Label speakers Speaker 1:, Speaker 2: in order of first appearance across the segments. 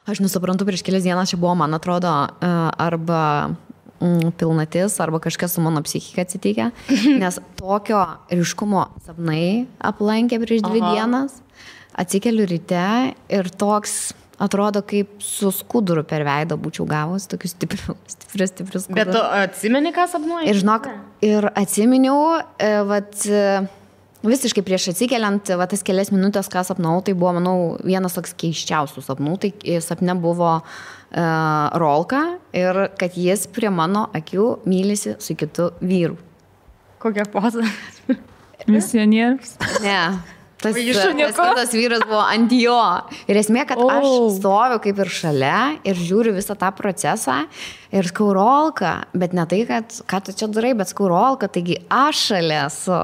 Speaker 1: Aš nesuprantu, prieš kelias dienas čia buvo, man atrodo, arba pilnatis, arba kažkas su mano psichika atsitikę, nes tokio ryškumo sapnai aplankė prieš 2 dienas, atsikeliu ryte ir toks atrodo, kaip su skuduru per veidą būčiau gavus, tokius stiprius skudurus.
Speaker 2: Bet tu atsimeni, ką sapnuoji?
Speaker 1: Ir žinok, ir atsiminiau, visiškai prieš atsikeliant, tas kelias minutės, ką sapnau, tai buvo, manau, vienas toks keiščiausių sapnų. Tai sapne buvo Rolka ir kad jis prie mano akių mylisi su kitu vyru.
Speaker 2: Kokia poza?
Speaker 3: Misionierius.
Speaker 1: Ne. Tas kitas vyras buvo ant jo. Ir esmė, kad aš stoviu kaip ir šalia ir žiūriu visą tą procesą ir skau Rolka, bet ne tai, kad ką tu čia darai, bet skau Rolka, taigi aš šalia esu.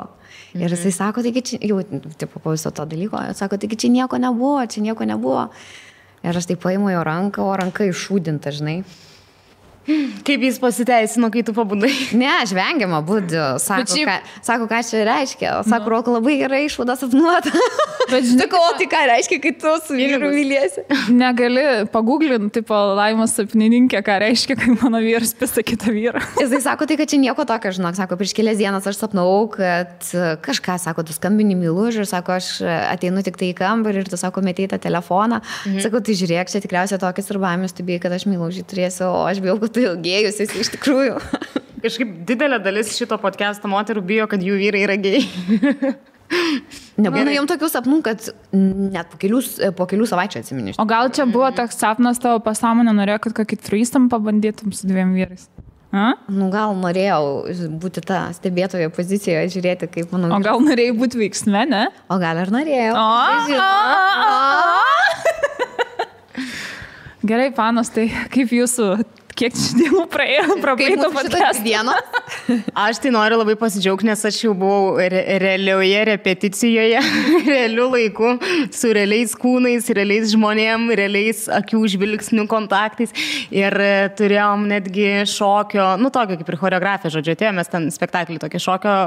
Speaker 1: Ir jisai sako, taigi čia, jau, tipo, po viso to dalyko, sako, taigi čia nieko nebuvo. Ir aš taip paimu jo ranką, o ranka iššūdinta, žinai.
Speaker 2: Kaip jis pasiteisino, kai tu pabudai?
Speaker 1: Ne, aš vengiama būdžiu. Sako, ką čia reiškia. Sako, Rolka labai gerai išvada sapnuota. Bet žinai, tai ką reiškia, kai tu su vyru myliesi?
Speaker 3: Negali paguglinti, tipo, Laimos sapnininkė, ką reiškia, kai mano vyras pisa kitą vyrą.
Speaker 1: Jisai sako, tai kad čia nieko tokio, žinok. Sako, prieš kelias dienas aš sapnau, kad kažką, sako, tu skambini myluži ir sako, aš ateinu tik tai į kambarį ir tu, sako, metei tą telefoną. Sako, tai žiūrėk, čia tikriausiai tokias ir baimės, tu bijai, kad aš myluži turėsiu, o aš bijau, kad tu ilgėjus esi iš tikrųjų.
Speaker 2: Kažkaip didelė dalis šito podcast'o moterų bijo, kad jų vyrai yra gėjai.
Speaker 1: Nebūna jom tokių sapnų, kad net po kelių savaičių atsiminiš.
Speaker 3: O gal čia buvo toks sapnas tavo pasąmonė, norėjo, kad kokį trystam pabandytum su 2 vyrais?
Speaker 1: Nu, gal norėjau būti tą stebėtojo pozicijoje, žiūrėti, kaip manau.
Speaker 3: O gal norėjai būti veiksme, ne?
Speaker 1: O gal ir norėjau.
Speaker 3: Gerai, panos, tai kaip jūsų, kiek dienų praėjo, prabaito podcast'o?
Speaker 2: Aš tai noriu labai pasidžiaugti, nes aš jau buvau realioje repeticijoje, realiu laiku, su realiais kūnais, realiais žmonėm, realiais akių žvilgsnių kontaktais ir turėjom netgi šokio, nu tokio kaip ir choreografija, žodžiu, atėjomės ten spektaklį, tokį šokio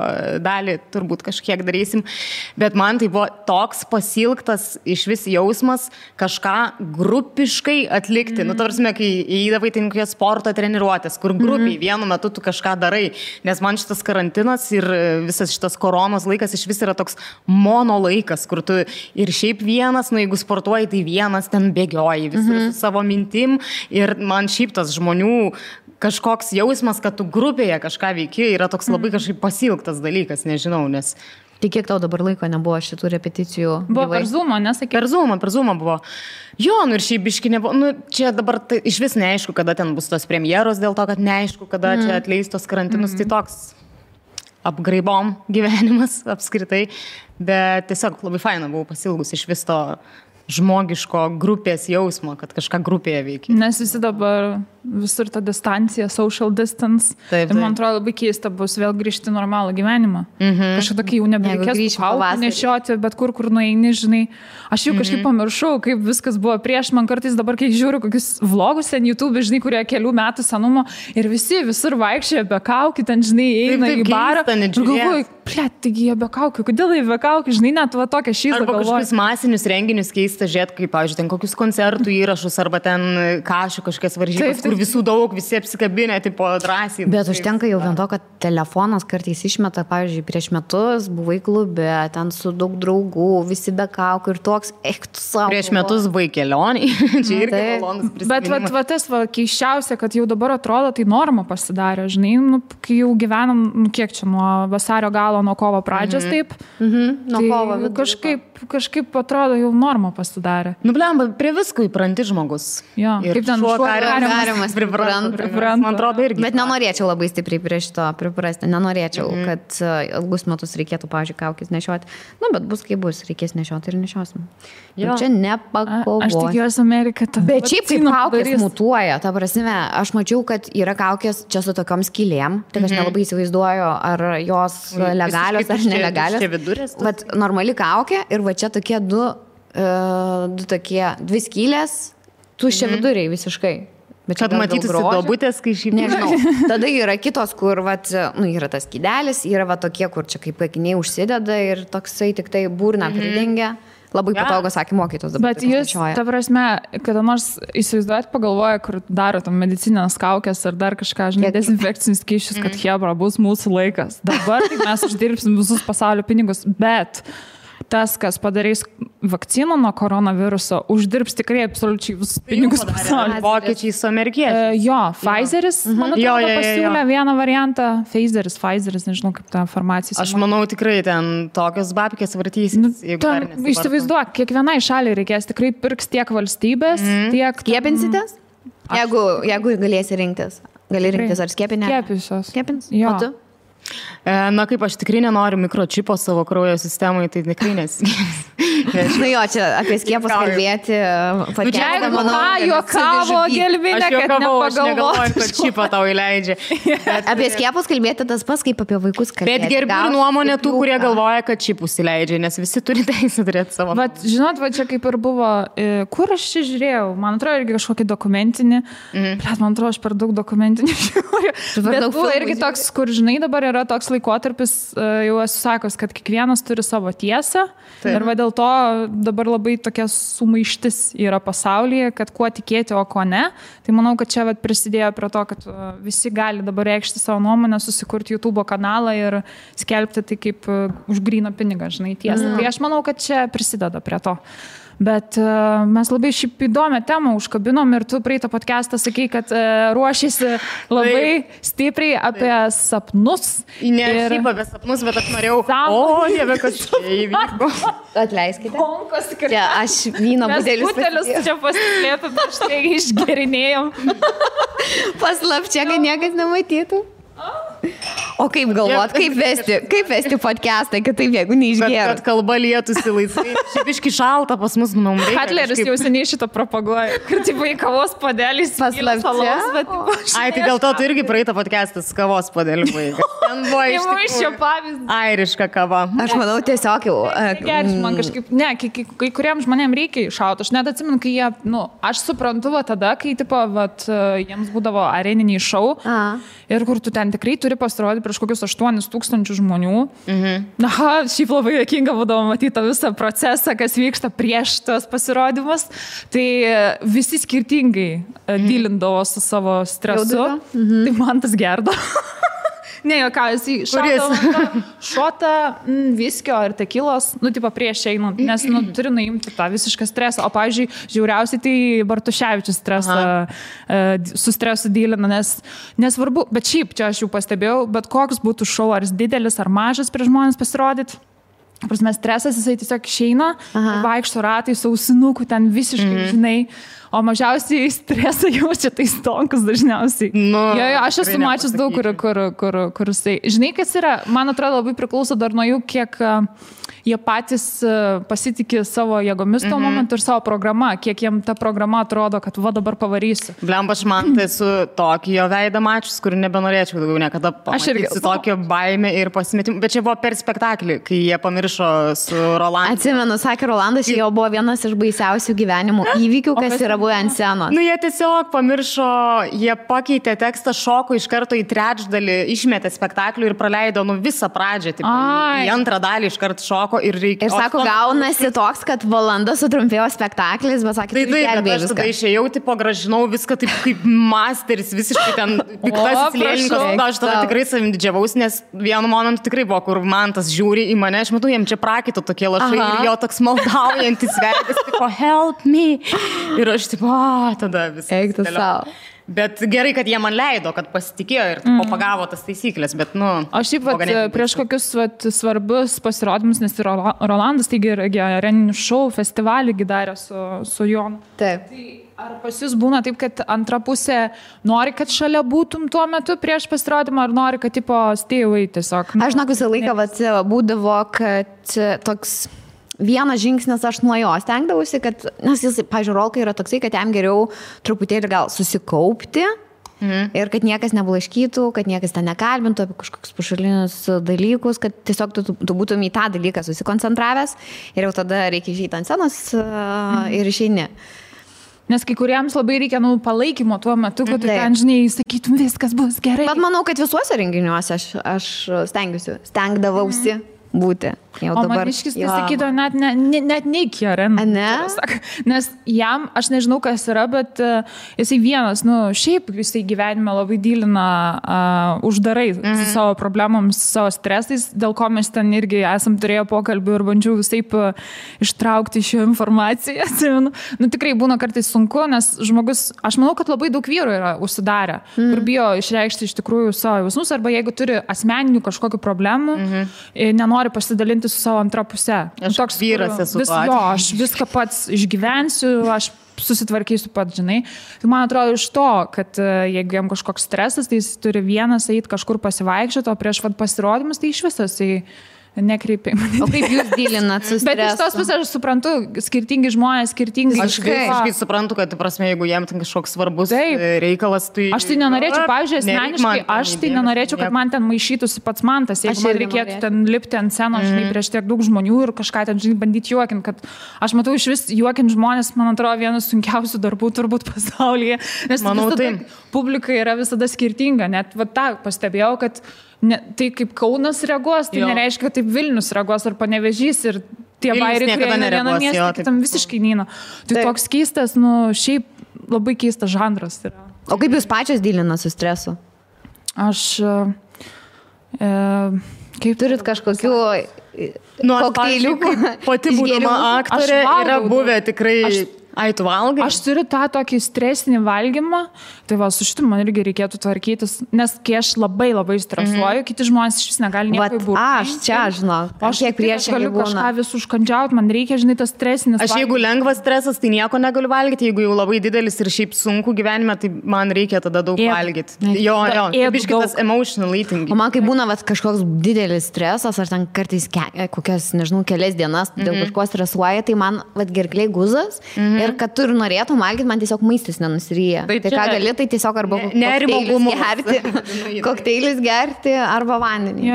Speaker 2: dalį turbūt kažkiek darysim, bet man tai buvo toks pasilgtas iš vis jausmas kažką grupiškai atlikti. Nu, tarsime, kai įdavai tai kokios sporto treniruotės, kur grupiai vienu metu tu kažką darai, nes man šitas karantinas ir visas šitas koronos laikas iš vis yra toks mono laikas, kur tu ir šiaip vienas, nu jeigu sportuoji, tai vienas ten bėgioji visur su savo mintim ir man šiaip tas žmonių kažkoks jausmas, kad tu grupėje kažką veiki, yra toks labai kažkaip pasilgtas dalykas, nežinau, nes...
Speaker 1: Tai kiek tau dabar laiko nebuvo šitų repeticijų?
Speaker 3: Buvo per Zoomą, nesakė?
Speaker 2: Per Zoomą buvo. Jo, nu ir šiaip biški nebuvo. Nu, čia dabar tai, iš vis neaišku, kada ten bus tos premjeros, dėl to, kad neaišku, kada čia atleis tos karantinus. Tai toks apgraibom gyvenimas apskritai. Bet tiesiog labai faina buvau pasilgus iš vis to žmogiško grupės jausmo, kad kažką grupėje veikia.
Speaker 3: Nes visi dabar visur ta distancija, social distance.
Speaker 2: Taip.
Speaker 3: Ir man atrodo labai keista bus vėl grįžti normalų gyvenimą. Kažkaip tokį jau nebereikės kaukių nešioti, bet kur nueini, žinai. Aš jau kažkaip pamiršau, kaip viskas buvo prieš. Man kartais dabar, kai žiūriu kokius vlogus ten YouTube, žinai, kurie kelių metų senumo ir visi visur vaikščioja be kaukių, ten, žinai, eina į barą. Ir galvoju, plėt, taigi jie be kaukių, kodėl jie be kaukių, žinai, net va tokia šyza galvoju.
Speaker 2: Arba kažkokius masinius renginius keista žiūrėti, kaip, pavyzdžiui, ten kokius koncertų įrašus arba ten kašių kažkokias varžybas, kur visų daug, visi apsikabinę, tipo drąsiai.
Speaker 1: Bet užtenka jau vien to, kad telefonas kartais išmeta, pavyzdžiui, prieš metus buvai klube, ten su daug draugų, visi be kaukių ir toks, tu savo.
Speaker 2: Prieš metus buvai kelioniai, čia irgi malonus prisiminimas.
Speaker 3: Bet tas keiščiausia, kad jau dabar atrodo, tai norma pasidarė, žinai, nu, kai jau gyvenam, nu, kiek čia, nuo vasario galo, nuo kovo pradžios, taip.
Speaker 1: Nuo kovo.
Speaker 3: Kažkaip atrodo, jau norma pasidarė.
Speaker 2: Nu, blemba, prie visko įpranti žmogus.
Speaker 3: Jo, kaip ten
Speaker 1: šuo kariamas pripranta.
Speaker 2: Man atrodo irgi.
Speaker 1: Bet nenorėčiau labai stipriai prie šito priprasti. Nenorėčiau, kad ilgus metus reikėtų, pavyzdžiui, kaukės nešioti. Nu, bet bus kaip bus, reikės nešioti ir nešiosim. Čia nepakovos.
Speaker 3: Aš tikiuosi Amerika.
Speaker 1: Bet šiaip kaip kaukės mutuoja. Ta prasme, aš mačiau, kad yra kaukės čia su tokiom skylėm. Tik aš nelabai įsivaizduoju, ar jos legalios ar nelegalios. Vat normali kaukė ir va čia tokie dvi skylės, tuščia viduriai visiškai.
Speaker 2: Kad matytųsi duobutės, kai šiaip...
Speaker 1: Nežinau. Tada yra kitos, kur yra tas skydelis, yra tokie, kur čia kaip akiniai užsideda ir toksai tik tai burną pridengia. Labai patogu, sakė mokytos dabar.
Speaker 3: Bet jūs, ta prasme, kada nors įsivaizduojat, pagalvoja, kur daro tam medicinės kaukės ar dar kažką, žinai, dezinfekcinius skysčius, kad hebra, bus mūsų laikas. Dabar tai mes uždirbsim visus pasaulio pinigus, bet tas, kas padarys vakciną nuo koronaviruso, uždirbs tikrai absoliučiai visus pinigus pasaulyje.
Speaker 2: Vokiečiai su amerikiečiais.
Speaker 3: Jo, Pfizeris, man atrodo, pasiūlė vieną variantą. Pfizeris, nežinau, kaip ta farmacija.
Speaker 2: Aš manau, tikrai ten tokios babkės vartysis.
Speaker 3: Įsivaizduok, kiekvienai šaliai reikės tikrai pirks tiek valstybės, tiek...
Speaker 1: Skiepinsites? Jeigu galėsi rinktis. Gali rinktis ar skiepinę? Skiepins?
Speaker 3: Jo.
Speaker 1: O tu?
Speaker 2: Na kaip aš tikrai nenoriu mikročipo savo kraujo sistemai, tai tikrai nesiskiepsiu.
Speaker 1: Nu jo, čia apie skiepus kalbėti.
Speaker 3: Jeigu juokavo gelminė, kad nepagalvoju,
Speaker 2: kad čipą tau įleidžia.
Speaker 1: Apie skiepus kalbėti tas pas, kaip apie vaikus kalbėti.
Speaker 2: Bet gerbiu nuomonę tų, kurie galvoja, kad čipus įleidžia, nes visi turi teisę turėti savo.
Speaker 3: Bet žinot, čia kaip ir buvo, kur aš čia žiūrėjau, man atrodo, irgi kažkokį dokumentinį, man atrodo, aš per daug dokumentinį žiūriu. Bet buvo irgi toks, kur, žinai, dabar yra toks laikotarpis, jau esu sakęs, kad kiekvienas turi savo tiesą. Taip. Ir va dėl to dabar labai tokia sumaištis yra pasaulyje, kad kuo tikėti, o ko ne. Tai manau, kad čia prisidėjo prie to, kad visi gali dabar reikšti savo nuomonę, susikurti YouTube kanalą ir skelbti tai kaip už gryną pinigą, žinai, tiesą. Tai aš manau, kad čia prisideda prie to. Bet mes labai šiaip įdomią temą užkabinom ir tu praeitą podcastą sakei, kad ruošiasi labai stipriai apie sapnus.
Speaker 2: Ne šiaip apie sapnus, bet aš norėjau... Dieve, kas čia įvyko.
Speaker 1: Atleiskite. Čia aš vyno budelius
Speaker 3: čia pasislėpė, aš tai išgerinėjom.
Speaker 1: Paslapčia, kad niekas nematytų. O kaip galvot, kaip vesti podcastą, kad taip, jeigu neišgėrų?
Speaker 2: Kad kalba lietųsi laisvai. Šiaip iški šalta pas mus, manau, reikia.
Speaker 3: Katleris jau seniai šitą propaguoja. Kad taip į kavos padelys
Speaker 1: paslapčia.
Speaker 2: Ai, tai dėl to tu irgi praeitą podcastas kavos padelį vaikas. Ten buvo iš
Speaker 3: tikrųjų
Speaker 2: airiška kava.
Speaker 1: Aš manau, tiesiog jau...
Speaker 3: Man kažkaip, ne, kai kuriems žmonėms reikia iššauti. Aš net atsimenu, kai jie, aš suprantu tada, kai jiems būdavo areniniai šou ir kur tu ten tikrai turi pasirodyti prieš kokius 8,000 žmonių. Šiaip labai juokinga būdavo matyti tą visą procesą, kas vyksta prieš tos pasirodymus. Tai visi skirtingai dylindavo su savo stresu. Tai man tas gerdo. Ne, ką, šota viskio ar tekilos, prieš einant, nes turi nuimti tą visišką stresą. O, pavyzdžiui, žiauriausiai tai Bartuševičius su stresu dylina, nes nesvarbu, bet šiaip čia aš jau pastebėjau, bet koks būtų šou, ar jis didelis, ar mažas prieš žmonės pasirodyti. Prasme, stresas, jisai tiesiog išeina, vaikšto ratai, sausinukų, ten visiškai, žinai, o mažiausiai stresą jaučia tai stonkus dažniausiai. Aš esu mačius daug, kur jisai. Žinai, kas yra, man atrodo, labai priklauso dar nuo jų, kiek jie patys pasitikė savo jėgomis tuo momentu ir savo programą, kiek jiem ta programa atrodo, kad dabar pavarysiu.
Speaker 2: Blemba, aš man tai su tokį jo veidą mačius, kur nebenorėčiau daugiau niekada pamatyti su tokio baime ir pasimetimu. Bet čia buvo per spektaklį, kai jie pamiršo su Rolandu.
Speaker 1: Atsimenu, sakė Rolandas, jo buvo vienas iš baisiausių gyvenimo įvykių, kas yra buvę ant scenos.
Speaker 2: Jie tiesiog pamiršo, jie pakeitė tekstą, šoko iš karto į trečdalį, išmetė spektaklį ir praleido visą pradžią. Į antrą dalį iš karto šoko. Ir
Speaker 1: sako, gaunasi toks, kad valanda sutrumpėjo spektaklis, bet sakė,
Speaker 2: tai aš tada išėjau, gražinau viską taip kaip masteris, visiškai ten piktasis lėlininkas. Aš tada tikrai savim didžiavaus, nes vienu momentu tikrai buvo, kur man tas žiūri į mane, aš matau, jam čia prakito tokie lašai ir jo toks maldaujantis veidas, tipo, help me. Ir aš tipo, tada visą.
Speaker 1: Eik tu savo.
Speaker 2: Bet gerai, kad jie man leido, kad pasitikėjo ir pagavo tas taisyklės, bet
Speaker 3: Aš šiaip prieš kokius svarbius pasirodymus, nes ir Rolandas, taigi areninių šou festivalį darė su Jonu.
Speaker 1: Taip.
Speaker 3: Tai ar pas jūs būna taip, kad antra pusė nori, kad šalia būtum tuo metu prieš pasirodymą, ar nori, kad stay away tiesiog?
Speaker 1: Aš žinok, visą laiką būdavo, kad toks... Vienas žingsnis aš nuo jo stengdavausi, kad, nes jis, pavyzdžiui, Rolka yra toksai, kad jam geriau truputėlį gal susikaupti ir kad niekas neblaškytų, kad niekas ten nekalbintų apie kažkokius pašalinius dalykus, kad tiesiog tu būtum į tą dalyką susikoncentravęs ir jau tada reikia išeiti ant scenos ir išeini.
Speaker 3: Nes kai kuriems labai reikia palaikymo tuo metu, kad tu ten, žinai, sakytum, viskas bus gerai.
Speaker 1: Bet manau, kad visuose renginiuose aš stengdavausi būti. Jau
Speaker 3: o
Speaker 1: dabar.
Speaker 3: Maniškis tai sakydavo, net neiki, Aren.
Speaker 1: Ne?
Speaker 3: Nes jam, aš nežinau, kas yra, bet jisai vienas, šiaip jisai gyvenime labai dylina uždarai su savo problemams, su savo stresais, dėl ko mes ten irgi esam turėję pokalbių ir bandžiau visaip ištraukti šią informaciją. Tikrai būna kartais sunku, nes žmogus, aš manau, kad labai daug vyrų yra užsidarę, kur bijo išreikšti iš tikrųjų savo jausmus, arba jeigu turi asmeninių kažkokių problemų, nenori pasidalinti su savo antrą pusę.
Speaker 2: Aš toks vyras esu.
Speaker 3: Aš viską pats išgyvensiu, aš susitvarkysiu pats, žinai. Tai man atrodo iš to, kad jeigu jam kažkoks stresas, tai jis turi vienas eiti kažkur pasivaikščioti, o prieš pasirodymus tai iš visas nekreipiai.
Speaker 1: O kaip jūs dylinat su stresu?
Speaker 3: Bet iš tos pusės aš suprantu, skirtingi žmonės, skirtingi.
Speaker 2: Aš visiškai suprantu, kad, prasme, jeigu jam ten kažkoks svarbus reikalas, tai...
Speaker 3: Aš tai nenorėčiau, pavyzdžiui, asmeniškai, aš tai nenorėčiau, kad man ten maišytųsi pats mantas, jeigu man reikėtų ten lipti ant scenos, žinai, prieš tiek daug žmonių ir kažką ten, žinai, bandyti juokinti, kad aš matau iš vis juokinti žmonės, man atrodo, vienas sunkiausių darbų turbūt pasaulyje, nes publika yra visada skirtinga, net va tą pastebėjau, kad tai kaip Kaunas reaguos, tai nereiškia, kad taip Vilnius reaguos ar Panevėžys ir tie bairiai, kurie vieną miestą, kitam visiškai neina. Tai toks keistas, šiaip labai keistas žanras yra.
Speaker 1: O kaip jūs pačios dylinat su stresu?
Speaker 3: Aš...
Speaker 1: Kaip turit kažkokių kokteiliukų?
Speaker 2: Pati būdama aktorė yra buvę tikrai... Tu valgai?
Speaker 3: Aš turiu tą tokį stresinį valgymą, tai va, su šitu man irgi reikėtų tvarkytis, nes kai aš labai stresuoju, kiti žmonės iš vis negali nieko įbūti.
Speaker 1: Aš čia, žinau, kiek priešingai
Speaker 3: galiu kažką vis užkandžiauti, man reikia, žinai, tas stresinis
Speaker 2: valgymas. Aš jeigu lengvas stresas, tai nieko negaliu valgyti, jeigu jau labai didelis ir šiaip sunku gyvenime, tai man reikia tada daug valgyti. Jo, biškitas emotional eating.
Speaker 1: O man kai būna kažkoks didelis stresas, ar ten kartais kokias, nežinau, kelias dienas dėl kažko stresuoja, tai man gerkliai guzas. Ir kad tu ir norėtum valgyti, man tiesiog maistas nenusiryja. Tai ką gali, tai tiesiog arba kokteilis gerti arba vandenį.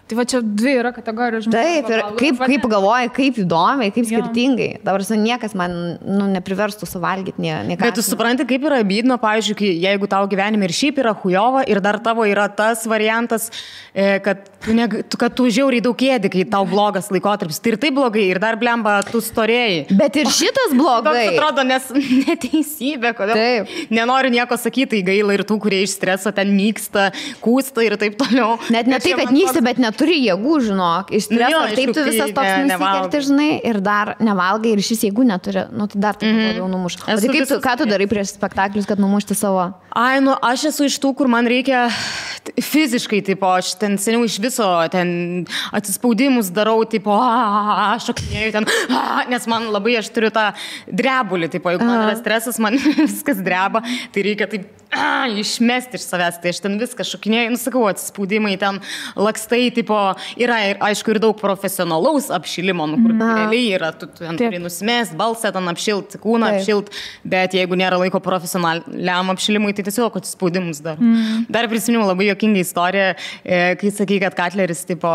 Speaker 3: Tai va čia dvi yra kategorijos žmonių.
Speaker 1: Taip, ir kaip galvoji, kaip įdomiai, kaip skirtingai. Dabar niekas man nepriverstų suvalgyti nieką.
Speaker 2: Bet tu supranti, kaip yra bydno, pavyzdžiui, jeigu tau gyvenime ir šiaip yra chujova ir dar tavo yra tas variantas, kad tu žiauriai daug ėdi, kai tau blogas laikotarpis. Tai ir tai blogai, ir dar blemba, tu storėjai.
Speaker 1: Bet ir šitas blogai.
Speaker 2: Toks atrodo, nes neteisybė, kodėl. Taip. Nenoriu nieko sakyti, tai gaila ir tų, kurie iš streso ten nyksta, kūsta ir taip toliau.
Speaker 1: Net ne tai, kad nyksta, bet neturi jėgų, žinok. Iš streso, taip tu visas toks nusikerti, žinai, ir dar nevalgai, ir šis jėgų neturi. Tai dar taip labiau numuš. O tai ką tu darai prieš spektaklius, kad numušti savo?
Speaker 2: Aš esu iš tų, kur man reikia fiziškai, tipo, aš ten seniau iš viso ten atsispaudimus darau, tipo, šokinėjau ten, nes man labai, aš turiu tą drebulį, tipo, jeigu man yra stresas, man viskas dreba, tai reikia taip išmesti iš savęs, tai aš ten viską šokinėjau, sakau, atsispaudimai ten lakstai, tipo, yra ir, aišku, ir daug profesionalaus apšilimo, kur realiai yra, tu ten turi nusimest, balsą ten apšilt, kūną apšilt, bet jeigu nėra laiko profesionaliam apšilimui, tai tiesiog atsispaudimus dar. Dar prisiminiau labai juokingą istoriją, kai sakai, kad Katleris, tipo,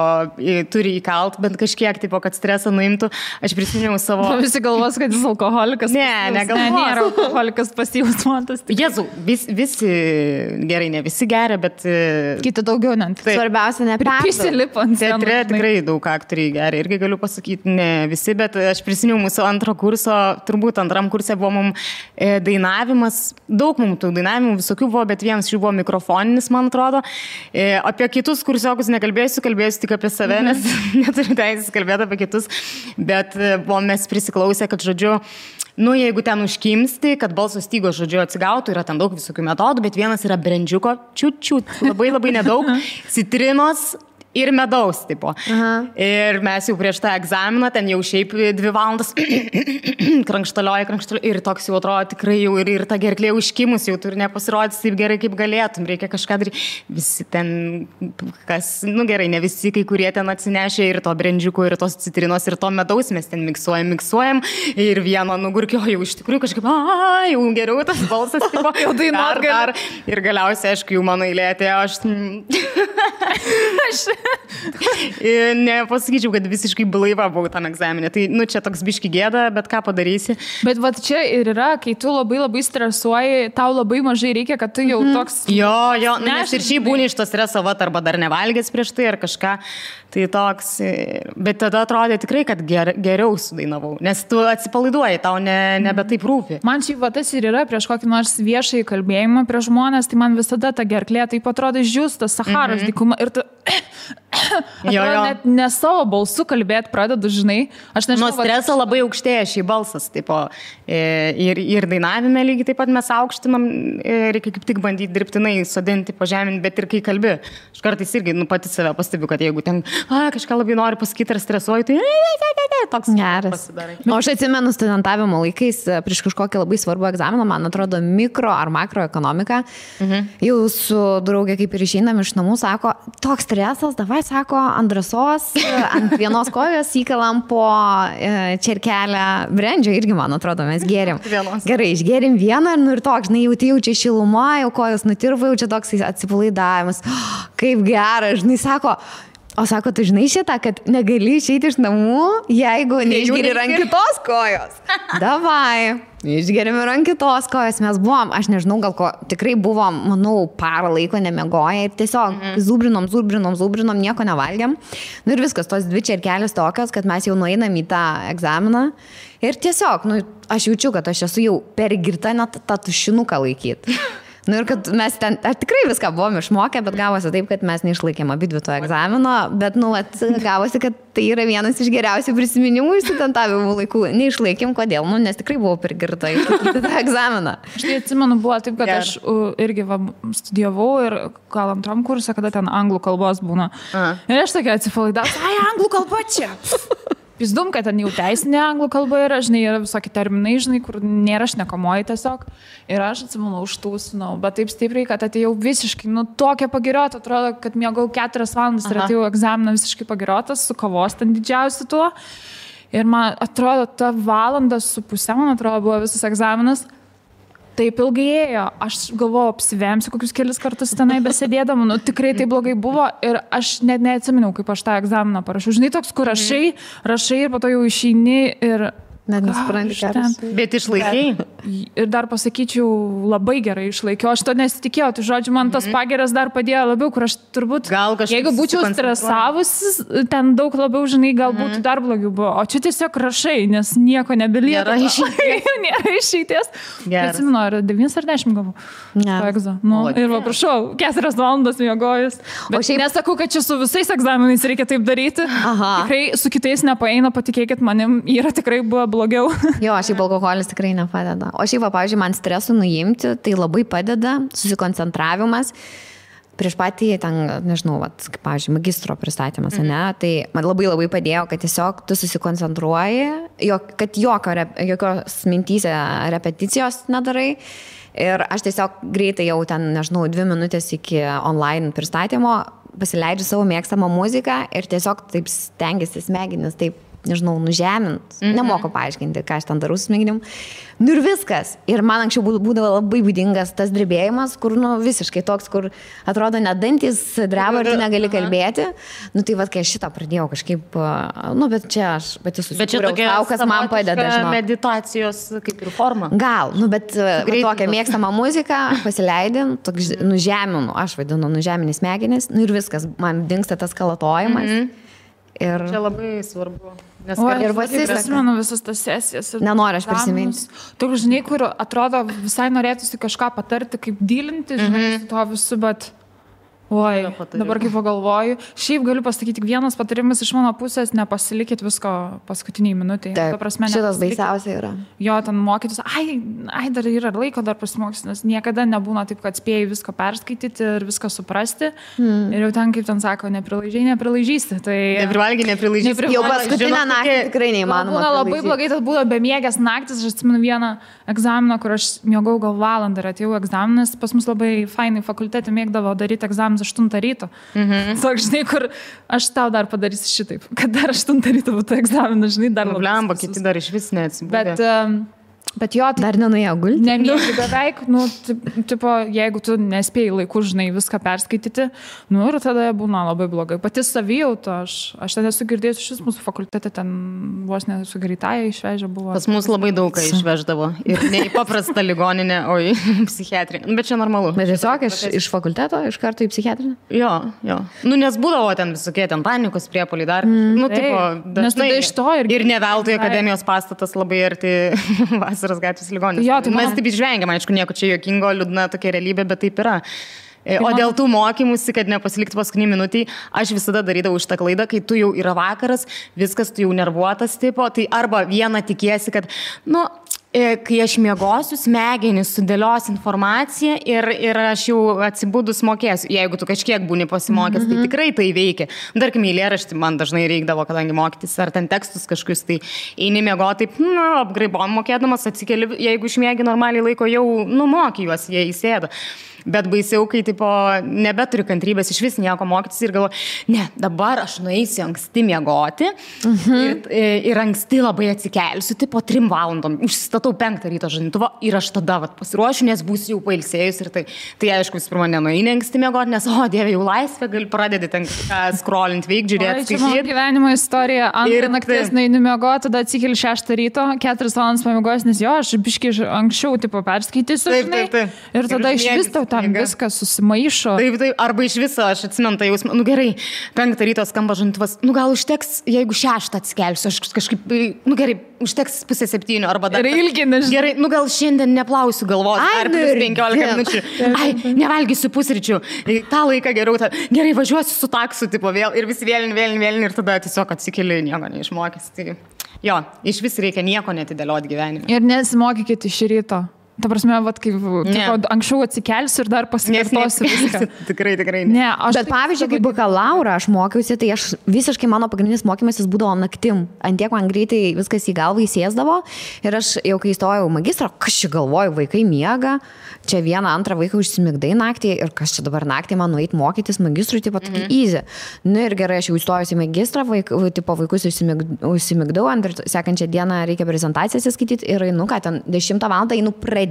Speaker 2: turi įkalt, bet kažkiek, tipo, kad stresą nuimtų. Aš prisiminiau savo...
Speaker 3: Visi galvos, kad jis alkoholikas.
Speaker 2: Negalvos.
Speaker 3: Nėra alkoholikas pasyvus mantas.
Speaker 2: Jėzau, visi gerai, ne visi geria, bet...
Speaker 3: Kiti daugiau, net.
Speaker 1: Svarbiausia,
Speaker 3: nepersilipant.
Speaker 2: Teatre tikrai daug aktoriai geria. Irgi galiu pasakyti, ne visi, bet aš prisiminiau mūsų antro kurso, turbūt antram kurse buvo mums dainavimas. Daug mums tų dainavimų visokių buvo, bet vienas jų buvo mikrofoninis, man atrodo. Apie kitus kursiokus nekalbėsiu, kalbėsiu tik apie save, nes neturiu teisės kalbėti apie kitus. Bet buvom mes prisiklausę, kad, žodžiu, jeigu ten užkimsti, kad balso stygos, žodžiu, atsigautų, yra ten daug visokių metodų, bet vienas yra brendžiuko, čiut, labai nedaug, citrinos ir medaus, tipo. Ir mes jau prieš tą egzaminą, ten jau šiaip 2 valandas krankštalioji, ir toks jau atrodo tikrai jau ir ta gerklė užkimus, jau turi nepasirodyti taip gerai, kaip galėtum, reikia kažką daryti. Visi ten, gerai, ne visi, kai kurie ten atsinešė ir to brendžiuko, ir tos citrinos, ir to medaus, mes ten miksuojam, ir vieno nugurkio jau iš tikrųjų kažkaip, jau geriau tas balsas, tipo,
Speaker 3: jau dainuot
Speaker 2: dar. Ir galiausiai, aišku, jau mano eilė atėjo, Nepasakyčiau, kad visiškai blaiva buvau tam egzaminė. Tai, čia toks biški gėda, bet ką padarysi.
Speaker 3: Bet va čia ir yra, kai tu labai stresuoji, tau labai mažai reikia, kad tu jau toks...
Speaker 2: Jo, nes ir šiaip būni iš to streso, arba dar nevalgęs prieš tai ar kažką. Tai toks, bet tada atrodė tikrai, kad geriau sudainavau, nes tu atsipalaiduoji, tau nebe taip rūpi.
Speaker 3: Man šiaip va tas ir yra prieš kokį nors viešai kalbėjimą prieš žmonės, tai man visada ta gerklė taip atrodo išdžiūstas Saharos dykuma ir tu... Net ne savo balsu kalbėti pradedu, žinai. Aš nežinau.
Speaker 2: Nuo streso labai aukštėja šį balsas, tipo, ir dainavime lygiai taip pat mes aukštinam, reikia kaip tik bandyti dirbtinai sodinti, pažeminti, bet ir kai kalbi. Aš kartais irgi, pati save pastebiu, kad jeigu ten kažką labai nori pasakyti ar stresuoju, tai toks
Speaker 1: geras. O aš atsimenu studentavimo laikais prieš kažkokį labai svarbų egzaminą, man atrodo, mikro ar makroekonomika. Jau su draugė kaip ir išeinam iš namų, sako, toks stresas, davai, sako, ant drąsos, ant vienos kojos įkalam po čerkelę brendžio, irgi, man atrodo, mes gėrim. Gerai, išgėrim vieną ir toks, žinai, jaučia šilumą, jau kojos nutirva, jau čia toks atsipalaidavimas. Kaip geras, žinai, sako, tu žinai šitą, kad negali išeiti iš namų, jeigu neišgeri ant kitos kojos. Davai, išgerime ant kitos kojos, mes buvom, aš nežinau, gal ko, tikrai buvom, manau, parą laiko nemiegoję ir tiesiog zūbrinom, nieko nevalgiam. Ir viskas, tos dvi čerkelės tokios, kad mes jau nueinam į tą egzaminą ir tiesiog, aš jaučiu, kad aš esu jau per girta net tą tušinuką laikyti. Ir kad mes ten tikrai viską buvom išmokę, bet gavosi taip, kad mes neišlaikėm abidvi to egzamino, bet, gavosi, kad tai yra vienas iš geriausių prisiminimų iš studentavimo laikų. Neišlaikėm, kodėl? Nes tikrai buvau per girta išlaikyti tą egzaminą.
Speaker 3: Aš tai atsimenu, buvo taip, kad aš irgi studijavau ir gal antram kursą, kada ten anglų kalbos būna. Ir aš tokia atsipalaidavau, anglų kalba čia. Pizdum, kad ten jau teisinė anglų kalba yra, žinai, yra visokie terminai, žinai, kur nėra šnekamoji tiesiog. Ir aš atsimenu, užtūsinau, bet taip stipriai, kad atėjau visiškai, tokia pagiriota, atrodo, kad miegau 4 valandas ir atėjau egzaminą visiškai pagiriotas, su kavos ten didžiausiu tuo. Ir man atrodo, ta 1,5 valandos, man atrodo, buvo visas egzaminas. Taip ilgai ėjo, aš galvojau, apsivemsiu kokius kelis kartus tenai besėdėdama, tikrai tai blogai buvo ir aš net neatsiminiau, kaip aš tą egzaminą parašiau. Žinai, toks, kur rašai ir po to jau išeini ir...
Speaker 1: Net nespranti geras.
Speaker 2: Bet išlaikiai?
Speaker 3: Ir dar pasakyčiau, labai gerai išlaikiau. Aš to nesitikėjau, tai žodžiu, man tas pageras dar padėjo labiau, kur aš turbūt, jeigu būčiau stresavusi, ten daug labiau, žinai, gal būtų dar blogiau buvo. O čia tiesiog rašai, nes nieko nebelieka. Nėra išeities. Atsimenu, ar 9 ar 10 gavau. Ir va, prašau, 4 valandas miegojus. Bet nesakau, kad čia su visais egzaminais reikia taip daryti. Tikrai su kitais nepaeina, patikėkit manim, yra tikrai buvo blogiau.
Speaker 1: Jo, šiaip alkoholis tikrai nepadeda. O šiaip, pavyzdžiui, man stresų nuimti, tai labai padeda susikoncentravimas. Prieš patį, ten, nežinau, kaip, pavyzdžiui, magistro pristatymas, ne, tai man labai padėjo, kad tiesiog tu susikoncentruoji, kad jokios mintyse repeticijos nedarai. Ir aš tiesiog greitai jau ten, nežinau, 2 minutės iki online pristatymo pasileidžiu savo mėgstamą muziką ir tiesiog taip stengiasi smegenis taip, nežinau, nužemint. Nemoku paaiškinti, ką aš ten darau su smegenim. Ir viskas. Ir man anksčiau būdavo labai būdingas tas drebėjimas, kur, visiškai toks, kur atrodo net dantis dreba ir tu negali kalbėti. Tai kai aš šitą pradėjau kažkaip, bet čia aš pati susikūriau tau, kas man padeda.
Speaker 2: Meditacijos kaip ir forma.
Speaker 1: Gal, bet tokią mėgstamą muziką pasileidin, nužeminu, aš vadinu nužemini smegenis, ir viskas, man dingsta tas kalatojimas. Ir...
Speaker 2: Čia labai svarbu.
Speaker 3: Ir prisimenu visas tas sesijas.
Speaker 1: Nenoriu aš prisiminti.
Speaker 3: Toks, žinai, kur atrodo visai norėtųsi kažką patarti, kaip dylinti, žinai, su to visu, bet... Oi, dabar kaip pagalvoju. Šiaip galiu pasakyti, tik vienas patarimas iš mano pusės, nepasilikit visko paskutiniai minutėje.
Speaker 1: Taip, šitas baisiausia yra.
Speaker 3: Jo, ten mokytis, dar yra laiko, dar pasimokys, nes niekada nebūna taip, kad spėjai visko perskaityti ir viską suprasti. Ir jau ten, kaip ten sako, neprilaižysi. Tai...
Speaker 2: Neprivalgiai.
Speaker 1: Jau paskutinę naktį tikrai neįmanoma.
Speaker 3: Būna labai blogai, tad būna bemiegės naktis. Aš atsimenu vieną egzaminą, kur aš miegau gal valandą ir atėjau egzaminas. Pas mus labai fainai fakultete mėgdavo daryti egzaminą 8 ryto. Sak, žinai, kur aš tau dar padarysiu šitaip, kad dar 8 ryto būtų egzaminas, žinai, dar
Speaker 2: labai. Blemba, kiti dar iš vis neatsibūdė.
Speaker 3: Bet Bet jo, tai
Speaker 1: dar nenuėjo gulti.
Speaker 3: Nemiegi beveik, tipo, jeigu tu nespėjai laiku, žinai, viską perskaityti, ir tada būna labai blogai. Pati savijauta, aš ten esu girdėjus, šis mūsų fakultete ten vos nesu greitąją išvežę buvo.
Speaker 2: Pas mus labai daug ką išveždavo. Ir ne į paprastą ligoninę, o į psichiatrinę. Bet čia normalu.
Speaker 1: Bet tiesiog iš fakulteto, iš karto į psichiatrinę?
Speaker 2: Jo. Nes būdavo ten visokie ten panikos priepuoliai dar. Tipo,
Speaker 3: dažnai iš to
Speaker 2: ir ne veltui akademijos pastatas labai arti Vasaros gatvės ligoninės.
Speaker 3: Jo, tai
Speaker 2: mes taip išvengiam, aišku, nieko čia juokingo, liūdna tokia realybė, bet taip yra. O dėl tų mokymusi, kad nepasilikti paskutinį minutį, aš visada darydavau šitą klaidą, kai tu jau yra vakaras, viskas, tu jau nervuotas tipo, tai arba vieną tikiesi, kad, kai aš miegosiu, smegenys sudėlios informaciją ir aš jau atsibudus mokėsiu. Jeigu tu kažkiek būni pasimokęs, tai tikrai tai veikia. Tarkim, eilėraštį man dažnai reikdavo, kadangi mokytis, ar ten tekstus kažkokius, tai eini miegoti, apgraibom mokėdamas, atsikeli, jeigu išmiegi normaliai laiko, jau moki juos, jie įsėda. Bet baisiau, kai tipo, nebeturi kantrybės iš vis nieko mokytis ir galvoju, ne, dabar aš nueisiu anksti miegoti ir anksti labai atsikelsiu, tipo 3 valandom, užsistatau 5 ryto žadintuvą ir aš tada pasiruošiu, nes būsiu jau pailsėjus ir tai aišku, vis pirma, nenueini anksti miegoti, nes, Dieve, jau laisvė, gali pradėti ten scrollint veik, žiūrėti,
Speaker 3: skaityti. Čia mano gyvenimo istorija, antrą nakties nueini miegoti, tada atsikeli 6 ryto, 4 valandas pamiegos, nes aš biškai anksčiau tipo perskaitysiu, ir tada iš vis tau tam viskas susimaišo.
Speaker 2: Taip, arba iš viso, aš atsimenu tą jausmą, gerai, 5 ryto skamba žadintuvas, gal užteks, jeigu 6 atsikelsiu, aš kažkaip, gerai, užteks 6:30 arba dar.
Speaker 3: Ilginis.
Speaker 2: Gerai, gal šiandien neplausiu galvos, ar plus 15 minučių. Nevalgysiu pusryčių, tą laiką geriau, gerai, važiuosiu su taksu, tipo vėl, ir vis vėlin, ir tada tiesiog atsikeli, nieko neišmokęs. Tai, jo, iš vis reikia nieko netidėlioti gyvenime.
Speaker 3: Ir nesimokykite iš ryto. Ta prasme, kaip anksčiau atsikelsiu ir dar pasikartosiu viską.
Speaker 2: Tikrai.
Speaker 3: Ne,
Speaker 1: bet pavyzdžiui, kaip bakalaurą aš mokiausi, tai aš visiškai mano pagrindinis mokymasis būdavo naktim. Antiek man greitai viskas į galvą įsėsdavo ir aš jau kai įstojau magistrą, kas čia galvoju, vaikai miega, čia 1-2 vaiką užsimigdai naktį ir kas čia dabar naktį man nueit mokytis magistrui, tipo tokį easy. Ir gerai, aš jau įstojus į magistrą, vaikus užsimigdau, ir sekančią dieną reikia prezentacijas įskaityti ir einu, ką ten 10 valandą einu pradėti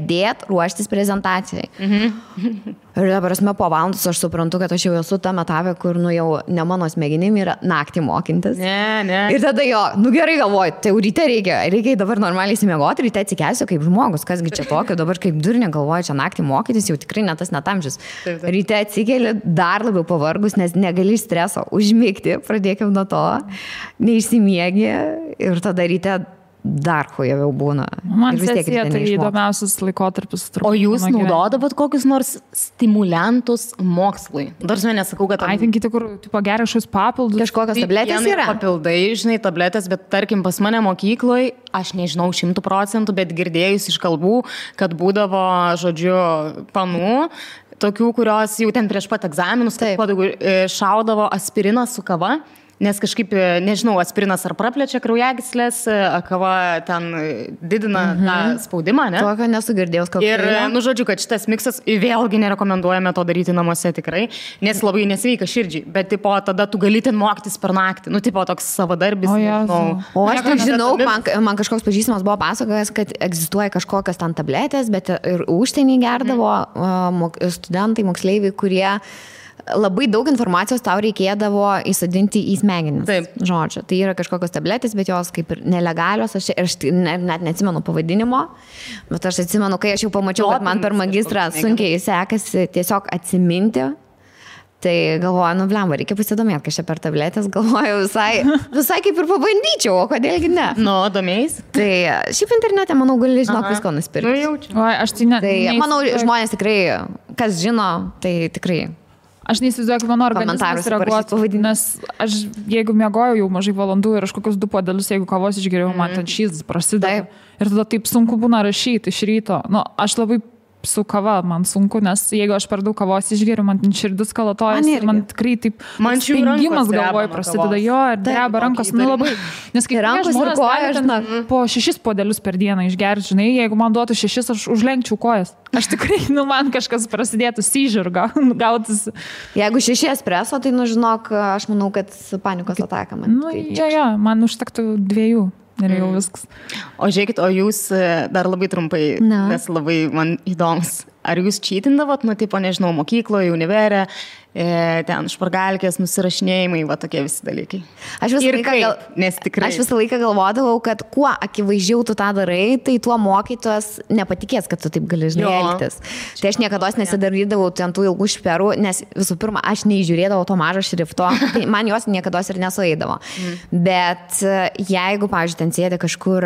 Speaker 1: ruoštis prezentacijai. Ir dabar po valandos aš suprantu, kad aš jau esu tam etapė, kur jau ne mano smegenim yra naktį mokintis.
Speaker 2: Ne.
Speaker 1: Ir tada gerai galvoju, tai jau ryte reikia dabar normaliai įsimiegoti, ryte atsikelsiu kaip žmogus, kasgi čia tokio, dabar kaip durnė galvoju, čia naktį mokytis, jau tikrai ne tas netamžis. Ryte atsikeli dar labiau pavargus, nes negali streso užmigti, pradėkim nuo to, neišsimiegi ir tada ryte dar hujaviau būna.
Speaker 3: Man sesija tai įdomiausias laikotarpis.
Speaker 2: O jūs naudodavot kokius nors stimuliantus mokslui? Dar nesakau, kad...
Speaker 3: Kiti, kur geria šios papildus.
Speaker 1: Kažkokios tabletės yra?
Speaker 2: Papildai, žinai, tabletės, bet tarkim pas mane mokykloje, aš nežinau 100%, bet girdėjus iš kalbų, kad būdavo, žodžiu, panų, tokių, kurios jau ten prieš pat egzaminus, šaudavo aspiriną su kava. Nes kažkaip, nežinau, aspirinas ar praplečia kraujagyslės, kava ten didina tą spaudimą, ne?
Speaker 1: Tokio nesugirdėjus kokio.
Speaker 2: Ir, žodžiu, kad šitas miksas vėlgi nerekomenduojame to daryti namuose tikrai, nes labai nesveika širdžiai, bet, tipo, tada tu gali ten mokytis per naktį, tipo, toks savadarbis.
Speaker 1: O aš tai žinau, man kažkoks pažįstamas buvo pasakojęs, kad egzistuoja kažkokios ten tabletės, bet ir užsienį gerdavo studentai, moksleiviai, kurie labai daug informacijos tau reikėdavo įsadinti į smegenis.
Speaker 2: Taip.
Speaker 1: Žodžiu, tai yra kažkokios tabletės, bet jos kaip ir nelegalios, aš net neatsimenu pavadinimo, bet aš atsimenu, kai aš jau pamačiau, kad man per magistrą sunkiai sekasi tiesiog atsiminti, tai galvoju, blemba, reikia pasidomėti, kas čia per tabletės, galvoju visai kaip ir pabandyčiau, o kodėlgi ne.
Speaker 2: Domėjais?
Speaker 1: Tai šiaip internete, manau, gali žinok visko nusipirkti.
Speaker 3: Aš tai ne.
Speaker 1: Tai manau, žmonės tikrai, kas žino, tai tikrai.
Speaker 3: Aš neįsivaizduoju, kaip mano organizmas reaguotų, nes aš, jeigu miegojau jau mažai valandų ir aš kokius 2 puodelius, jeigu kavos išgeriau, man ten šis prasideda. Ir tada taip sunku būna rašyti iš ryto. Aš labai su kava man sunku, nes jeigu aš per daug kavos išgeriu, man širdis kalatojas ir man tikrai taip spengimas galvoj prasideda. Jo, ir dreba rankos, labai. Nes kai
Speaker 1: rankos ir kojas,
Speaker 3: po 6 puodelius per dieną išgerti, žinai, jeigu man duotų 6, aš užlenkčiau kojas. Aš tikrai, man kažkas prasidėtų seizure gautis.
Speaker 1: Jeigu 6 espreso, tai žinok, aš manau, kad panikos ataka man.
Speaker 3: Jo, man užtektų 2. Ir jau viskas.
Speaker 2: O žiūrėkit, o jūs dar labai trumpai, nes labai man įdomus. Ar jūs čytindavot, tipo, nežinau, mokykloje, univerė, ten špargalkės, nusirašinėjimai, va tokie visi dalykai.
Speaker 1: Aš visą laiką galvodavau, kad kuo akivaizdžiau tu tą darai, tai tuo mokytojas nepatikės, kad tu taip gali elgtis. Tai aš niekada nesidarydavau ten tų ilgų šperų, nes visų pirma, aš neįžiūrėdavau to mažo šrifto, tai man jos niekada ir nesueidavo. Bet jeigu, pavyzdžiui, ten sėdė kažkur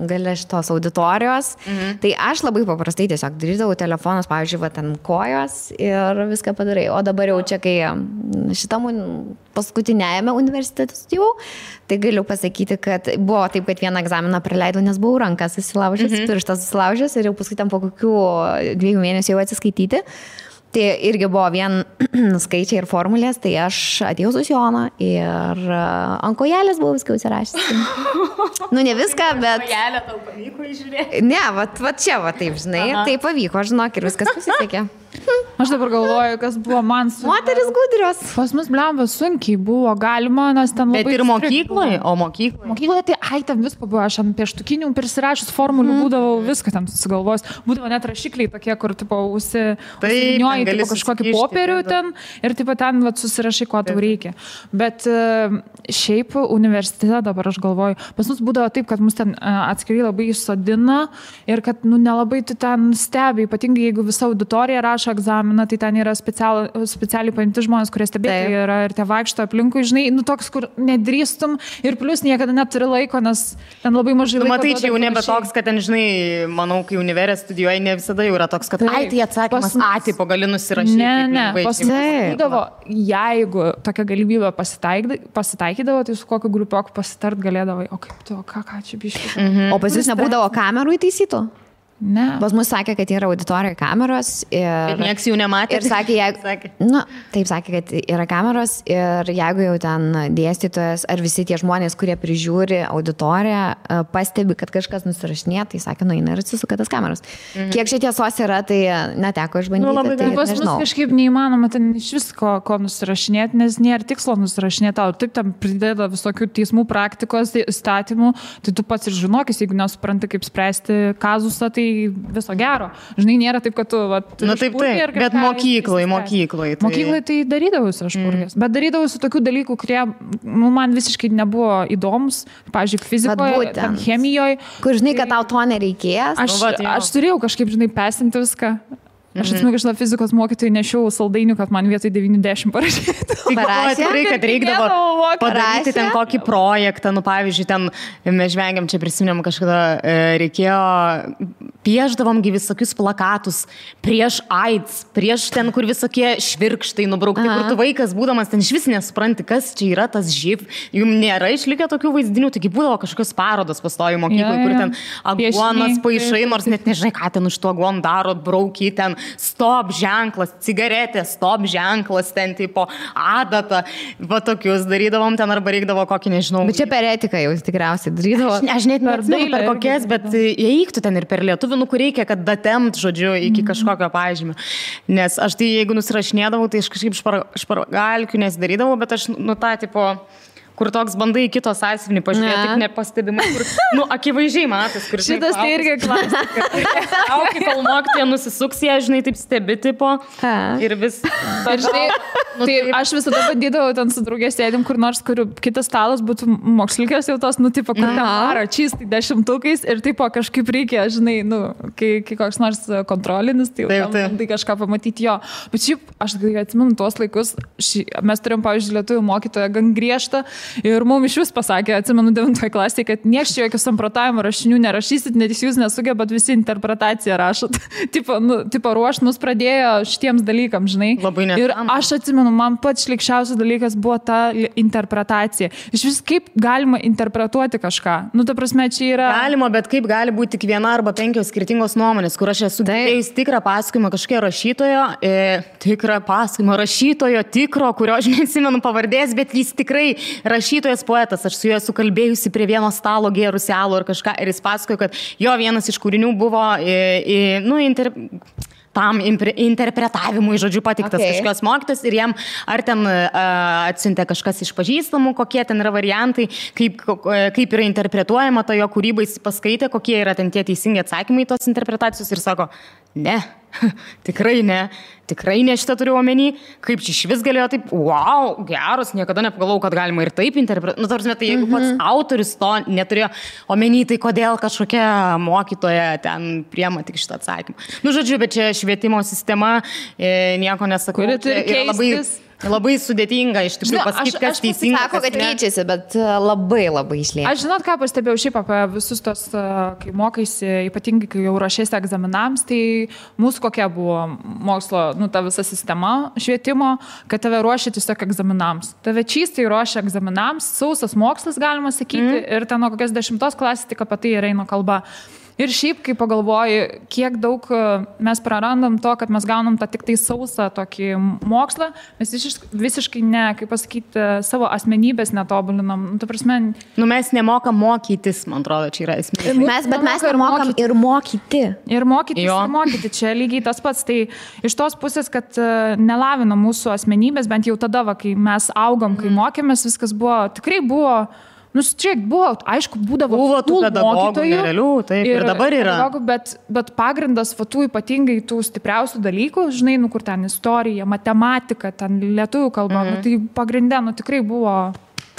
Speaker 1: gale šitos auditorijos, tai aš labai paprastai tiesiog darydavau telefonus, pavyzdžiui, va ten kojos ir viską padarai. O dabar jau čia, kai šitam paskutinėjame universitete studijavau, tai galiu pasakyti, kad buvo taip, kad vieną egzaminą praleidau, nes buvau rankas susilaužęs, pirštas susilaužęs ir jau paskui tam po kokių 2 mėnesių jau atsiskaityti. Tai irgi buvo vien skaičiai ir formulės, tai aš atėjau su Jona ir ant kojelės buvau viską užsirašęs. Nu, ne viską, bet...
Speaker 2: Kojelę tau pavyko įžiūrėti?
Speaker 1: Ne, va čia, va taip, žinai, tai pavyko, žinok, ir viskas pasisekė.
Speaker 3: Aš dabar galvoju, kas buvo man sunku.
Speaker 1: Moteris gudrios.
Speaker 3: Pas mus, blemba, sunkiai buvo galima, nes ten labai...
Speaker 2: Bet ir mokykloje, o mokykloje?
Speaker 3: Mokykloje tai, ten visko buvo, aš ant pieštukinių prisirašus formulių būdavau, viską ten susigalvos. Būdavo net rašikliai tokie, kur, tipo, užsinioji, tipo, kažkokį popierių ten ir, tipo, ten, va, susirašai, ko tau reikia. Bet šiaip universitete dabar aš galvoju, pas mus būdavo taip, kad mus ten atskiri labai įsodina ir kad, nelabai tu ten stebi, ypatingai jeigu visa auditorija rašo egzaminą, tai ten yra specialiai paimti žmonės, kurie stebėtojai yra ir tie vaikšto aplinkui, žinai, toks, kur nedrįstum ir plus niekada neturi laiko, nes ten labai mažai laiko.
Speaker 2: Matai, čia jau nebe toks, kad ten, žinai, manau, kai univerė studijuoji, ne visada jau yra toks, kad tai atsakymas tipo gali nusirašyti.
Speaker 3: Ne, būdavo, jeigu tokia galimybė pasitaikydavo, tai su kokiu grupioku pasitart galėdavai, o kaip tu, ką čia biškai.
Speaker 1: O pas jūs nebūdavo kamerų įtaisytų?
Speaker 3: Ne.
Speaker 1: Pas mus sakė, kad yra auditorijoje kameros ir
Speaker 2: nieks jų nematė.
Speaker 1: Ir sakė, taip sakė, kad yra kameros ir jeigu jau ten dėstytojas ar visi tie žmonės, kurie prižiūri auditoriją, pastebi, kad kažkas nusirašinė, tai sakė, eina ir atsisuka tas kameros. Kiek čia tiesos yra, tai neteko išbandyti. Tai
Speaker 3: pas mus kažkaip neįmanoma ten iš visko, ko nusirašinėti, nes nėra tikslo nusirašinėti. Taip tam prideda visokių teismų praktikos, įstatymų, tai tu pats ir žinokis, jeigu nesupranti, kaip spręsti kazusą, tai viso gero. Žinai, nėra taip, kad tu...
Speaker 2: taip, bet mokykloje.
Speaker 3: Mokykloje tai darydavausi aš purgės. Bet darydavausi tokių dalykų, kurie man visiškai nebuvo įdomus. Pavyzdžiui, fizikoje, chemijoje.
Speaker 1: Kur žinai, kad tau to nereikės.
Speaker 3: Aš turėjau kažkaip, žinai, pesinti viską. Aš atsimenu, kad fizikos mokytojai nešiau saldainių, kad man vietoj 90 parašytų.
Speaker 2: Tikrai, kad reikdavo padaryti ten kokį projektą, pavyzdžiui, ten mes žvengiam, čia prisiminėm kažkada, reikėjo, pieždavom visokius plakatus prieš AIDS, prieš ten, kur visokie švirkštai nubraukti, kur tu vaikas būdamas ten iš vis nesupranti, kas čia yra tas živ. Jums nėra išlikę tokių vaizdinių, taigi būdavo kažkokios parodos pastojo mokykloje, kur ten aguonas paišai, nors net nežinai, ką ten už to aguon daro, brauky ten stop ženklas, cigaretė, stop ženklas, ten tipo adata, va tokius darydavom ten arba reikdavo kokį, nežinau.
Speaker 1: Bet čia per etiką jau tikriausiai darydavo.
Speaker 2: Aš net neatsimenu per kokias, bet įeiktų ten ir per lietuvių, kur reikia, kad datemt, žodžiu, iki kažkokio pažymio. Nes aš tai, jeigu nusirašinėdavau, tai aš kažkaip špargalkių nesidarydavau, bet aš, tą tipo... kur toks bandai kitos sąsiuvinį pažiūrėti, tik nepastebimai, kur, akivaizdžiai matas, kur...
Speaker 3: Šitas tai irgi klasika.
Speaker 2: Auki, kol mokytoja nusisuks, jie, žinai, taip stebi, tipo, ir vis...
Speaker 3: Ir žinai, tai aš visada bandydavau ten su draugės sėdim, kur nors, kur kitas stalas būtų mokslikas jau tos, tipo, kur ten varo čystai 10-ukais ir, tipo, kažkaip reikia, žinai, kai koks nors kontrolinis, tai kažką pamatyti jo. Bet šiaip, aš atsimenu tuos laikus, mes turėjom, pavyzdžiui, lietuvių mokytoją gan griežtą. Ir mums iš vis pasakė, atsimenu 9 klasėje, kad nieks čia jokių samprotavimo rašinių nerašysit, net jūs nesugebat visi interpretaciją rašot. tipo ruošt mus pradėjo šitiems dalykams, žinai.
Speaker 2: Labai net.
Speaker 3: Ir aš atsimenu, man pats šlikščiausias dalykas buvo ta interpretacija. Iš vis kaip galima interpretuoti kažką. Ta prasme, čia yra...
Speaker 2: Galima, bet kaip gali būti tik viena arba 5 skirtingos nuomonės, kur aš esu girdėjus tikrą pasakojimą kažkokio rašytojo, kurio aš neatsimenu pavardės, bet jis tikrai rašytojas poetas, aš su juo esu kalbėjusi prie vieno stalo gėrusi alų ar kažką ir jis pasakojo, kad jo vienas iš kūrinių buvo tam interpretavimui, žodžiu, patiktas kažkokios mokytas ir jam ar ten atsiuntė kažkas iš pažįstamų, kokie ten yra variantai, kaip yra interpretuojama ta jo kūryba, jis paskaitė, kokie yra ten tie teisingi atsakymai tos interpretacijos ir sako, ne, tikrai ne šitą turiu omeny, kaip čia iš vis galėjo taip, wow, geras, niekada nepagalvojau, kad galima ir taip interpretuoti. Nu, tarsi, tai jeigu pats autorius to neturėjo omeny, tai kodėl kažkokia mokytoja ten priema tik šitą atsakymą. Nu, žodžiu, bet čia švietimo sistema, nieko nesakau.
Speaker 3: Kuri turi keistis.
Speaker 2: Labai sudėtinga iš tikrųjų pasakyti, kas teisinga.
Speaker 1: Sako, kad keičiasi, bet labai išlieka.
Speaker 3: Aš žinot, ką pastebėjau šiaip apie visus tos, kai mokaisi, ypatingai kai jau ruošiasi egzaminams, tai mūsų kokia buvo mokslo, ta visa sistema švietimo, kad tave ruošia tiesiog egzaminams. Tave čystai ruošia egzaminams, sausas mokslas galima sakyti, ir ten nuo kokios 10 klasės tik apie tai ir eina kalba. Ir šiaip, kai pagalvoji, kiek daug mes prarandam to, kad mes gaunam tą tik tai sausą tokį mokslą, mes visiškai ne, kaip pasakyti, savo asmenybės netobulinam.
Speaker 2: Mes nemokam mokytis, man atrodo, čia yra esmė.
Speaker 1: Mes nemokam ir mokyti.
Speaker 3: Ir mokyti. Čia lygiai tas pats. Tai iš tos pusės, kad nelavina mūsų asmenybės, bent jau tada, kai mes augom, kai mokėmės, viskas tikrai buvo. Čia buvo, aišku, būdavo
Speaker 2: tų pedagogų nerealių, taip, ir dabar yra.
Speaker 3: Bet pagrindas tų ypatingai tų stipriausių dalykų, žinai, kur ten istorija, matematika, ten lietuvių kalba, tai pagrindė, tikrai buvo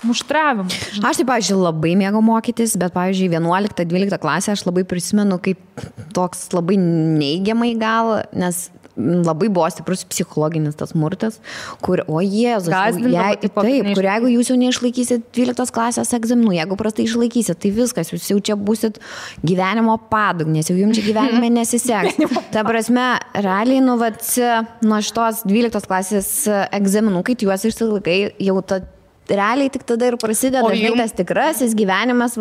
Speaker 3: muštravimas.
Speaker 1: Aš taip, pavyzdžiui, labai mėgau mokytis, bet, pavyzdžiui, 11-12 klasę aš labai prisimenu kaip toks labai neigiamai gal, nes labai buvo stiprus psichologinis tas smurtas, kur, o Jėzus, kur jeigu jūs jau neišlaikysit 12 klasės egzaminų, jeigu prastai išlaikysit, tai viskas, jūs jau čia būsit gyvenimo padugnės, jau jums čia gyvenime nesiseks. Ta prasme, realiai, nuo šitos 12 klasės egzaminų, kai juos išsilaikai, jau realiai tik tada ir prasideda tas tikrasis gyvenimas,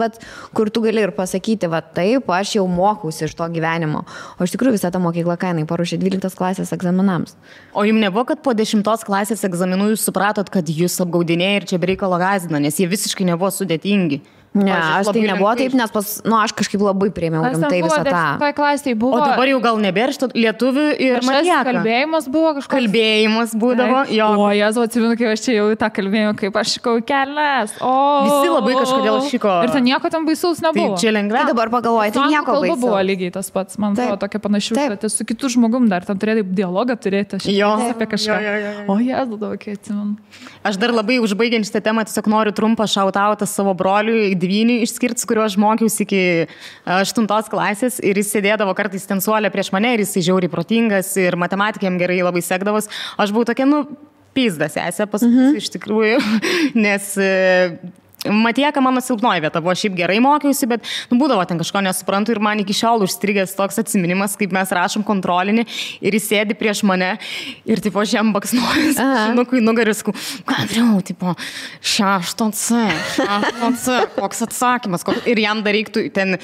Speaker 1: kur tu gali ir pasakyti, taip, aš jau mokausi iš to gyvenimo. O iš tikrųjų visą tą mokyklą kainai paruošė 12 klasės egzaminams.
Speaker 2: O jums nebuvo, kad po 10 klasės egzaminų jūs supratot, kad jūs apgaudinėjai ir čia bereikalo gąsdina, nes jie visiškai nebuvo sudėtingi?
Speaker 1: Ne, aš tai nebuvo taip, nes aš kažkaip labai priėmiau rimtai visą tą.
Speaker 3: O
Speaker 2: dabar jau gal nebėra lietuvių ir matijaka.
Speaker 3: Kalbėjimas buvo kažkoks.
Speaker 2: Kalbėjimas būdavo, jo.
Speaker 3: O, Jėzu, atsimenu, kai aš čia jau tą kalbėjimą, kaip aš šikau kelias.
Speaker 2: Visi labai kažkodėl šiko.
Speaker 3: Ir ten nieko tam baisaus nebuvo.
Speaker 2: Tai čia lengviau.
Speaker 1: Tai dabar pagalvoju, tai nieko baisaus.
Speaker 3: Kalba buvo lygiai tas pats, man atrodo, tokia panašių, bet su kitu žmogum dar tam turėtai dialogą turėti. Apie kažką. O, Jėzu, tokia atsimenu.
Speaker 2: Aš dar labai užbaigiant šitą temą tiesiog noriu trumpą šautautą savo broliui Dvynį išskirti, kurio aš mokiausi iki 8 klasės ir jis sėdėdavo kartais ten suolė prieš mane ir jis žiauriai protingas ir matematikėm gerai labai sekdavos. Aš buvau tokia, pizdas esė pasakysiu iš tikrųjų, nes matijaka mano silpnoji vieta, buvo šiaip gerai mokiausi, bet būdavo ten kažko nesuprantu ir man iki šiol užstrigęs toks atsiminimas, kaip mes rašom kontrolinį ir jis sėdi prieš mane ir tipo aš jam baksnuoju, žinokui nugaris, Andriau, tipo 6C, koks atsakymas, ir jam dar reiktų ten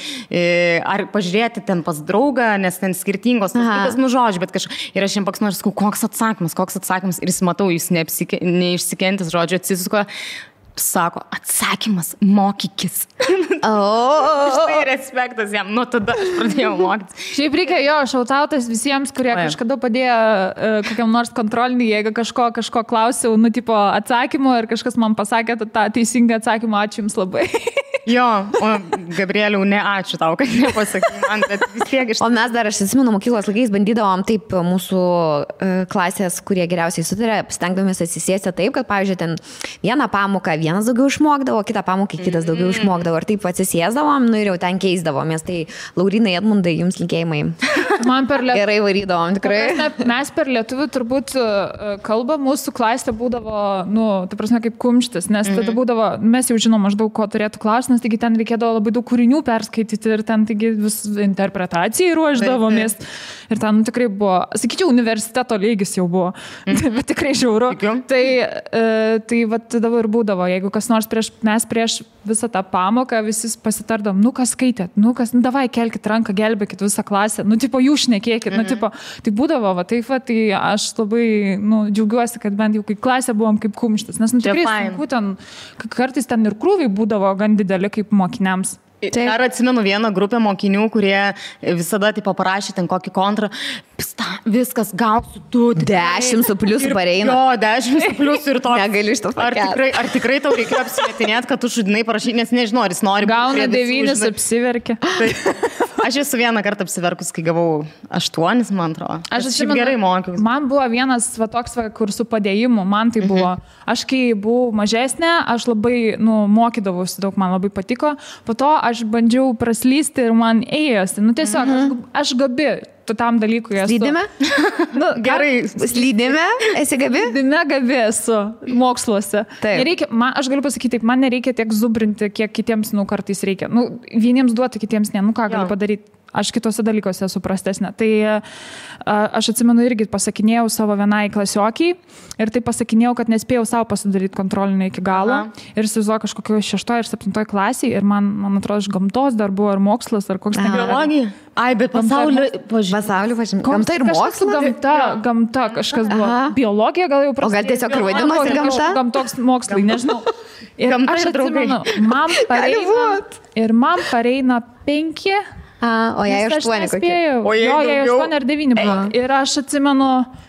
Speaker 2: ar pažiūrėti ten pas draugą, nes ten skirtingos žodžių, bet kažkaip ir aš jam baksnuoju, koks atsakymas ir jis matau, jis neišsikentęs žodžio atsisuko. Sako, atsakymas, mokykis. Štai respektas jam, tada aš pradėjau mokytis.
Speaker 3: Šiaip reikia šautautas visiems, kurie kažkada padėjo kokiam nors kontrolinį, jeigu kažko klausiau, tipo atsakymo ir kažkas man pasakė tą teisingą atsakymą, ačiū jums labai.
Speaker 2: Jo, o Gabrieliau, ne ačiū tau, kad nepasakai man, bet vis tiek iš...
Speaker 1: O mes dar, aš atsimenu, mokyklos laikais bandydavom taip mūsų klasės, kurie geriausiai sutarė, stengdavomės atsisėsti taip, kad, pavyzdžiui, ten vieną pamoką vienas daugiau išmokdavo, kitą pamoką kitas daugiau išmokdavo ir taip atsisėsdavom, ir jau ten keisdavomės. Tai Laurinai, Edmundai, jums linkėjimai.
Speaker 3: Man per lietuvių.
Speaker 1: Gerai varydavom, tikrai.
Speaker 3: Mes per lietuvių turbūt kalbą mūsų klasė būdavo, ta prasme, kaip kumštis, nes tada būdavo, mes jau žinom maždaug, ko turėtų klausti, taigi ten reikėdavo labai daug kūrinių perskaityti ir ten taigi vis interpretacijai ruoždavomės. Ir ten tikrai buvo, sakyčiau, universiteto lygis jau buvo, bet tikrai žiauru. Tai dabar ir būdavo, jeigu kas nors mes prieš visą tą pamoką visi pasitardom, kas skaitėt, davai kelkit ranką, gelbėkit visą klasę, tipo jūs šnekėkit, tai būdavo, tai aš labai džiaugiuosi, kad bent jau kai klasė buvom kaip kumštis, nes tikrai sunku ten, kartais ten ir krūviai būdavo gan dideli kaip mokiniams.
Speaker 2: Dar atsimenu vieną grupę mokinių, kurie visada taip paprašė ten kokį kontrą. Viskas, gausiu
Speaker 1: 10 su pliusu pareina.
Speaker 2: Jo, 10 su pliusu ir to.
Speaker 1: Negaliu iš to pakelt.
Speaker 2: Ar tikrai tau reikėjo apsimetinėti, kad tu šudinai parašai, nes nežinau, ar jis nori.
Speaker 3: Gauna 9, apsiverkia.
Speaker 2: Aš esu vieną kartą apsiverkus, kai gavau 8, man atrodo. Aš šiaip gerai mokiausi.
Speaker 3: Man buvo vienas toks, kur su padėjimu, man tai buvo. Aš kai buvau mažesnė, aš labai mokydavausi daug, man labai patiko. Po to aš bandžiau praslysti ir man ėjosi. Tiesiog, aš gabi tam dalykui esu.
Speaker 1: Slydime?
Speaker 2: Gerai.
Speaker 1: Slydime? Esi gabi?
Speaker 3: Slydime gabi esu moksluose. Nereikia, aš galiu pasakyti taip, man nereikia tiek zubrinti, kiek kitiems, kartais reikia. Vieniems duoti, kitiems ne. Ką galiu padaryti? Aš kitose dalykuose esu prastesnė. Tai aš atsimenu irgi pasakinėjau savo vienai klasiokiai ir tai pasakinėjau, kad nespėjau savo pasidaryti kontrolinį iki galo. Ir įsivaizduoju kažkokio 6 ir 7 klasiai ir man atrodo, iš gamtos dar buvo ar mokslas, ar koks ten.
Speaker 2: Biologija? Ai, bet pasaulio
Speaker 1: pažymė. Gamta ir mokslas?
Speaker 3: Gamta kažkas buvo. Biologija gal jau prasidėjo.
Speaker 1: O gal tiesiog ir vadinosi gamta?
Speaker 3: Gamtoks mokslai, nežinau. Ir aš atsimenu, man pareina 5.
Speaker 1: O jai 8 kokie.
Speaker 3: O jai 8 ar 9 buvo. Ir aš atsimenu,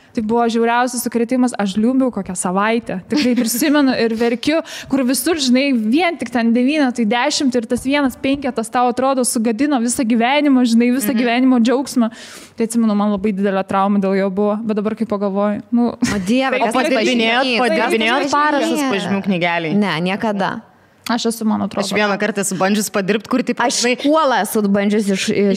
Speaker 3: tai buvo žiauriausias sukrėtimas, aš liūbiau kokią savaitę. Tikrai prisimenu ir verkiu, kur visur, žinai, vien tik ten 9, tai 10 ir tas 1-5 tau atrodo sugadino visą gyvenimą, žinai, visą gyvenimo džiaugsmą. Tai atsimenu, man labai didelė trauma dėl jo buvo, bet dabar kai pagalvoju.
Speaker 1: O Dieve,
Speaker 2: kas padirbinėjot parašus pažymių knygeliai?
Speaker 1: Ne, niekada.
Speaker 3: Aš esu, man atrodo.
Speaker 2: Aš vieną kartą esu bandžius padirbti, kur taip...
Speaker 1: Aš kuolą esu bandžius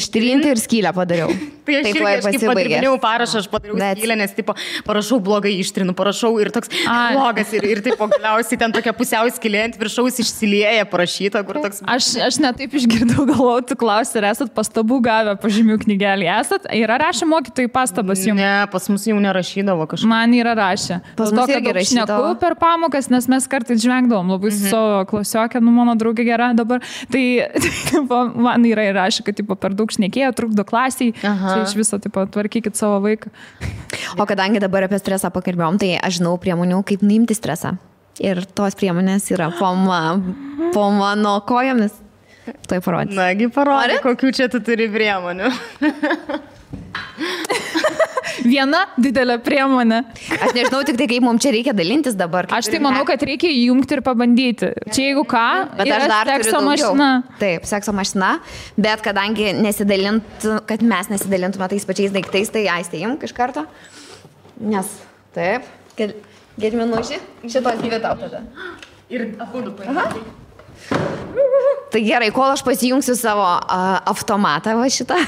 Speaker 1: ištrinti ir skylę padariau.
Speaker 2: Tai aš irgi padirbinėjau parašą, aš padariau skylę, nes tipo, parašau blogai ištrinu, parašau ir toks blogas ir taip galiausiai ten tokia pusiau skylė ant viršaus išsilieja parašyta, kur toks...
Speaker 3: Aš netaip išgirdau, galvau, tu klausi, ar esat pastabų gavę pažymių knygelį. Esat? Yra rašę mokytojai pastabas jums?
Speaker 2: Ne, pas mus jau nerašydavo kažką.
Speaker 3: Man yra rašę.
Speaker 1: Pas mus irgi rašydavo.
Speaker 3: Per pamokas, nes mes kartais žvengdavom labai su savo klasiokę, mano draugė gera dabar. Tai man yra įrašę, kad per daug šnekėjo, trukdo klasiai. Tai iš viso, tvarkykit savo vaiką.
Speaker 1: O kadangi dabar apie stresą pakalbėjom, tai aš žinau priemonių, kaip nuimti stresą. Ir tos priemonės yra po mano kojomis. Tai parodys.
Speaker 2: Nagi, parodė, kokių čia tu turi priemonių.
Speaker 3: Viena didelė priemonė.
Speaker 1: Aš nežinau tik tai, kaip mums čia reikia dalintis dabar.
Speaker 3: Aš tai manau, kad reikia įjungti ir pabandyti. Čia jeigu ką,
Speaker 1: bet aš dar
Speaker 3: sekso mašina.
Speaker 1: Taip, sekso mašina, bet kadangi kad mes nesidalintume tais pačiais daiktais, tai Aistė imk iš karto. Nes, taip, Gediminuši, šitos 2 tau tada.
Speaker 2: Ir abudu paimti.
Speaker 1: Tai gerai, kol aš pasijungsiu savo automatą va šitą.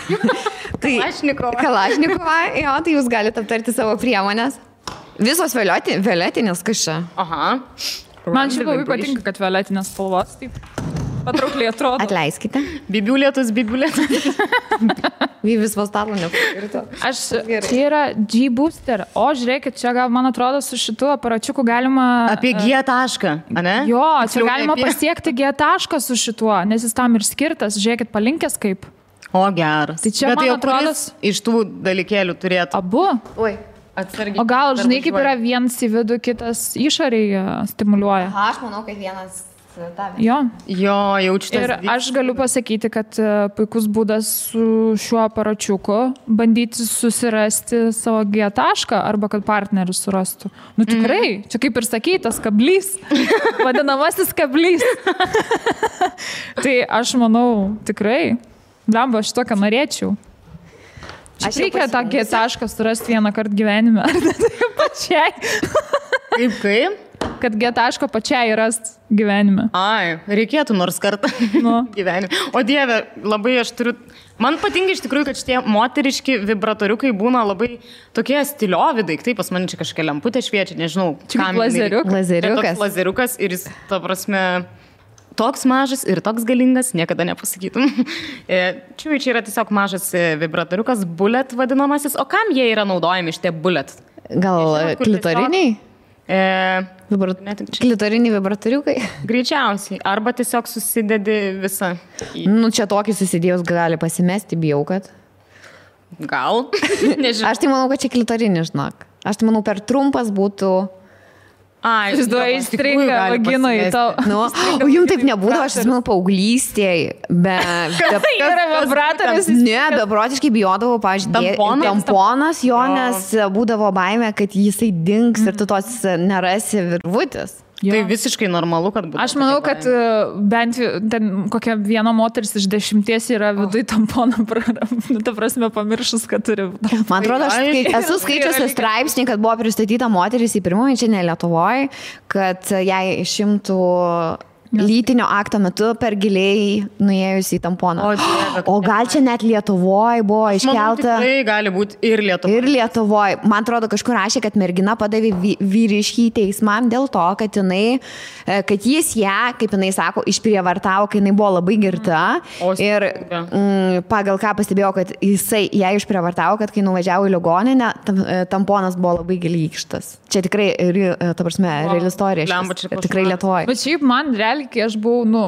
Speaker 1: Kalašnikovą, jo, tai jūs galite aptarti savo priemonės. Visos violetinės kažką.
Speaker 2: Aha.
Speaker 3: Man šiaip labai patinka, kad violetinės spalvos taip patraukliai atrodo.
Speaker 1: Atleiskite.
Speaker 2: Bibliulėtus.
Speaker 1: Vyvis vastarų nepakirto.
Speaker 3: Čia yra G-Booster. O, žiūrėkit, čia gal, man atrodo, su šitu aparačiuku galima...
Speaker 2: Apie G tašką, ane?
Speaker 3: Jo, čia galima pasiekti G tašką su šituo, nes jis tam ir skirtas. Žiūrėkit, palinkęs kaip.
Speaker 2: O, geras.
Speaker 3: Tai čia,
Speaker 2: bet
Speaker 3: man atrodo...
Speaker 2: iš tų dalykėlių turėtų.
Speaker 3: Abu?
Speaker 1: Oi.
Speaker 2: Atsargiai.
Speaker 3: O gal, žinai, kaip yra vienas į vidų, kitas išoriai stimuliuoja.
Speaker 1: Aš manau, kad vienas...
Speaker 3: Jo,
Speaker 2: jaučiu tas.
Speaker 3: Ir aš galiu pasakyti, kad puikus būdas su šiuo aparačiuku bandyti susirasti savo G tašką arba kad partneris surastų. Tikrai, čia kaip ir sakytas kablys, vadinamasis kablys. Tai aš manau, tikrai, blemba, aš tokią norėčiau. Aš reikia tą G tašką surasti vieną kartą gyvenime. Ar ne tai pačiai?
Speaker 2: Kaip?
Speaker 3: Kad G taško pačiai rast gyvenime.
Speaker 2: Ai, reikėtų nors kartą gyvenime. O Dieve, labai aš turiu... Man patinka iš tikrųjų, kad šitie moteriški vibratoriukai būna labai tokie stiliovi daiktai. Pas mane čia kažkokia lemputė šviečia, nežinau.
Speaker 3: Čia lazeriukas.
Speaker 2: Lazeriukas ir jis, ta prasme, toks mažas ir toks galingas, niekada nepasakytum. Čia yra tiesiog mažas vibratoriukas, bullet vadinamasis. O kam jie yra naudojami šitie bullet?
Speaker 1: Gal klitoriniai? Klitoriniai vibratoriukai?
Speaker 2: Greičiausiai. Arba tiesiog susidedi visą.
Speaker 1: Čia tokį susidėjus gali pasimesti, bijau, kad.
Speaker 2: Gal? Nežinau.
Speaker 1: Aš tai manau, kad čia klitorinis, žinok. Aš tai manau, per trumpas būtų
Speaker 3: Įsivaizduoju, įstringa vaginoj tau.
Speaker 1: Nu, o jums taip nebūdavo, aš atsimenu paauglystėje,
Speaker 3: Yra vibratorius.
Speaker 1: Ne, beprotiškai bijodavau, pažiūrėjau, tamponas jo, nes būdavo baimė, kad jisai dings ir tu tos nerasi virvutės.
Speaker 2: Tai visiškai normalu, kad būtų.
Speaker 3: Aš manau, kad bent ten kokia viena moteris iš 10 yra viduj tamponą, ta prasme, pamiršus, kad turi.
Speaker 1: Man atrodo, aš esu skaičiusi straipsnį, kad buvo pristatyta moteris į pirmąjį čia ne Lietuvoje, kad jai išimtų lytinio akto metu per giliai nuėjus į tamponą. O gal čia net Lietuvoje buvo iškelta.
Speaker 2: Tai gali būti ir Lietuvoje.
Speaker 1: Ir Lietuvoje. Man atrodo, kažkur rašė, kad mergina padavė vyriškį teismą dėl to, kad jis ją, kaip jinai sako, išprievartavo, kai jinai buvo labai girta. Ir pagal ką pastebėjau, kad jisai ją išprievartavo, kad kai nuvažiavo į ligoninę, tamponas buvo labai giliai įkištas. Čia tikrai, ta prasme, reali istorija. Tikrai Lietuvoje.
Speaker 3: Bet šiaip man realiai, kai aš buvau,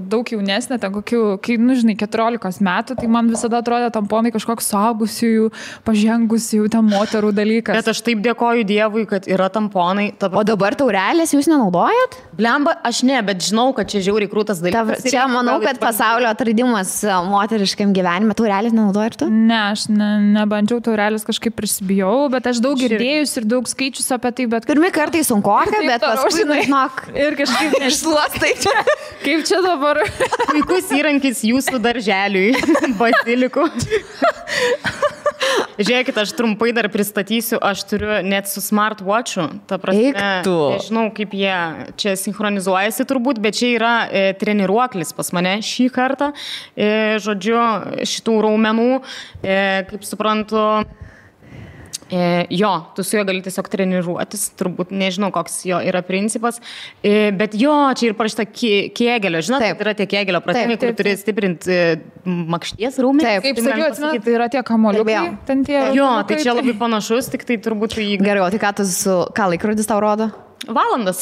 Speaker 3: daug jaunesnė, ten kokių, kai, 14 metų, tai man visada atrodė tamponai kažkoks suaugusiųjų, pažengusiųjų, ten moterų dalykas.
Speaker 2: Bet aš taip dėkoju Dievui, kad yra tamponai.
Speaker 1: O dabar taurelės jūs nenaudojat?
Speaker 2: Blemba, aš ne, bet žinau, kad čia žiauriai krūtas dalykas.
Speaker 1: Čia manau, kad pasaulio atradimas moteriškam gyvenime. Taurelės nenaudojat tu?
Speaker 3: Ne, aš nebandžiau taurelės, kažkaip prisibijau, bet aš daug girdėjus ir daug skaičius apie tai, bet...
Speaker 1: Pirmi kartai sunkoka, bet paskui, žinok,
Speaker 3: ir kažkaip
Speaker 1: nešluostai.
Speaker 3: Kaip čia dabar?
Speaker 2: Puikus įrankis jūsų darželiui, bazilikų. Žiūrėkit, aš trumpai dar pristatysiu, aš turiu net su smartwatchu, ta prasme, nežinau, kaip jie čia sinchronizuojasi turbūt, bet čia yra treniruoklis pas mane šį kartą, žodžiu, šitų raumenų, kaip suprantu, jo, tu su juo gali tiesiog treniruotis, turbūt nežinau, koks jo yra principas, bet jo, čia ir parašyta kėgelio, žinot, tai yra tie kėgelio pratimai, kur turi stiprinti makšties raumenį.
Speaker 3: Taip, kaip sakiau, atsimenu, tai yra tie kamoliukai.
Speaker 2: Jo, tai čia labai panašus, tik tai turbūt į...
Speaker 1: Gerai, o tai ką laikrodis tau rodo?
Speaker 2: Valandas.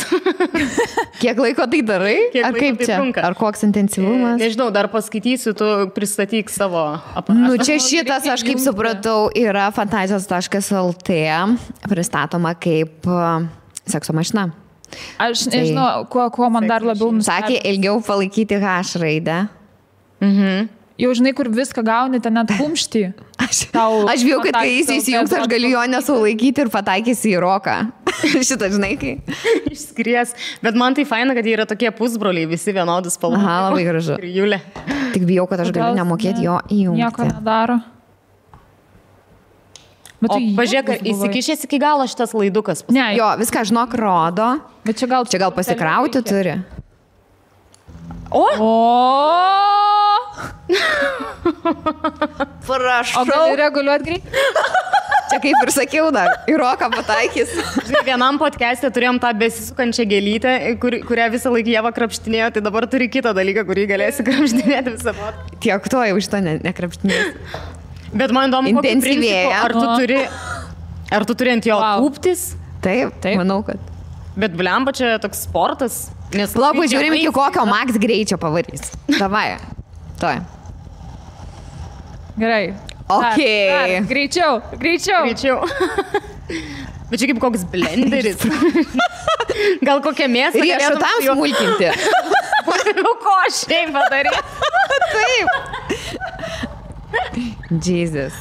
Speaker 1: Kiek laiko tai darai? Ar kaip čia? Trunka? Ar koks intensyvumas?
Speaker 2: Nežinau, dar paskaitysiu, tu pristatyk savo aparatą.
Speaker 1: Nu, čia šitas, aš kaip supratau, yra fantazijos.lt pristatoma kaip sekso mašina.
Speaker 3: Aš nežinau, kuo man dar labiau nustebino.
Speaker 1: Sakė, ilgiau palaikyti H raidę.
Speaker 3: Jau žinai, kur viską gauni, ten net kumštį.
Speaker 1: Aš bijau, kad kai jis įsijungs, aš galiu jo nesulaikyti ir pataikysi į roką. Šitą, žinai, kai.
Speaker 2: Išskries. Bet man tai faina, kad jie yra tokie pusbroliai, visi vienodus spalvos.
Speaker 1: Aha, labai gražu.
Speaker 2: Ir Julė.
Speaker 1: Tik bijau, kad aš galiu nemokėti jo įjungti.
Speaker 3: Nieko nedaro.
Speaker 2: O pažiūrėk, įsikišęs iki galo šitas laidukas.
Speaker 1: Ne, jo, viską žinok rodo.
Speaker 3: Bet čia gal
Speaker 1: pasikrauti turi.
Speaker 3: O!
Speaker 1: Prašau.
Speaker 3: O gali reguliuoti greit?
Speaker 1: Čia kaip ir sakiau dar, į roką pataikys.
Speaker 2: Žinai, vienam podcast'e turėjom tą besisukančią gėlytę, kurią visą laiką Ieva krapštinėjo, tai dabar turi kitą dalyką, kurį galėsi krapštinėti visą podcast'ą.
Speaker 1: Tiek to jau šito nekrapštinės.
Speaker 2: Bet man įdomu, ar tu turi ant jo kūptis?
Speaker 1: Taip, manau, kad.
Speaker 2: Bet blemba čia toks sportas.
Speaker 1: Labai žiūrim, iki kokio max greičio pavarys. Davai. Toj.
Speaker 3: Gerai.
Speaker 1: Okay.
Speaker 3: Greičiau.
Speaker 2: Bet čia kaip koks blenderis. Gal kokią mėsą.
Speaker 1: Riešutam smulkinti.
Speaker 2: Ko šiaip padarė?
Speaker 1: Taip. Jesus.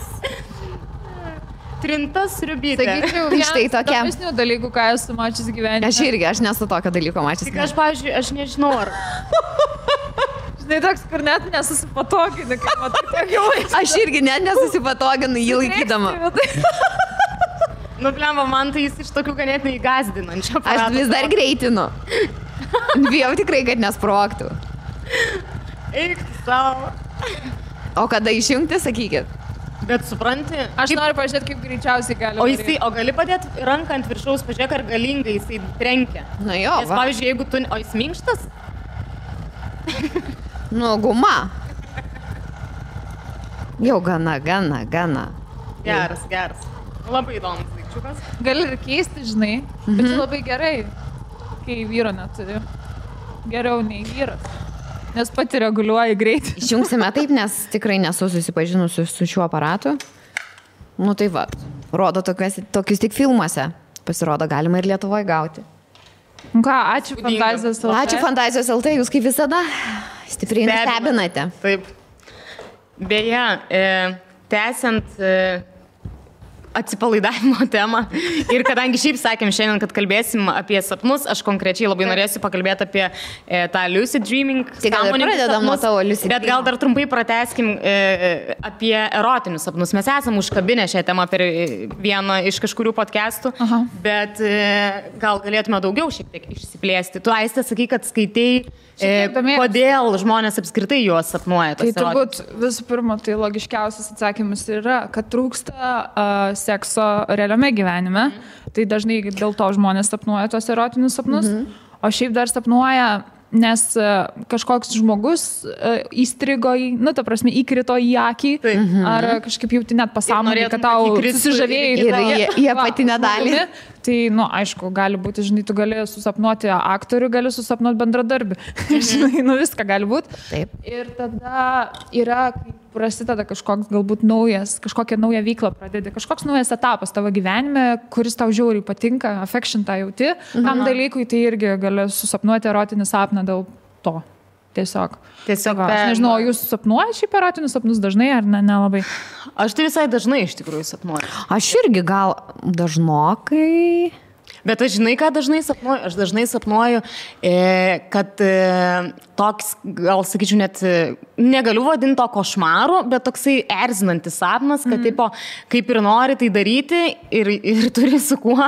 Speaker 2: Trinta sriubytė.
Speaker 3: Sakyčiau, štai tokia. Įdomesnių dalykų, ką esu mačius gyvenime.
Speaker 1: Aš nesu tokio dalyko mačius.
Speaker 2: Tik aš, pavyzdžiui, aš nežinau, ar...
Speaker 3: Žinai, toks, kur net nesusipatoginu, kai matai tiek jau laiko.
Speaker 1: Aš irgi net nesusipatoginu jį laikydama.
Speaker 2: Nu, blemba, man tai jis iš tokių ganėtinai gąsdinančių.
Speaker 1: Aš vis dar greitinu. Bijau tikrai, kad nesprogtų.
Speaker 2: Eik savo.
Speaker 1: O kada išjungti, sakykit?
Speaker 2: Bet supranti...
Speaker 3: Aš noriu pažiūrėti, kaip greičiausiai gali.
Speaker 2: O gali padėti ranką ant viršaus, pažiūrėk, ar galingai jisai trenkia.
Speaker 1: Nu jo,
Speaker 2: nes, pavyzdžiui, jeigu tu... O jis minkštas?
Speaker 1: Nu, guma. Jau gana.
Speaker 2: Geras. Labai įdomus daikčiukas.
Speaker 3: Gali ir keisti, žinai, bet labai gerai, kai vyro neturi. Geriau nei vyras. Nes pati reguliuoji greitį.
Speaker 1: Išjungsime taip, nes tikrai nesu susipažinusi su šiuo aparatu. Nu tai va, rodo tokius tik filmuose. Pasirodo, galima ir Lietuvoje gauti.
Speaker 3: Ką, ačiū Fantazijos LT.
Speaker 1: Ačiū Fantazijos LT, jūs kaip visada stipriai nustebinate.
Speaker 2: Taip. Beje, tęsiant atsipalaidavimo temą ir kadangi šiaip sakėm šiandien, kad kalbėsim apie sapnus, aš konkrečiai labai norėsiu pakalbėti apie tą lucid dreaming.
Speaker 1: Tai gal ir pradedam nuo tavo lucid dreaming.
Speaker 2: Bet gal dar trumpai pratęskim apie erotinius sapnus. Mes esam užkabinę šią temą per vieną iš kažkurių podcastų, bet gal galėtume daugiau šiek tiek išsiplėsti. Tu, Aiste, sakai, kad skaitai, kodėl žmonės apskritai juos sapnuoja.
Speaker 3: Tai turbūt visų pirma, tai logiškiausias atsakymas yra, kad trūksta sekso realiame gyvenime. Tai dažnai dėl to žmonės sapnuoja tos erotinius sapnus. O šiaip dar sapnuoja, nes kažkoks žmogus įstrigo ta prasme, įkrito į akį, ar kažkaip jauti net pasąmonį, kad tau susižavėjai
Speaker 1: į apatinę dalį.
Speaker 3: Tai, aišku, gali būti, žinai, tu gali susapnuoti aktorių, gali susapnuoti bendradarbį. Žinai, viską gali būti.
Speaker 1: Taip.
Speaker 3: Ir tada yra, kai prasideda kažkoks galbūt kažkokią naują veiklą pradedi, kažkoks naujas etapas tavo gyvenime, kuris tau žiauriai patinka, affection tą jauti, tam dalykui tai irgi gali susapnuoti erotinį sapną dėl to. Tiesiog. Aš nežinau, jūs sapnuoja šiaip erotinius sapnus dažnai ar nelabai?
Speaker 2: Aš tai visai dažnai iš tikrųjų sapnuoju.
Speaker 1: Aš irgi gal dažnokai.
Speaker 2: Bet aš žinai, ką dažnai sapnuoju? Aš dažnai sapnuoju, kad toks, gal sakyčiau, net negaliu vadinti to košmaru, bet toksai erzinantis sapnas, kad tipo, kaip ir nori tai daryti ir turi su kuo,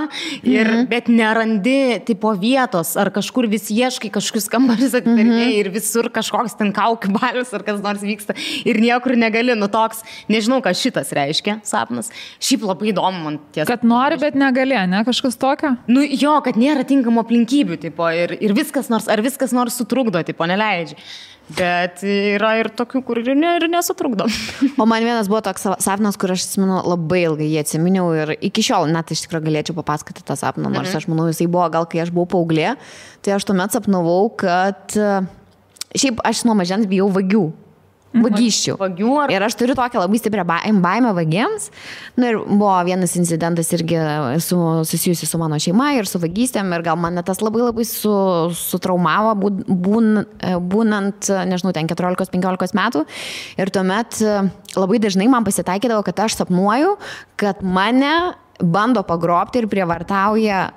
Speaker 2: bet nerandi tipo vietos, ar kažkur vis ieškai kažkokius kambarius atidarinėjai ir visur kažkoks ten kaukių balius ar kas nors vyksta ir niekur negali, toks, nežinau, ką šitas reiškia sapnas. Šiaip labai įdomu man tiesa.
Speaker 3: Kad nori, bet negali, ne? Kažkas tokio?
Speaker 2: Jo, kad nėra tinkamų aplinkybių, tipo, ir viskas nors sutrukdo, tipo, neleidžia. Bet yra ir tokių, kur ir nesutrukdo.
Speaker 1: O man vienas buvo toks sapnas, kur aš atsimenu, labai ilgai jį atsiminiau ir iki šiol net iš tikrųjų galėčiau papasakoti tą sapną, nors aš manau, jisai buvo gal, kai aš buvau paauglė, tai aš tuomet sapnavau, kad šiaip aš nuo mažens bijau vagių. Vagysčių. Ir aš turiu tokią labai stiprią baimę vagiams. Ir buvo vienas incidentas irgi susijusi su mano šeima ir su vagystėm. Ir gal mane tas labai labai sutraumavo, būnant, nežinau, ten 14-15 metų. Ir tuomet labai dažnai man pasitaikydavo, kad aš sapnuoju, kad mane bando pagrobti ir prievartauja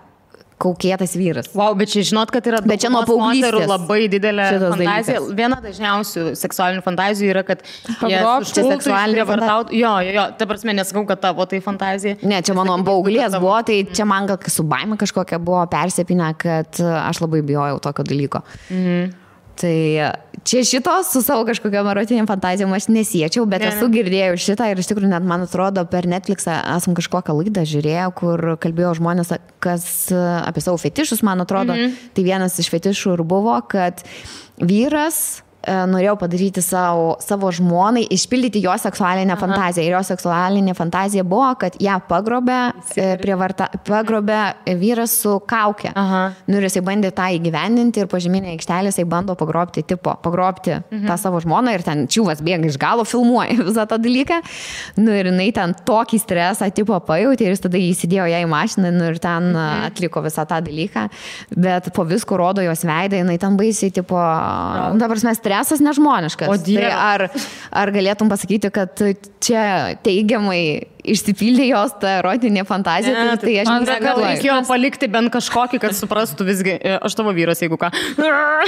Speaker 1: kaukėtas vyras.
Speaker 2: Wow, bet čia žinot, kad yra
Speaker 1: bet čia nuo paauglystės
Speaker 2: labai didelė fantazija. Viena dažniausių seksualinių fantazijų yra, kad jie seksualinį vartautų. Jo, ta prasme, nesakau, kad tavo tai fantazija.
Speaker 1: Ne, čia mano paauglės buvo, tai čia man gal su baime kažkokia buvo persipinę, kad aš labai bijojau tokio dalyko. Tai čia šitos su savo kažkokiam erotiniam fantazijom aš nesiečiau, bet esu girdėjau šitą ir iš tikrųjų net man atrodo per Netflixą esam kažkokią laidą žiūrėję, kur kalbėjo žmonės apie savo fetišus, man atrodo. Tai vienas iš fetišų ir buvo, kad vyras norėjau padaryti savo žmonai, išpildyti jo seksualinę fantaziją. Ir jo seksualinė fantazija buvo, kad ją pagrobė vyras su kaukė. Ir jisai bandė tą įgyvendinti ir pažeminė aikštelė jisai bando pagrobti tą savo žmoną ir ten čiūvas bėga iš galo, filmuoja visą tą dalyką. Ir jinai ten tokį stresą pajutė ir jis tada įsidėjo ją į mašiną ir ten atliko visą tą dalyką. Bet po visko rodo jos veidą, jinai ten baisiai dabar mes stresas nežmoniškas. Tai ar galėtum pasakyti, kad čia teigiamai išsipildė jos tą erotinė fantazija? Tai aš
Speaker 2: negalvoju. Reikėjo palikti bent kažkokį, kad suprastų visgi, aš tavo vyras, jeigu ką.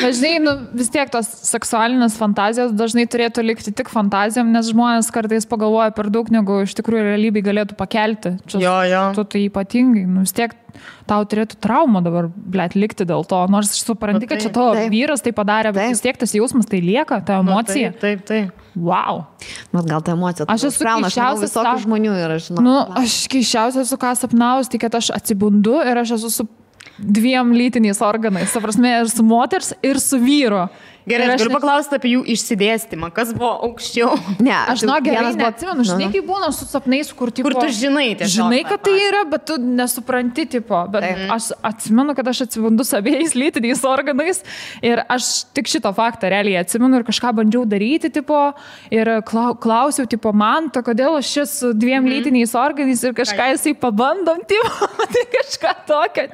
Speaker 3: Dažnai, vis tiek tos seksualinės fantazijos dažnai turėtų likti tik fantazijom, nes žmonės kartais pagalvoja per daug, negu iš tikrųjų realybėj galėtų pakelti. Tu tai ypatingai, vis tiek tau turėtų traumą dabar, likti dėl to. Nors supranti, kad čia tavo vyras tai padarė, bet vis tiek tas jausmas tai lieka, ta emocija.
Speaker 2: Taip.
Speaker 3: Wow.
Speaker 1: Bet gal ta emocija.
Speaker 3: Aš esu keisčiausias
Speaker 1: visokių žmonių ir aš žinau.
Speaker 3: Aš keisčiausias esu ką sapnaus, tai kad aš atsibundu ir aš esu su 2 lytiniais organais. Ta prasme, ir su moters, ir su vyro.
Speaker 2: Gerai, aš galiu paklausti apie jų išsidėstymą, kas buvo aukščiau.
Speaker 3: Ne, aš gerai neatsimenu, žinai, kaip būna su sapnais, kur tu
Speaker 2: žinai tiesiog.
Speaker 3: Žinai, kad tai yra, bet tu nesupranti, tipo. Bet aš atsimenu, kad aš atsibundu su abiejais lytiniais organais ir aš tik šito faktą realiai atsimenu ir kažką bandžiau daryti, tipo, ir klausiau, tipo, man, to kodėl aš čia su dviem lytiniais organiais ir kažką jisai pabandom, tipo, tai kažką tokio.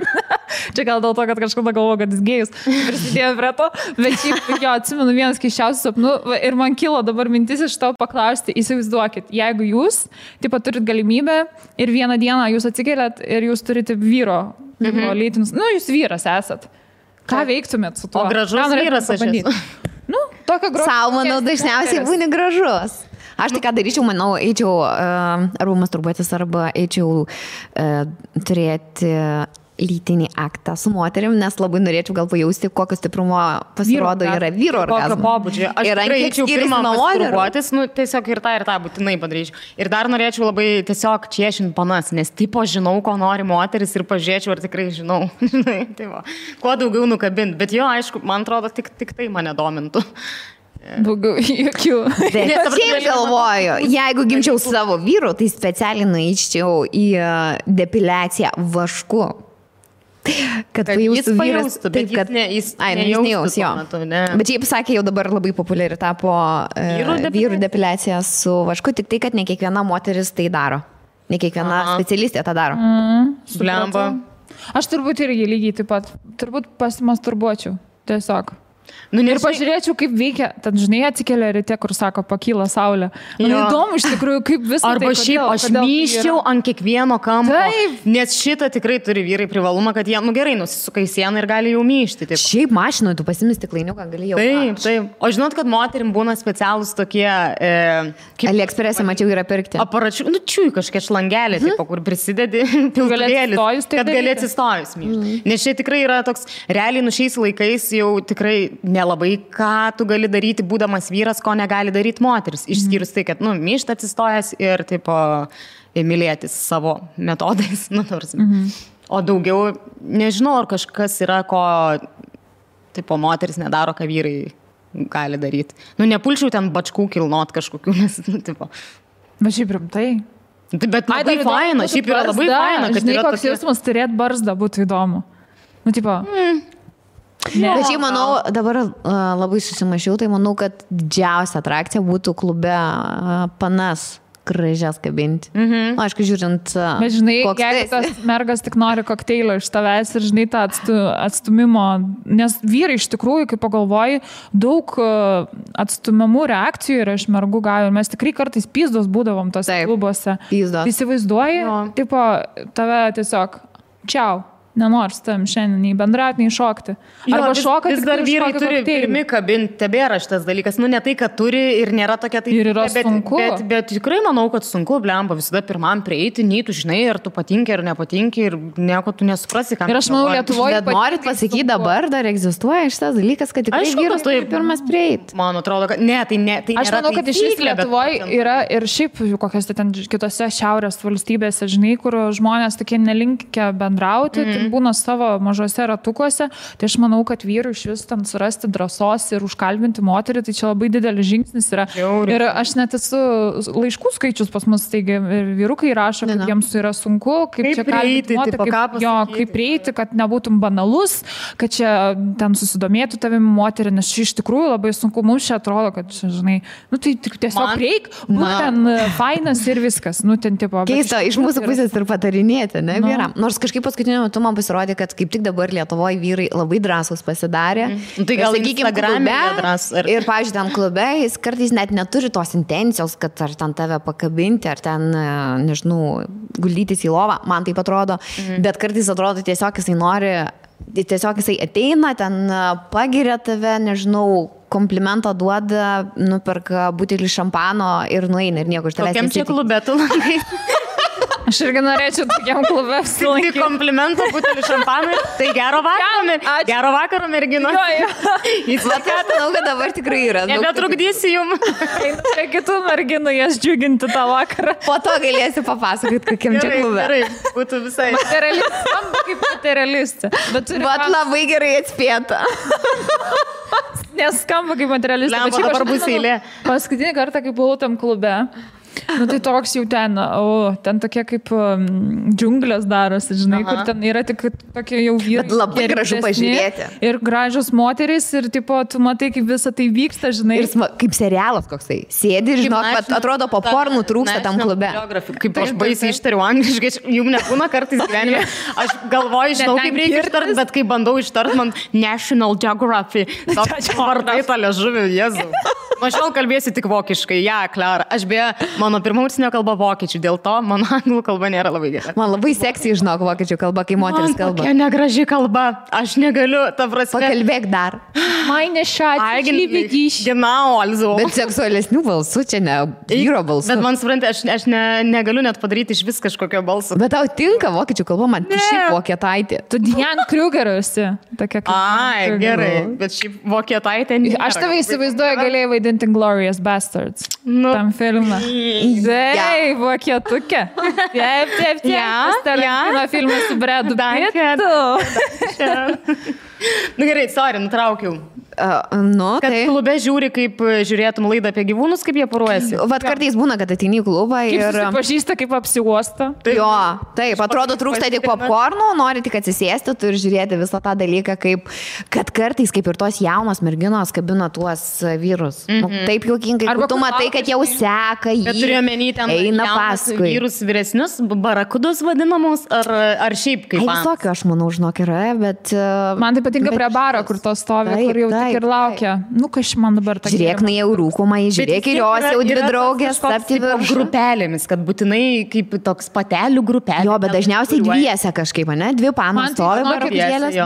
Speaker 3: Čia gal dėl to, kad kažkada galvoju, kad jis gėjus prisidėjo prie to, bet šiaip jo atsimenu vienas keiščiausių sapnų ir man kilo dabar mintis iš to paklausti, įsivaizduokit, jeigu jūs, tipo, turit galimybę ir vieną dieną jūs atsikeliat ir jūs turite vyro lytinius, jūs vyras esat. Ką veiktumėt su tuo?
Speaker 2: O gražus vyras aš esu.
Speaker 3: Tokio gražus.
Speaker 1: Sau, manau, dažniausiai būni gražus. Aš tai ką daryčiau, manau, eičiau arba masturbuotis, arba eičiau turėti lytinį aktą su moterim, nes labai norėčiau gal pajausti, kokio stiprumo pasirodo yra vyro orgazmo.
Speaker 2: Kokio pobūdžio. Aš tikrai eičiau pirmą masturbuotis, tiesiog ir tą būtinai padaryčiau. Ir dar norėčiau labai tiesiog čiešinti panas, nes tipo žinau, ko nori moteris ir pažiūrėčiau, ar tikrai žinau. Tai va, kuo daugiau nukabinti. Bet jo, aišku, man atrodo, tik tai mane domintų.
Speaker 3: Daugiau jokių.
Speaker 1: Bet šiaip galvoju, jeigu gimčiau savo vyru, tai specialiai nueičiau į depiliaciją vašku. Kad pajaustų vyras,
Speaker 2: taip, kad
Speaker 1: jis nejaus jo. Bet šiaip sakė, jau dabar labai populiari tapo vyrų depiliacija su vašku, tik tai, kad ne kiekviena moteris tai daro. Ne kiekviena specialistė tą daro.
Speaker 2: Blemba.
Speaker 3: Aš turbūt irgi lygiai taip pat, turbūt pasimasturbuočiau, tiesiog. Ir pažiūrėčiau, kaip veikia, tad žinai, atsikelia ryte, kur sako, pakyla saulė. Man įdomu iš tikrųjų, kaip visą
Speaker 2: arba tai, šiaip aš myščiau ant kiekvieno kampo, nes šitą tikrai turi vyrai privalumą, kad jie, gerai, nusisuka į sieną ir gali jau myšti. Taip.
Speaker 1: Šiaip mašinoje tu pasimės stiklainiuką, gali jau.
Speaker 2: Taip. O žinot, kad moterim būna specialūs tokie...
Speaker 1: AliExpress'e mačiau yra pirkti.
Speaker 2: Aparačių, čiūj kažkiek šlangelė, kur prisidedi piltuvėlis, kad gali atsistojus myšti. Nes čia tikrai yra toks, realiai šiais laikais jau tikrai nelabai ką tu gali daryti, būdamas vyras, ko negali daryti moteris. Išskyrus tai, kad, myšt atsistojęs ir, tipo, mylėtis savo metodais. O daugiau, nežinau, ar kažkas yra, ko, tipo, moteris nedaro, ką vyrai gali daryti. Nepulčiau ten bačkų kilnot kažkokių, nes, tipo.
Speaker 3: Bet šiaip rimtai.
Speaker 2: Bet labai faina, šiaip yra labai faina, kad
Speaker 3: žinai, koks jausmas turėt barzdą būtų įdomu. Tipo...
Speaker 1: Bet šiaip manau, dabar labai susimašiau, tai manau, kad didžiausia atrakcija būtų klube panas gražias kabinti. Aišku, žiūrint,
Speaker 3: bet žinai, jeigu tas mergas tik nori kokteilio iš tavęs ir žinai tą atstumimo, nes vyrai iš tikrųjų, kaip pagalvoji, daug atstumimų reakcijų yra iš mergų gavę ir mes tikrai kartais pyzdos būdavom tose klubuose. Įsivaizduoji, tipo, tave tiesiog čiau. Nenors tam šiandien nei bendrauti, nei šokti. Arba šoka,
Speaker 2: vis dar vyrai turi pirmi kabinti, tebėra šitas dalykas. Ne tai, kad turi ir nėra tokia tai...
Speaker 3: Ir yra sunku.
Speaker 2: Bet tikrai manau, kad sunku, blemba, visada pirmam prieiti, nei tu žinai, ar tu patinki, ar nepatinki ir nieko tu nesuprasi, ką...
Speaker 3: Ir aš manau, Lietuvoje...
Speaker 1: Bet norit pasakyti, dabar dar egzistuoja šitas dalykas, kad tikrai vyras turi pirmas prieiti.
Speaker 2: Man atrodo, kad... Ne, tai nėra...
Speaker 3: Aš manau, kad iš vis Lietuvoje yra ir šiaip kokios ten kitose šiaurės valstybėse, žinai, kur žmonės tokie nelinkę bendrauti, būna savo mažose ratukuose, tai aš manau, kad vyrų iš vis ten surasti drąsos ir užkalbinti moterį, tai čia labai didelis žingsnis yra. Ir aš net esu laiškų skaičius pas mus, taigi ir vyrukai rašo, kad jiems yra sunku, kaip čia kalbinti moterį, kaip prieiti, kad nebūtum banalus, kad čia ten susidomėtų tavimi moterį, nes čia iš tikrųjų labai sunku, mums čia atrodo, kad čia, žinai, tai tiesiog prieik, būk ten fainas ir viskas, ten tipo...
Speaker 1: Keista, iš mūsų pusės ir patarinėti, ne, vyram. Nors kažkaip paskutiniu metu man pasirodė, kad kaip tik dabar Lietuvoje vyrai labai drąsūs pasidarė.
Speaker 2: Tai gal Instagram'e drąs.
Speaker 1: Ir, pavyzdžiui, tam klube jis kartais net neturi tos intencijos, kad ar ten tave pakabinti, ar ten, nežinau, guldytis į lovą, man taip atrodo. Bet kartais atrodo tiesiog jisai nori, tiesiog jisai ateina, ten pagiria tave, nežinau, komplimentą duoda, nuperka butelį šampano ir nueina ir nieko iš tavęs
Speaker 2: nesitikė. Kokiam čia klube tu lankai?
Speaker 3: Aš irgi norėčiau tokiam klube apsilankyti.
Speaker 2: Tai komplimento, butelį šampaną. Tai gero vakaro, mergino.
Speaker 1: Manau, kad dabar tikrai yra.
Speaker 2: Nebetrukdysi jum.
Speaker 3: Prie kitų merginų jas džiuginti tą vakarą.
Speaker 1: Po to galėsi papasakoti, kokiam čia klube.
Speaker 2: Gerai, būtų visai.
Speaker 3: Kaip materialistė. Bet
Speaker 1: labai gerai atspėta.
Speaker 3: Neskamba kaip materialistė.
Speaker 2: Lempa, dabar bus eilė.
Speaker 3: Paskutinį kartą, kai buvau tam klube, nu tai toks jau ten tokie kaip džiunglės darosi, žinai, kur ten yra tik tokie jau vyrai.
Speaker 1: Bet labai gražu pažiūrėti.
Speaker 3: Ir gražios moterys ir tipo, tu matai, kaip visą tai vyksta, žinai.
Speaker 1: Ir kaip serialas koksai. Sėdi ir žinok, bet atrodo popkornų trūksta tam klube.
Speaker 2: Kaip aš baisiai ištariu angliškai, jums nebūna kartais gyvenime. Aš galvoju, žinau, kaip reikia ištart, bet kai bandau ištart, man National Geography. Toks vardai tą liežuvį, Jėzau. Nuo šiol kalbėsiu tik vokiškai, Klara. Aš beje, mano pirma užsienio kalba vokiečių, dėl to mano anglų kalba nėra labai gera.
Speaker 1: Man labai seksy, žinok, vokiečių kalba, kai moteris kalba.
Speaker 2: Tokia negraži kalba, aš negaliu, ta prasme.
Speaker 1: Pakalbėk dar.
Speaker 3: Meine Schatz, ich liebe dich.
Speaker 2: Genau, also.
Speaker 1: Bet seksualesnių balsų čia ne vyro balsų.
Speaker 2: Bet man supranti, aš negaliu net padaryti iš vis kažkokio balso.
Speaker 1: Bet tau tinka vokiečių kalba, man šiaip vokietaitė.
Speaker 3: Tu Diane Kruger esi.
Speaker 2: Ai, gerai, bet šiaip vokietaitė nėra.
Speaker 3: Aš tave įsivaizduoju, galėjai vaidinti Glorious Bastards. Tam filmą. Taip, vokietukė. Taip. Tarantino filmas su Bradu Pittu.
Speaker 2: Nu gerai, sorry, nutraukiau. Kad klube žiūri, kaip žiūrėtum laidą apie gyvūnus, kaip jie poruojasi.
Speaker 1: Vat kartais būna, kad ateini į klubą ir...
Speaker 3: Kaip susipažįsta, kaip apsiuosta.
Speaker 1: Jo, taip, atrodo, trūksta tik popkornų, nori tik atsisėsti, tu ir žiūrėti visą tą dalyką, kad kartais, kaip ir tos jaunos merginos, kabina tuos vyrus. Taip juokingai, kur tu matai, kad jau seka jį, eina paskui.
Speaker 2: Vyrus vyresnius, barakudus vadinamus, ar šiaip kaip...
Speaker 1: Visokio, aš manau, žinok, yra, bet...
Speaker 3: Man tai patinka prie baro, kur to stovi, kur jau tik ir laukia. Nu, kas man dabar ta...
Speaker 1: Žiūrėk, na jau rūkumai, žiūrėk ir jos jau dvi draugės, tapti viršų.
Speaker 2: Grupelėmis, kad būtinai kaip toks patelių grupelė.
Speaker 1: Jo, bet dažniausiai dviese kažkaip, ne? Dvi panos stovi barakudėlės.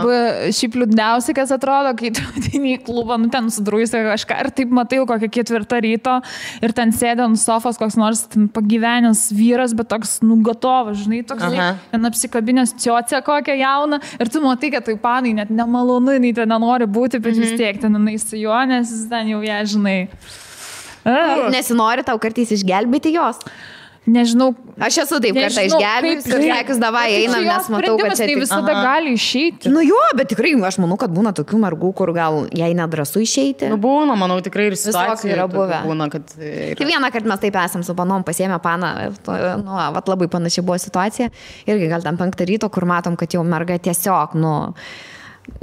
Speaker 3: Šiaip liūdniausiai, kas atrodo, kai tu ateini į klubą, nu ten sudruisi kažką ir taip matai kokią 4 ryto ir ten sėdė ant sofos koks nors pagyvenęs vyras, bet toks nugatovas, žinai, toks ten apsikabinęs ciocę kokią jauną ir tu matai, kad tai panai net nemalonu, nei ten nenori būti, bet vis tiek ten su juo, nes ten jau ją, žinai.
Speaker 1: Nesinori tau kartais išgelbėti jos?
Speaker 3: Nežinau.
Speaker 1: Aš esu taip kartą išgelbėjus ir sakius, davai einam, nes matau, kad čia
Speaker 3: visada gali išeiti.
Speaker 1: Nu jo, bet tikrai aš manau, kad būna tokių mergų, kur gal jai nedrąsu išeiti.
Speaker 2: Nu būna, manau, tikrai ir situacija
Speaker 1: yra buvę.
Speaker 2: Būna, kad...
Speaker 1: Vieną kartą mes taip esam su panom, pasiėmė paną, nu, vat labai panašiai buvo situacija. Irgi gal tam 5 ryto, kur matom, kad jau merga tiesiog, nu...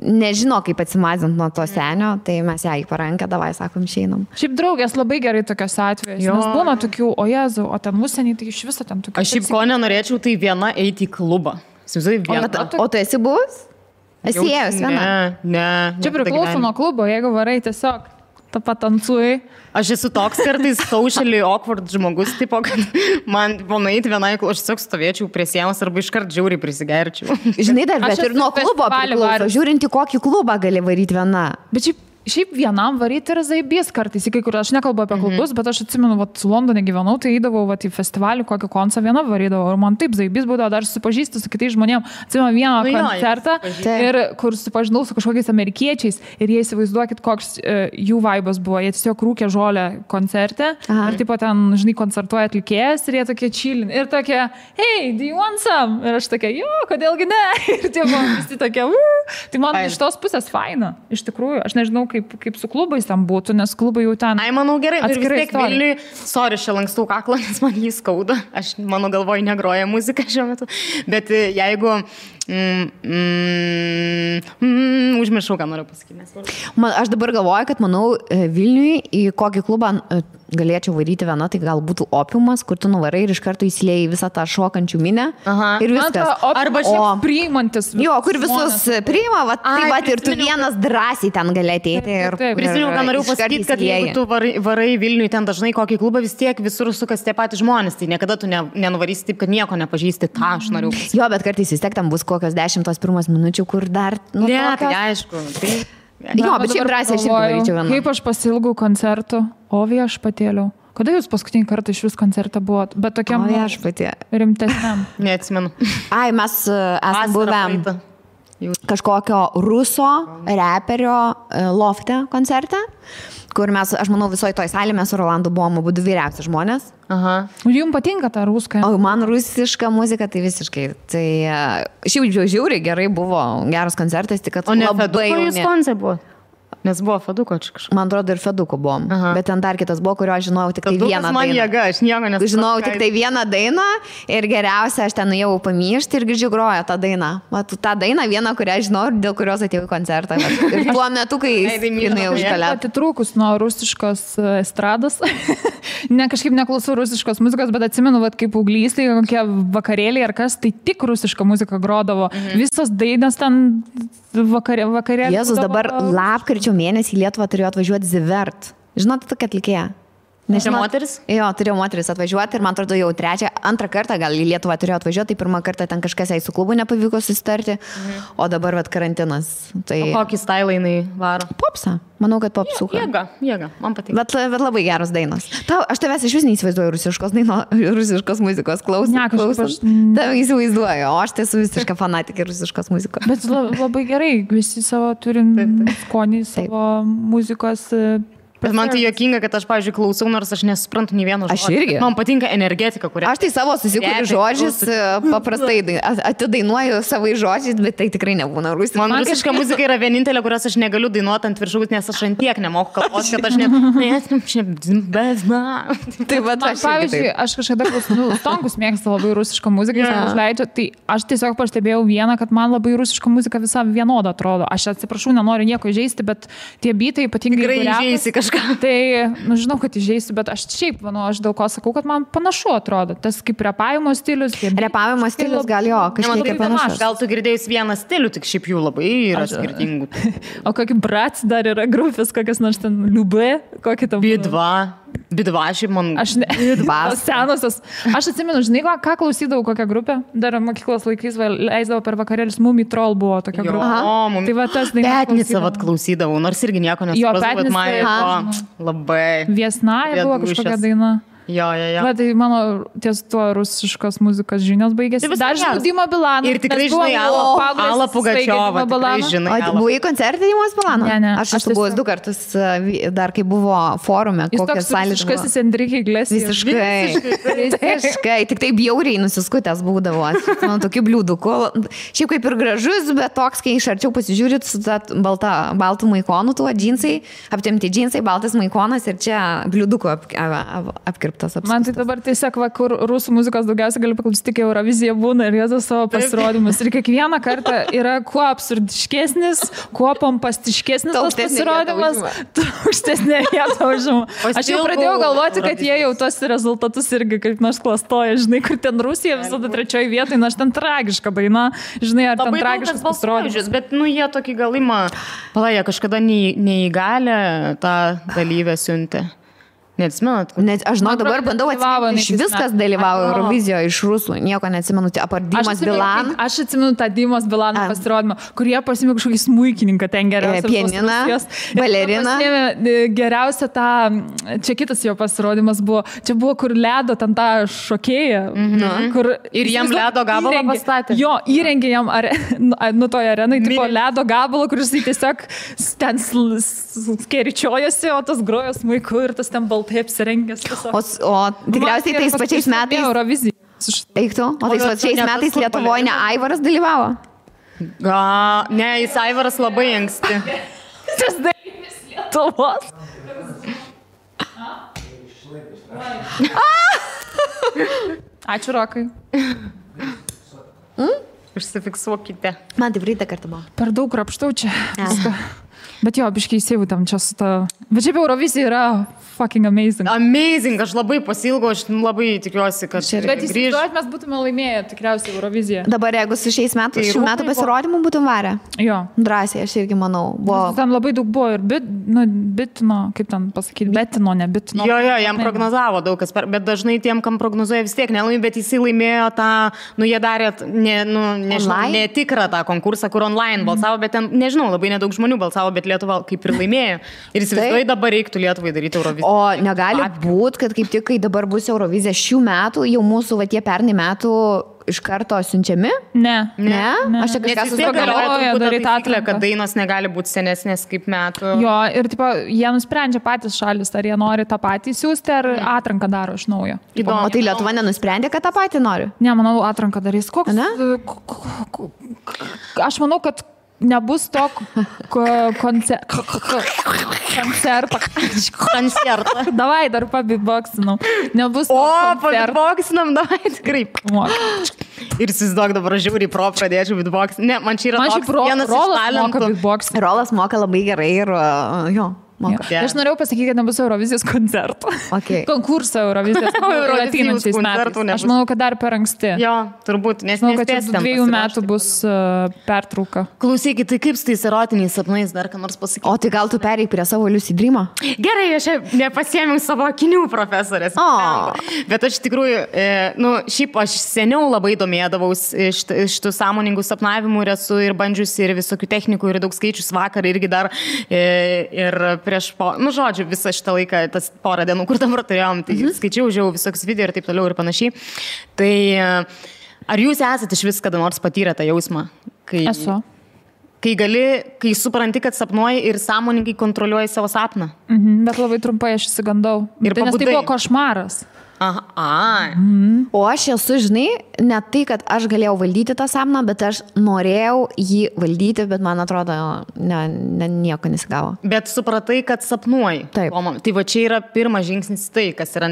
Speaker 1: nežino, kaip atsimazint nuo to senio, tai mes ją į parankę, davai, sakom, išeinam.
Speaker 3: Šiaip draugės labai gerai tokios atvejais, nes būna tokių, o Jezu, o ten užsienį, tai iš viso ten tokių.
Speaker 2: Aš šiaip ko nenorėčiau, tai viena eiti į klubą.
Speaker 1: O tu esi buvus? Esi ėjus viena?
Speaker 2: Ne.
Speaker 3: Čia priklauso nuo klubo, jeigu varai tiesiog tą patancuai.
Speaker 2: Aš esu toks kartais socially awkward žmogus, tipo, kad man nueiti vienai, aš tiesiog stovėčiau prie sienos arba iškart žiauriai prisigerčiau.
Speaker 1: Žinai, dar, bet ir nuo klubo priklauso. Žiūrint, į kokį klubą gali varyti viena.
Speaker 3: Bet šiaip vienam varyti yra zaibys kartais, į kai kur aš nekalbu apie klubus, bet aš atsimenu, vat, su Londone gyvenau, tai eidavau vat, į festivalį, kokį koncą viena varydavau ir man taip zaibys būdavo dar susipažįsti su kitais žmonėmis. Atsimenu vieną koncertą, ir kur susipažinau su kažkokiais amerikiečiais ir jie įsivaizduokit, koks jų vaibas buvo. Jie tiesiog rūkė žolę koncerte ir taip pat ten, žinai, koncertuoja atlikėjas ir jie tokie chillin. Ir tokie, hey, do you want some? Ir aš tokia, jo, kodėlgi ne? Ir tie buvo visi tokie, Tai man iš tos pusės faina, iš tikrųjų. Aš nežinau, kaip su klubais tam būtų, nes klubai jau ten...
Speaker 2: Ai, manau, gerai, ir vis tiek Vilniui, sorry, čia lankstau kaklą, nes man jį skauda. Aš, mano galvoj, negroja muzika šiuo metu. Bet jeigu... užmiršau, ką noriu pasakyti.
Speaker 1: Aš dabar galvoju, kad, manau, Vilniui į kokį klubą galėčiau varyti viena, tai gal būtų Opiumas, kur tu nuvarai ir iš karto įsilieji visą tą šokančių minę. Ir viskas.
Speaker 3: Arba šiaip priimantis.
Speaker 1: Jo, kur visus priima, tai ir tu vienas drąsiai ten gali ateiti.
Speaker 2: Prisimenu, ką noriu pasakyti, kad jeigu tu varai Vilniui ten dažnai kokį klubą, vis tiek visur sukas tie patys žmonės, tai niekada tu nenuvarysi taip, kad nieko nepažįsti, tą aš noriu pasakyti.
Speaker 1: Jo, bet kartais vis tiek tam bus kokios 10 pirmas minučių, kur dar...
Speaker 2: Ne, tai aišku.
Speaker 1: Jo, bet šiaip drąsiai aš irgi varyčiau vieną.
Speaker 3: Kaip aš pasilgau koncertų, o viešpatėliau. Kada jūs paskutinį kartą iš vis koncertą buvot? Bet tokiam rimtesniam.
Speaker 2: Neatsimenu.
Speaker 1: Ai, mes esame buvę kažkokio ruso reperio lofte koncerte, kur mes, aš manau, visoje toj salėje mes su Rolandu buvom abu vyriausi žmonės.
Speaker 2: Aha.
Speaker 3: Jums patinka ta ruska?
Speaker 1: O man rusiška muzika tai visiškai. Tai šiaip žiauriai gerai buvo, geras koncertas, tik kad
Speaker 2: labai jauni. O ne Feduko jūs koncert buvo? Nes buvo Feduko čia kažkas.
Speaker 1: Man atrodo ir Feduko buvom. Aha. Bet ten dar kitas buvo, kurio aš žinojau tik tai vieną dainą.
Speaker 2: Man jėga, aš nieko nesupratau.
Speaker 1: Žinojau tik tai vieną dainą ir geriausia, aš ten nuėjau pamyšti ir girdžiu grojo tą dainą. Ta daina viena, kurią žinau ir dėl kurios atėjau į koncertą. Ir tuo metu, kai jinai užkalė.
Speaker 3: Atitrūkus nuo rusiškos estrados. Ne, kažkaip neklausau rusiškos muzikos, bet atsimenu, kaip paauglystėje, kokie vakarėliai ar kas, tai tik rusiška muzika grodavo. Visos dainos ten vakarėliai.
Speaker 1: Jėzus, dabar lapkričio mėnesį į Lietuvą turėjo atvažiuoti Zivert. Žinote tokia atlikėja?
Speaker 2: Nežinau, moteris?
Speaker 1: Jo, turėjo moteris atvažiuoti ir man atrodo jau antrą kartą gal į Lietuvą turėjo atvažiuoti, tai pirmą kartą ten kažkas jai su klubu nepavyko susitarti, o dabar karantinas. Tai...
Speaker 2: O kokį stylą jinai varo?
Speaker 1: Popsą. Manau, kad popsuka.
Speaker 2: Jėga, man patinka.
Speaker 1: Bet labai geros dainos. Aš tavęs iš vis neįsivaizduoju rusiškos muzikos klausant.
Speaker 3: Ne, kažkaip aš...
Speaker 1: Tave įsivaizduoju, o aš tai esu visiška fanatikė rusiškos muzikos.
Speaker 3: Bet labai gerai, visi savo turim skonį, savo muzikos...
Speaker 2: Bet man tai juokinga, kad aš, pavyzdžiui, klausau, nors aš nesuprantu nei vieno žodžio.
Speaker 1: Aš irgi.
Speaker 2: Man patinka energetika, kurią...
Speaker 1: Aš tai savo susikuriu žodžius, paprastai atidainuoju savai žodžiais, bet tai tikrai nebūna rusiška.
Speaker 2: Man rusiška muzika yra vienintelė, kurios aš negaliu dainuoti ant viršaus, nes aš ant tiek nemoku kalbos, kad aš
Speaker 1: Tai va,
Speaker 3: pavyzdžiui, aš kažkada Stonkus mėgsta labai rusišką muziką, jis užleidžia, tai aš tiesiog pastebėjau vieną, kad man labai rusiška muzika visą vienodą atrodo. Aš atsiprašau, nenoriu nieko įžeisti, bet tie bitai ypatingai Tai, žinau, kad įžeisiu, bet aš šiaip, aš dėl ko sakau, kad man panašu atrodo. Tas kaip repavimo stilius.
Speaker 1: Repavimo stilius gal jo, kažkiek panašus.
Speaker 2: Gal tu girdėjus vieną stilių, tik šiaip jų labai yra skirtingų.
Speaker 3: O kokį Brats dar yra grupės, kokias nors ten Liubė, kokį tam...
Speaker 2: Bidva, šiaip man...
Speaker 3: Senosios. Aš atsimenu, žinai, ką klausydavau, kokią grupę. Dar mokyklos laikais leisdavo per vakarėlius. Mumi Troll buvo tokia grupė. Tai va tas daina.
Speaker 2: Petnicą klausydavau, nors irgi nieko nesupratau, bet man labai...
Speaker 3: Viesnaja buvo kažkokia daina.
Speaker 2: Jo.
Speaker 3: Va, tai mano ties tuo rusiškos muzikos žinios baigėsi. Dar žinau Dimą Bilaną.
Speaker 2: Ir tikrai žinai Alą Pugačiovą.
Speaker 1: O buvai koncertė Dimos Bilano?
Speaker 3: Ne.
Speaker 1: Aš esu buvęs 2 kartus, dar kai buvo forume, kokias salės.
Speaker 3: Jis toks rusiškasis Enrique Iglesias.
Speaker 1: Visiškai. Tik tai bjauriai nusiskutęs būdavo. Man tokių bliūdukų. Šiaip kaip ir gražus, bet toks, kai iš arčiau pasižiūrit su baltų maikonu, tuo džinsai, aptemti džinsai, baltas maikonas ir čia bliūdukų apkirptas.
Speaker 3: Man tai dabar tiesiog, kur rusų muzikos daugiausiai galiu paklausyti, kai Eurovizija būna ir jėzus savo pasirodymus. Ir kiekvieną kartą yra kuo absurdiškesnis, kuo pompastiškesnis tas pasirodymas, aukštesnė vieta užima. Aš jau pradėjau galvoti, kad jie jau tos rezultatus irgi kaip nors klastoja. Žinai, kur ten Rusija visada 3 vietoje, nors ten tragiška daina. Žinai, ar ten tragiškas pasirodymas.
Speaker 2: Bet, jie tokį galimą, jie kažkada neįgalę tą dalyvę siuntė. Neatsimenat?
Speaker 1: Aš žinau, dabar bandau atsiminti, iš viskas dalyvavo Eurovizijoje iš rusų, nieko neatsimenu, apart Dimas Bilan.
Speaker 3: Aš atsimenu tą Dimas Bilano pasirodymą, kur jie pasimė kažkokį smuikininką ten geriausią.
Speaker 1: Pianiną, baleriną.
Speaker 3: Geriausia tą, čia kitas jo pasirodymas buvo, čia buvo, kur ledo ten tą šokėją.
Speaker 2: Ir jam ledo gabalą pastatė.
Speaker 3: Jo, įrengė jam toje arenai, tipo ledo gabalą, kuris tiesiog ten skeričiojosi, o tas grojo smuiku ir tas ten baltas. Taip apsirengęs.
Speaker 1: O tikriausiai tais pačiais metais...
Speaker 3: Eurovizija.
Speaker 1: Eiktų, o tais pačiais metais Lietuvoje ne Aivaras dalyvavo?
Speaker 2: Ne, jis Aivaras labai anksti.
Speaker 3: Tas dalyvis Lietuvos. Ačiū, Rokai.
Speaker 2: Užsifiksuokite.
Speaker 1: Man tai praeitą kartą buvo.
Speaker 3: Per daug krapštau čia. Bet jo, biškai įsivūtam čia su ta... Bet šiaip Eurovizija yra fucking amazing.
Speaker 2: Amazing, aš labai pasilgau, aš labai tikiuosi, kad
Speaker 3: bet įsivaizduojat, mes būtume laimėję tikriausiai Euroviziją.
Speaker 1: Dabar jeigu su šiais metais, šių metų pasirodymų būtum varę.
Speaker 3: Jo.
Speaker 1: Drąsiai, aš irgi manau.
Speaker 3: Ten labai daug buvo ir bitino, kaip ten pasakyti, betino, ne bitino.
Speaker 2: Jo, jam prognozavo daug kas, bet dažnai tiem, kam prognozuoja vis tiek nelaimė, bet jisai laimėjo tą, jie darė, netikrą tą konkursą, kur online balsavo, bet ten, nežinau, labai nedaug žmonių balsavo, bet Lietuva kaip ir laimėjo. Ir įsivaizduoju, dabar reiktų Lietuvai daryti Euroviziją.
Speaker 1: O negali būti, kad kaip tik, kai dabar bus Eurovizija šių metų, jau mūsų va tie pernai metų iš karto siunčiami?
Speaker 3: Ne.
Speaker 1: Aš čia kažką
Speaker 2: susigalvoju daryti atliką, kad dainos negali būti senesnės kaip metų.
Speaker 3: Jo, ir tipo, jie nusprendžia patys šalis, ar jie nori tą patį siūsti, ar atranką daro iš naujo.
Speaker 1: O tai Lietuva nenusprendė, kad tą patį nori?
Speaker 3: Ne, manau, atranką darys. Koks? Aš manau, kad nebus to koncerto. Davai, dar pabitboksinau. Nebus to koncerto.
Speaker 2: Pabitboksinam, davai, tikrai. Ir įsivaizduok, dabar žiūri pro pradėčiau bitboksinti. Ne, man čia yra vienas iš talentų.
Speaker 1: Rolas moka labai gerai ir jo.
Speaker 3: Yeah. Aš norėjau pasakyti, kad nebus Eurovizijos koncertų. Konkurso Eurovizijos ateinančiais metais. Aš manau, kad dar per anksti.
Speaker 2: Jo, turbūt, nes
Speaker 3: manau, kad čia 2 metų bus pertrauka.
Speaker 2: Klausykit, tai kaip su tais erotiniais sapnais dar ką nors pasakyti?
Speaker 1: O tai gal tu pereik prie savo Lucid Dream'o?
Speaker 2: Gerai, aš nepasiėmiau savo akinių profesorės. Bet aš tikrųjų, šiaip aš seniau labai domėdavaus iš tų sąmoningų sapnavimų ir esu ir bandžiusi ir visokių technikų ir daug skaičius vakar irgi dar ir prieš, žodžiu, visą šitą laiką, tas porą dienų, kur dabar turėjom, tai skaičiau, žiūrėjau visokius video ir taip toliau ir panašiai. Tai ar jūs esate iš vis kada nors patyrę tą jausmą?
Speaker 3: Esu.
Speaker 2: Kai supranti, kad sapnuoji ir sąmoningai kontroliuoji savo sapną.
Speaker 3: Bet labai trumpai aš įsigandau. Nes tai buvo košmaras.
Speaker 1: O aš esu, žinai, ne tai, kad aš galėjau valdyti tą sapną, bet aš norėjau jį valdyti, bet man atrodo, nieko nesigavo.
Speaker 2: Bet supratai, kad sapnuoji.
Speaker 1: Taip.
Speaker 2: Tai va čia yra pirmas žingsnis tai, kas yra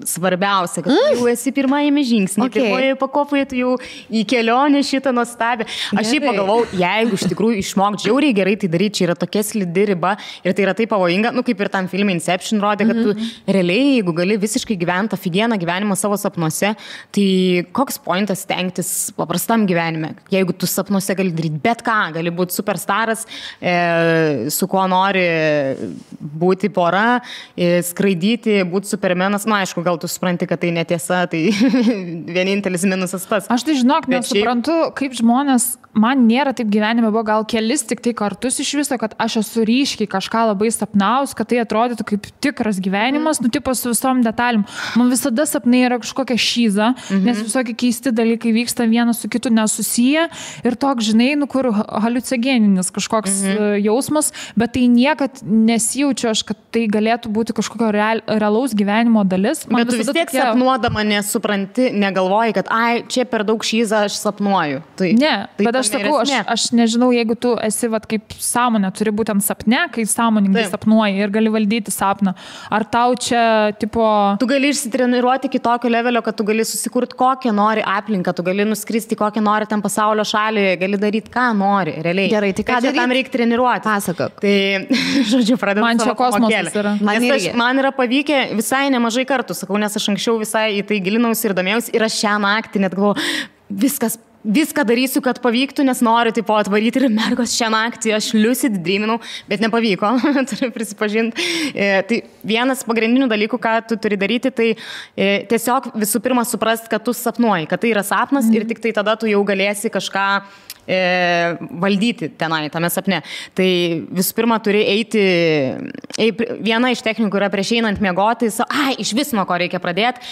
Speaker 2: svarbiausia, kad jau esi pirmajame žingsnį. Pirmoje pakopoje tu jau į kelionę šitą nuostabę. Aš jį pagalvau, jeigu iš tikrųjų išmok žiauriai gerai tai daryti, čia yra tokia slidi riba ir tai yra taip pavojinga, kaip ir tam filme Inception rodė, kad tu realiai, jeigu gali visiškai gyventi aфигieną gyvenimą savo sapnuose, tai koks pointas stengtis paprastam gyvenime? Jeigu tu sapnuose gali daryti bet ką, gali būti superstaras, su kuo nori būti pora, skraidyti, būti supermenas, aišku, gal tu supranti, kad tai netiesa, tai vienintelis minusas tas.
Speaker 3: Aš tai žinok, nesuprantu, kaip žmonės, man nėra taip gyvenime, buvo gal kelis tik tai kartus iš viso, kad aš esu ryškiai kažką labai sapnaus, kad tai atrodytų kaip tikras gyvenimas, tipo su visom detalėm. Man visada sapnai yra kažkokia šyza, nes visokie keisti dalykai vyksta vienas su kitu nesusiję ir toks, žinai, kur haliucinogeninis kažkoks jausmas, bet tai niekad nesijaučiu aš, kad tai galėtų būti kažkokio realaus gyvenimo dalis.
Speaker 2: Bet tu vis tiek sapnuodama nesupranti, negalvoji, kad čia per daug šyza aš sapnuoju.
Speaker 3: Ne, bet aš sakau, aš nežinau, jeigu tu esi kaip sąmonė, turi būtent sapne, kai sąmoningai sapnuoji ir gali valdyti sapną. Ar tau čia, tipo...
Speaker 2: Tu gali išsitreniruoti iki tokio levelio, kad tu gali susikurti kokią nori aplinką, tu gali nuskristi kokią nori ten pasaulio šalį, gali daryti ką nori, realiai.
Speaker 1: Gerai, tai ką daryti?
Speaker 2: Tam reikia treniruoti.
Speaker 1: Pasakok.
Speaker 2: Tai, žodžiu, pradedu
Speaker 3: man čia kosmosas yra.
Speaker 2: Man yra pavykę visai nemažai kartų, sakau, nes aš anksčiau visai į tai gilinausi ir domėjausi ir aš šią naktį net galvoju, viską darysiu, kad pavyktų, nes noriu taip atvaryti ir mergos šią naktį aš lucid dreaminau, bet nepavyko, turiu prisipažinti. Tai vienas pagrindinių dalykų, ką tu turi daryti, tai tiesiog visų pirma suprast, kad tu sapnuoji, kad tai yra sapnas ir tik tai tada tu jau galėsi kažką valdyti tenai, tame sapne. Tai visų pirma turi eiti, viena iš technikų yra prieš einant miegoti, iš vis nuo ko reikia pradėti,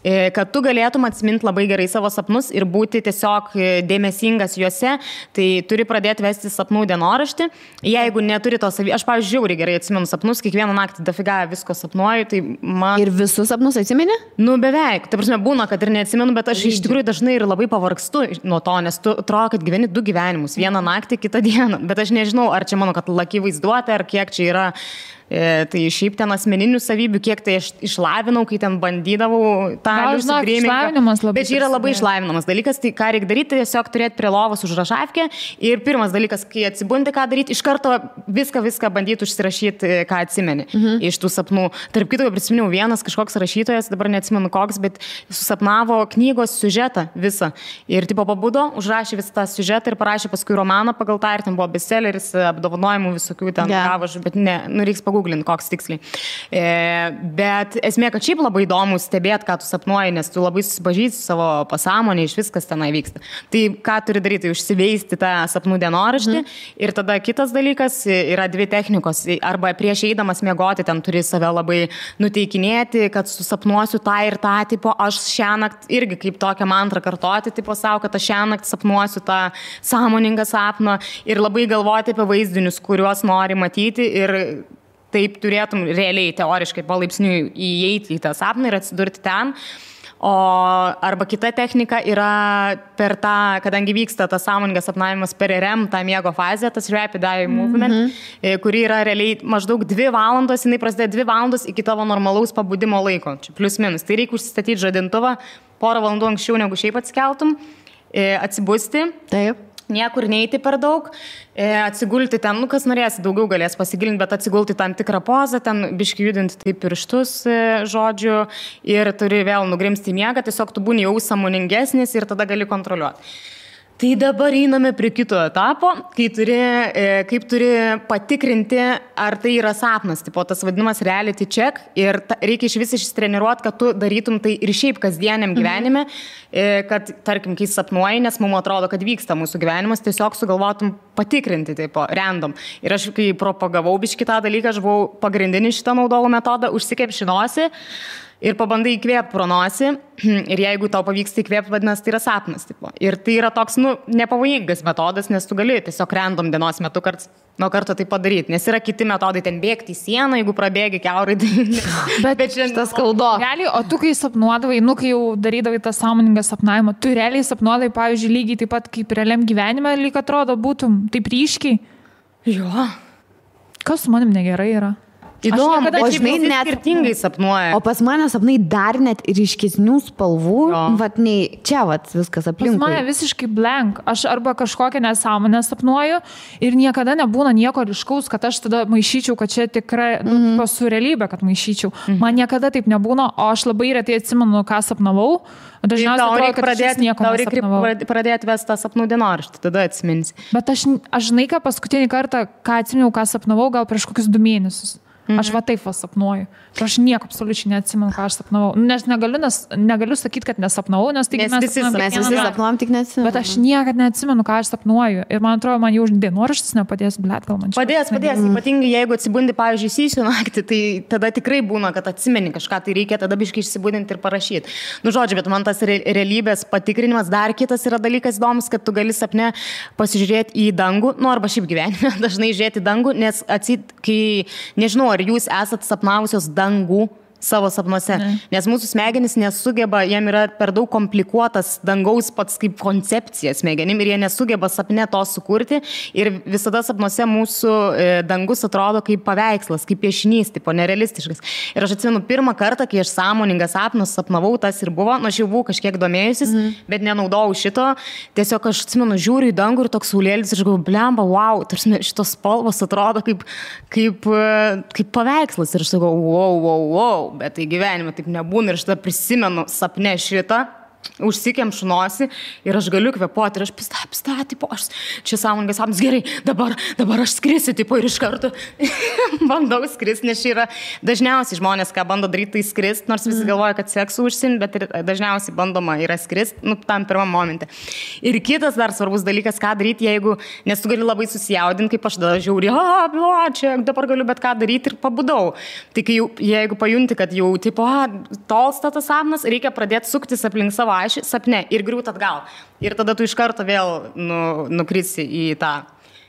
Speaker 2: kad tu galėtum atsiminti labai gerai savo sapnus ir būti tiesiog dėmesingas juose, tai turi pradėti vesti sapnų dienoraštį. Jeigu neturi to aš, pavyzdžiui, žiauriai gerai atsimenu sapnus, kiekvieną naktį dafiga visko sapnuoju, tai man...
Speaker 1: Ir visus sapnus atsimeni?
Speaker 2: Beveik. Ta prasme, būna, kad ir neatsimenu, bet aš iš tikrųjų dažnai ir labai pavargstu nuo to, nes tu atrodo, kad gyveni 2 gyvenimus, vieną naktį, kitą dieną. Bet aš nežinau, ar čia mano, kad laki vaizduotė, ar kiek čia yra... Tai šiaip ten asmeninių savybių, kiek tai aš išlavinau, kai ten bandydavau tą
Speaker 3: liusidrėmingą.
Speaker 2: Bet čia yra labai išlavinamas dalykas, tai ką reikia daryti, tiesiog turėti prie lovos užrašavkę ir pirmas dalykas, kai atsibundi, ką daryti, iš karto viską bandyti užsirašyti, ką atsimeni iš tų sapnų. Tarp kito, prisiminiau, vienas kažkoks rašytojas, dabar neatsimenu koks, bet susapnavo knygos siužetą visą. Ir tipo pabudo, užrašė visą tą siužetą ir parašė paskui romaną pagal tą ir ten buvo bestselleris, apdovanojimų visokių ten gavo, bet ne, reiks pagooglint, koks tiksliai. Bet esmė, kad šiaip labai įdomu stebėti, ką tu sapnuoji, nes tu labai susipažįsti savo pasąmonę, iš viskas tenai vyksta. Tai ką turi daryti, užsiveisti tą sapnų dienoraštį ir tada kitas dalykas yra 2 technikos. Arba prieš eidamas miegoti ten turi save labai nuteikinėti, kad susapnuosiu tą ir tą, tipo, aš šiąnakt irgi kaip tokią mantrą kartoti, tipo savo, kad aš šiąnakt sapnuosiu tą sąmoningą sapną ir labai galvoti apie vaizdinius, kuriuos nori matyti ir taip turėtum realiai, teoriškai, palaipsniui įeiti į tą sapną ir atsidurti ten. Arba kita technika yra per tą, kadangi vyksta tas sąmoningas sapnavimas per REM, tą miego fazę, tas Rapid Eye Movement, kuri yra realiai maždaug 2 valandos, jinai prasideda 2 valandos iki tavo normalaus pabudimo laiko, čia plius minus. Tai reikia užsistatyti žadintuvą porą valandų anksčiau, negu šiaip atsikeltum, atsibusti.
Speaker 1: Taip.
Speaker 2: Niekur neiti per daug, atsigulti ten, kas norės, daugiau galės pasigilinti, bet atsigulti tam tikrą pozą, ten biški judinti taip pirštus, žodžiu, ir turi vėl nugrimsti į miegą, tiesiog tu būni jau sąmoningesnis ir tada gali kontroliuoti. Tai dabar einame prie kito etapo, kaip turi patikrinti, ar tai yra sapnas, tipo tas vadinamas reality check ir reikia iš vis ištreniruoti, kad tu darytum tai ir šiaip kasdieniam gyvenime, kad, tarkim, kai sapnuoji, nes mums atrodo, kad vyksta mūsų gyvenimas, tiesiog sugalvotum patikrinti, tipo, random. Ir aš, kai propagavau biškį tą dalyką, aš buvau pagrindinį šitą naudojau metodą, užsikepšinosi ir pabandai įkvėpti pro nosį ir jeigu tau pavyksta įkvėpti, vadinasi, tai yra sapnas. Tipo. Ir tai yra toks, nepavojingas metodas, nes tu gali tiesiog random dienos metu nuo karto tai padaryti. Nes yra kiti metodai, ten bėgti į sieną, jeigu prabėgi kiaurai.
Speaker 1: Bet šitas skaudo.
Speaker 3: Realiai, o tu kai sapnuodavai, kai jau darydavai tą sąmoningą sapnavimą, tu realiai sapnuodavai, pavyzdžiui, lygiai taip pat kaip realiam gyvenime, lyg atrodo būtum taip ryškiai.
Speaker 2: Jo.
Speaker 3: Kas su manim negerai yra?
Speaker 1: Įdomu, o žinai, net
Speaker 2: skirtingai sapnuoja.
Speaker 1: O pas mane sapnai dar net ryškesnių spalvų, vat nei čia vat viskas aplinkui.
Speaker 3: Pas mane visiškai blank. Aš arba kažkokią nesąmonę sapnuoju ir niekada nebūna nieko ryškaus, kad aš tada maišyčiau, kad čia tikrai su realybė, kad maišyčiau. Man niekada taip nebūna, o aš labai retai atsimenu, ką sapnavau. Dažniausiai atrodo, kad aš nieko nesapnavau.
Speaker 2: Reikia pradėti vesti tą sapnų dienoraštį, tada atsiminsi.
Speaker 3: Bet aš žinai, ką paskutinį kartą, ką atsiminiau, ką sapnavau, gal prieš kokius 2 mėnesius. Aš va taip sapnuoju. Aš nieko absoliučiai neatsimenu, ką aš sapnavau. Nes negaliu sakyti, kad nesapnavau, nes tai
Speaker 1: mes visi sapnuojam, tik neatsimenu.
Speaker 3: Bet aš niekada neatsimenu, ką aš sapnuoju. Ir man atrodo, man jau dienoraštis nepadės, blet, gal man čia.
Speaker 2: Padės. Ypatingai jeigu atsibundi, pavyzdžiui, įsijų naktį, tai tada tikrai būna, kad atsimeni kažką, tai reikia tada biškai išsibudinti ir parašyti. Žodžiu, bet man tas realybės patikrinimas, dar kitas yra dalykas įdomus, kad tu gali sapne pasižiūrėti į dangų, arba šiaip gyvenime dažnai žiūrėti į dangų, nes kai, nežinau, ar jūs esat sapnavusios dangų savo sapnuose, nes mūsų smegenys nesugeba, jiem yra per daug komplikuotas dangaus pats kaip koncepcija smegenim ir jie nesugeba sapne to sukurti ir visada sapnuose mūsų dangus atrodo kaip paveikslas, kaip piešinys, tipo nerealistiškas. Ir aš atsimenu pirmą kartą, kai aš sąmoningą sapną sapnavau, tas ir buvo, aš jau buvau kažkiek domėjusis, bet nenaudojau šito, tiesiog aš atsimenu, žiūriu į dangų ir toks saulėlis ir aš galvoju, blemba, wow, tarsi šitos spalvos atrodo kaip paveikslas ir aš sakau, wow. Bet tai gyvenime taip nebūna ir aš tada prisimenu sapne šitą, užsikemšu nosį ir aš galiu kvėpuoti ir aš pista, tipo, aš čia sąmoningas sapnas, gerai, dabar aš skrisiu, tipo, ir iš karto bandau skristi, nes čia yra dažniausiai žmonės, ką bando daryti, tai skristi, nors visi galvoja, kad seksu užsiimti, bet ir dažniausiai bandoma yra skristi, tam pirmam momente. Ir kitas dar svarbus dalykas, ką daryti, nes tu gali labai susijaudinti, kaip aš tada žiūri, čia dabar galiu bet ką daryti ir pabudau. Tai jeigu pajunti, kad jau, tipo, tolsta tas sapnas, reikia pradėti suktis aplink savo ašį sapne ir griūt atgal. Ir tada tu iš karto vėl nukrisi į tą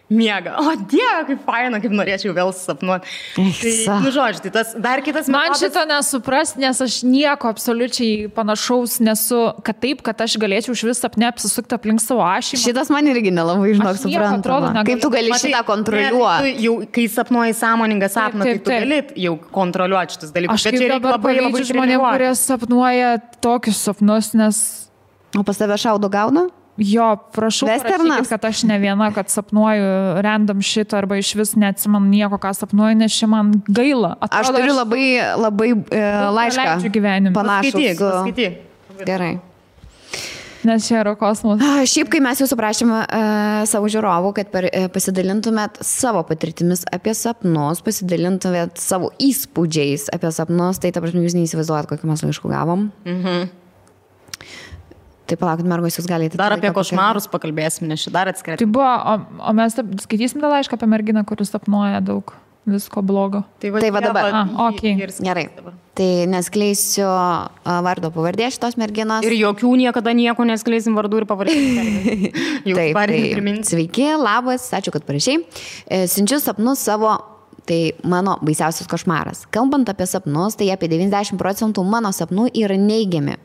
Speaker 2: miegą. O Dieve, kaip faina, kaip norėčiau vėl sapnuoti. Tai, žodžiu, tai tas dar kitas metodas.
Speaker 3: Man šito nesupras, nes aš nieko absoliučiai panašaus nesu, kad taip, kad aš galėčiau iš vis sapne apsisukti aplink savo ašį.
Speaker 1: Šitas man irgi nelabai, žinok, suprantama. Kaip tu gali šitą kontroliuoti?
Speaker 2: Jau, kai sapnuoji sąmoningą sapną, tai tu gali jau kontroliuoti šitus dalykus.
Speaker 3: Aš kaip dabar pavydžiu žmonėm, kurie sapnuoja tokius sapnus, nes...
Speaker 1: O pas tave šaudo gauna?
Speaker 3: Jo, prašau, parašykit, kad aš ne viena, kad sapnuoju random šitą arba iš vis neatsimenu nieko, ką sapnuoju, nes čia man gaila. Atrodo,
Speaker 1: aš turiu labai laišką
Speaker 3: panašų.
Speaker 1: Skaityk. Gerai.
Speaker 3: Nes čia yra kosmosas.
Speaker 1: Šiaip, kai mes jūsų prašėme savo žiūrovų, kad pasidalintumėt savo patirtimis apie sapnus, pasidalintumėt savo įspūdžiais apie sapnus, tai ta prasme jūs neįsivaizduojat, kokį mes laiškų gavom. Tai palaukit, mergos, jūs galite...
Speaker 2: Dar apie košmarus pakalbėsim, nes šį dar atskirti.
Speaker 3: Tai buvo, o mes skaitysim tą laišką apie merginą, kuris sapnuoja daug visko blogo.
Speaker 1: Tai va dabar.
Speaker 3: Okay.
Speaker 1: Gerai. Tai neskleisiu vardo pavardės šitos merginos.
Speaker 2: Ir jokių niekada nieko neskleisim vardų ir pavardės.
Speaker 1: Taip, sveiki, labas, ačiū, kad parašiai. Siunčiu sapnus savo, tai mano baisiausias košmaras. Kalbant apie sapnus, tai apie 90% mano sapnų yra neigiami.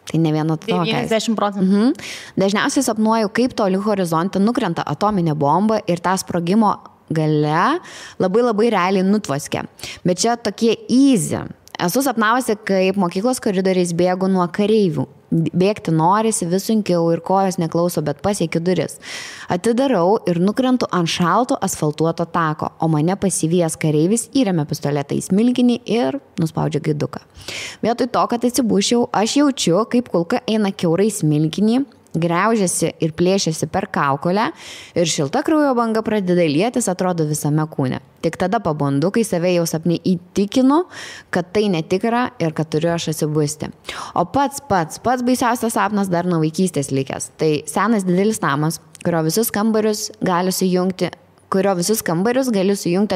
Speaker 1: Tai ne vieno to.
Speaker 2: 90%.
Speaker 1: Dažniausiai sapnuoju, kaip toli horizonte nukrenta atominė bomba ir tą sprogimo gale labai realiai nutvoskia. Bet čia tokie easy. Esu sapnavusi, kaip mokyklos koridoriais bėgu nuo kareivių. Bėgti norisi vis sunkiau ir kojos neklauso, bet pasiekiu duris. Atidarau ir nukrentu ant šalto asfaltuoto tako, o mane pasivijęs kareivis įremia pistoletą į smilkinį ir nuspaudžia gaiduką. Vietoj to, kad atsibušiau, aš jaučiu, kaip kulka eina kiaurai smilkinį, graužiasi ir plėšiasi per kaukolę ir šilta kraujo banga pradeda lietis, atrodo visame kūne. Tik tada pabundu, kai save jau sapne įtikinu, kad tai netikra ir kad turiu aš atsibusti. O pats baisiausias sapnas dar nuo vaikystės likęs. Tai senas didelis namas, kurio visus kambarius gali sujungti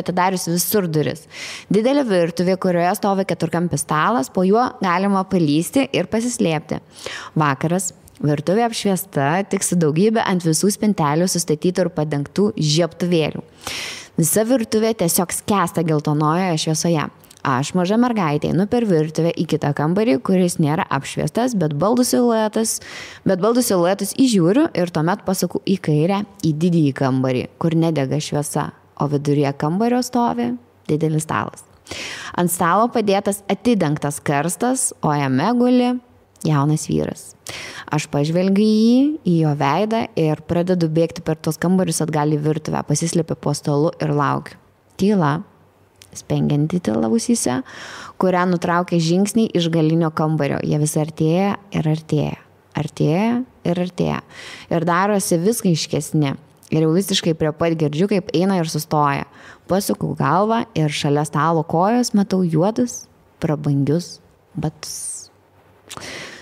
Speaker 1: atidarius visur duris. Didelė virtuvė, kurioje stovi keturkampis stalas, po juo galima palysti ir pasislėpti. Vakaras. Virtuvė apšviesta, tik su daugybė ant visų spintelių sustatytų ir padengtų žiebtuvėlių. Visa virtuvė tiesiog skęsta geltonojoje šviesoje. Aš, maža mergaitė, einu per virtuvę į kitą kambarį, kuris nėra apšviestas, bet baldų siluetus įžiūriu ir tuomet pasuku į kairę, į didįjį kambarį, kur nedega šviesa, o viduryje kambario stovi didelis stalas. Ant stalo padėtas atidengtas karstas, o jame guli jaunas vyras. Aš pažvelgiu į jo veidą ir pradedu bėgti per tos kambarius atgal į virtuvę, pasislėpiu po stalu ir laukiu. Tyla, spengianti tyla ausyse, kurią nutraukia žingsniai iš galinio kambario. Jie vis artėja ir artėja. Artėja ir artėja. Ir darosi vis aiškesni. Ir jau visiškai prie pat girdžiu, kaip eina ir sustoja. Pasuku galvą ir šalia stalo kojos matau juodus, prabangius batus.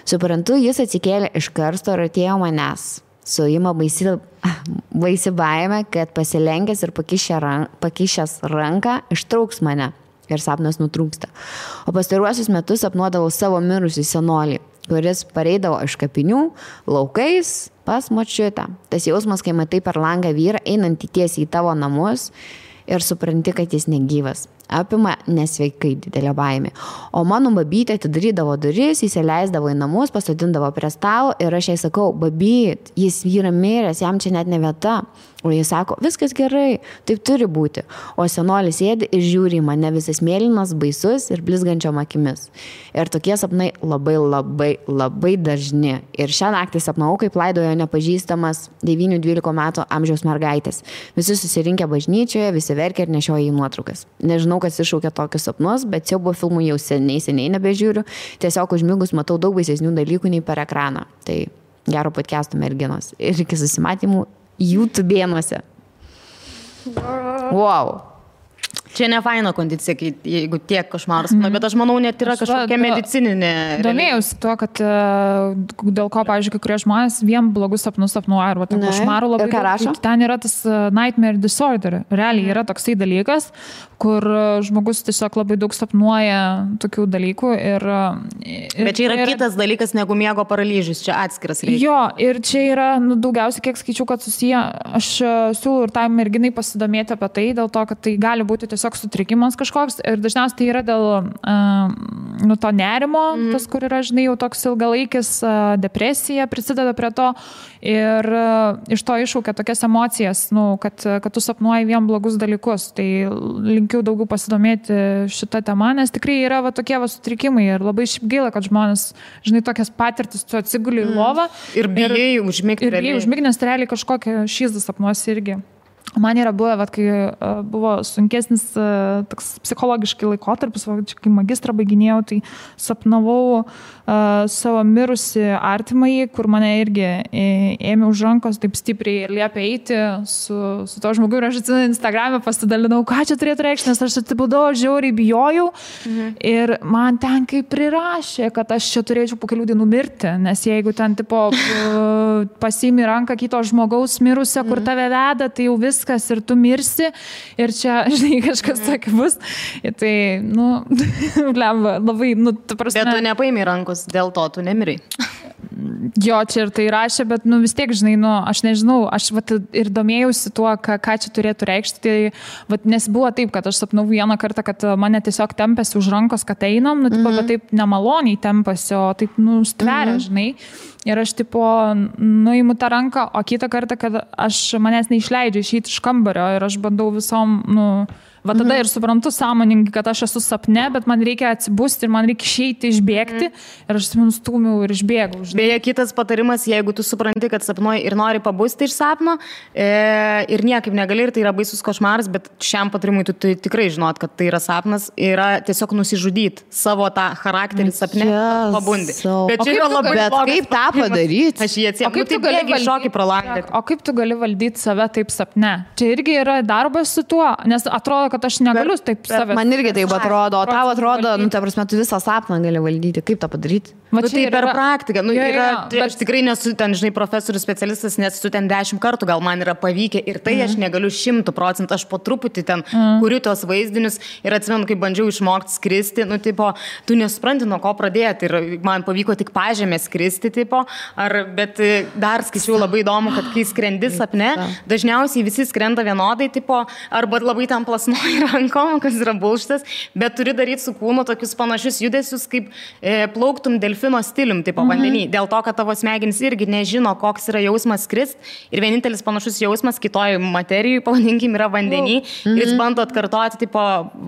Speaker 1: Suprantu, jis atsikėlė iš karsto ir atėjo manęs. Suima baisi baimė, kad pasilenkęs ir pakišęs ranką ištrauks mane ir sapnas nutrūksta. O pastaruosius metus sapnuodavau savo mirusį senolį, kuris pareidavo iš kapinių laukais pas močiutę. Tas jausmas, kai matai per langą vyrą einantį tiesiai į tavo namus ir supranti, kad jis negyvas. Apima nesveikai didelė baimė. O mano babytė atidarydavo duris, įsileisdavo į namus, pasodindavo prie stalo ir aš jai sakau, babyt, jis yra miręs, jam čia net ne vieta. O jis sako, viskas gerai, taip turi būti. O senolis sėdi ir žiūri į mane visas mėlynas, baisus ir blizgančiom akimis. Ir tokie sapnai labai dažni. Ir šią naktį sapnavau, kaip laidojo nepažįstamas 9-12 metų amžiaus mergaitės. Visi susirinkę bažnyčioje, visi verkia ir nešioja į nuotraukas. Nežinau, kas iššaukia tokius sapnus, bet siaubo filmų jau seniai nebežiūriu. Tiesiog užmigus matau daug baisesnių dalykų nei per ekraną. Tai gero podcast'o merginos. Ir iki susimatymų YouTube'ėnuose. Wow.
Speaker 2: Čia ne faina kondicija, jeigu tiek košmaras, bet aš manau, net yra kažkokia medicininė.
Speaker 3: Domėjausi tuo, kad dėl ko, pavyzdžiui, kai kurie žmonės vien blogus sapnus sapnuoja, arba tai košmarų labai daug. Ten yra tas nightmare disorder. Realiai yra toksai dalykas, kur žmogus tiesiog labai daug sapnuoja tokių dalykų.
Speaker 2: Bet čia yra kitas dalykas negu miego paralyžius, čia atskiras reikia.
Speaker 3: Jo, ir čia yra daugiausiai, kiek skaičiau, kad susiję, aš siūlau ir tai merginai pasidomėti apie tai, dėl to, kad tai gali būti tiesiog sutrikimas kažkoks ir dažniausiai tai yra dėl to nerimo, tas, kur yra, žinai, jau toks ilgalaikis depresija prisideda prie to ir iš to iššaukia tokias emocijas, kad tu sapnuoji vien blogus dalykus. Tai linkiu daugiau pasidomėti šitą temą, nes tikrai yra tokie sutrikimai ir labai šiaip gaila, kad žmonės, žinai, tokias patirtis tu atsiguli į lovą
Speaker 2: ir bijai užmigti.
Speaker 3: Ir bijai užmigti, nes realiai kažkokią šyzdą sapnuosi irgi. Man yra buvę, kai buvo sunkesnis toks psichologiškai laikotarpis, kai magistrą baiginėjau, tai sapnavau savo mirusi artimąjį, kur mane irgi ėmė už rankos taip stipriai ir liepė eiti su to žmogu. Ir aš atsimenu Instagram'e pasidalinau, ką čia turėtų reikšti, nes aš atibudau, žiauriai bijojau. Ir man ten kaip prirašė, kad aš čia turėčiau po kelių dienų mirti, nes jeigu ten tipo pasiimi ranką kito žmogaus mirusią, kur tave veda, tai jau viskas ir tu mirsi ir čia, žinai, kažkas tokio bus. Ir tai, lemba, labai, ta prasme.
Speaker 2: Bet tu nepaimi rankos, dėl to tu nemirai.
Speaker 3: Jo, čia ir tai rašė, bet, vis tiek, žinai, aš nežinau, aš ir domėjausi tuo, ką čia turėtų reikšti. Tai, nes buvo taip, kad aš sapnau vieną kartą, kad mane tiesiog tempėsi už rankos, kad einam, bet taip nemaloniai tempėsi, o taip, stveria, žinai. Ir aš, nuimu tą ranką, o kitą kartą, kad manęs neišleidžia išeiti iš kambario ir aš bandau visom, tada ir suprantu sąmoningai, kad aš esu sapne, bet man reikia atsibusti ir man reikia išeiti, išbėgti ir aš stūmiau ir išbėgau.
Speaker 2: Beje, kitas patarimas, jeigu tu supranti, kad sapnuoji ir nori pabusti iš sapno ir niekaip negali ir tai yra baisus košmaras, bet šiam patarimui tu tikrai žinot, kad tai yra sapnas, yra tiesiog nusižudyti savo tą charakterį sapne, pabundi.
Speaker 1: Bet čia yra labai blogas. Kaip tą padaryti?
Speaker 2: Aš jį atsiemu. O kaip tu gali šokį pro langą?
Speaker 3: O kaip tu gali valdyti save taip sapne? Čia irgi yra darbas su tuo, nes atrodo, kad aš negaliu taip save.
Speaker 1: Man irgi taip atrodo, o tau atrodo, ta prasme, tu visą sapną gali valdyti. Kaip tą padaryti?
Speaker 2: Tai per praktiką. Aš tikrai nesu ten, žinai, profesorius specialistas, nes tu ten 10 kartų gal man yra pavykę ir tai aš negaliu 100%, aš po truputį ten kuriu tos vaizdinius ir atsimenu, kai bandžiau išmokti skristi, tu nesupranti, nuo ko pradėti ir man pavyko tik pažemė skristi, bet dar skaičiau labai įdomu, kad kai skrendi sapne, dažniausiai visi skrenda vienodai, arba labai tam plasnoji rankom, kas yra bullšitas, bet turi daryti su kūnu tokius panašius judesius, kaip plauktum delfino stilium, vandenį. Dėl to, kad tavo smegenys irgi nežino, koks yra jausmas skrist ir vienintelis panašus jausmas kitoj materijai, pavadinkim, yra vandenį ir jis bando atkartoti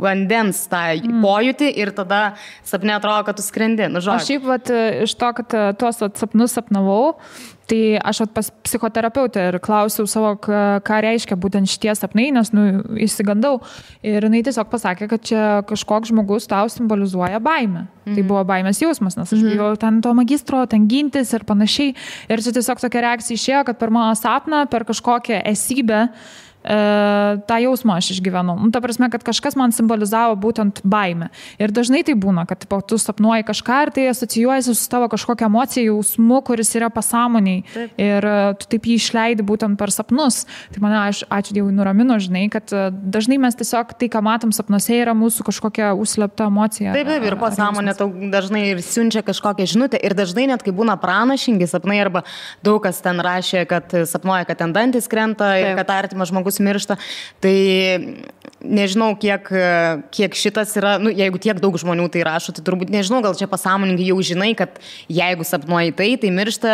Speaker 2: vandens tą pojūtį ir tada sapne atrodo, kad tu skrendi.
Speaker 3: Aš šiaip iš to, kad tuos sapnus sapnavau, tai aš pas psichoterapeutę ir klausiau savo, ką reiškia būtent šitie sapnai, nes įsigandau. Ir jinai tiesiog pasakė, kad čia kažkoks žmogus tau simbolizuoja baimę. Tai buvo baimės jausmas, nes aš bijau ten to magistro, ten gintis ir panašiai. Ir čia tiesiog tokia reakcija išėjo, kad per mano sapną, per kažkokią esybę, tą jausmą aš išgyvenau. Ta prasme, kad kažkas man simbolizavo būtent baimę. Ir dažnai tai būna, kad tu sapnuoji kažką ir tai asocijuojasi su tavo kažkokia emocija, jausmu, kuris yra pasąmoniai. Taip. Ir tu taip jį išleidi būtent per sapnus. Tai mane, ačiū Dievui, nuramino, žinai, kad dažnai mes tiesiog tai, ką matom sapnuose, yra mūsų kažkokia užslėpta emocija.
Speaker 2: Taip, ir pasąmonė tau dažnai ir siunčia kažkokią žinutę. Ir dažnai net, kai būna pranašingi sapnai, arba daug kas ten rašė, kad sapnuoja, kad ten dantis krenta ir kad artimas žmogus miršta, tai nežinau, kiek šitas yra, jeigu tiek daug žmonių tai rašo, tai turbūt nežinau, gal čia pasąmoningai jau žinai, kad jeigu sapnuoji tai miršta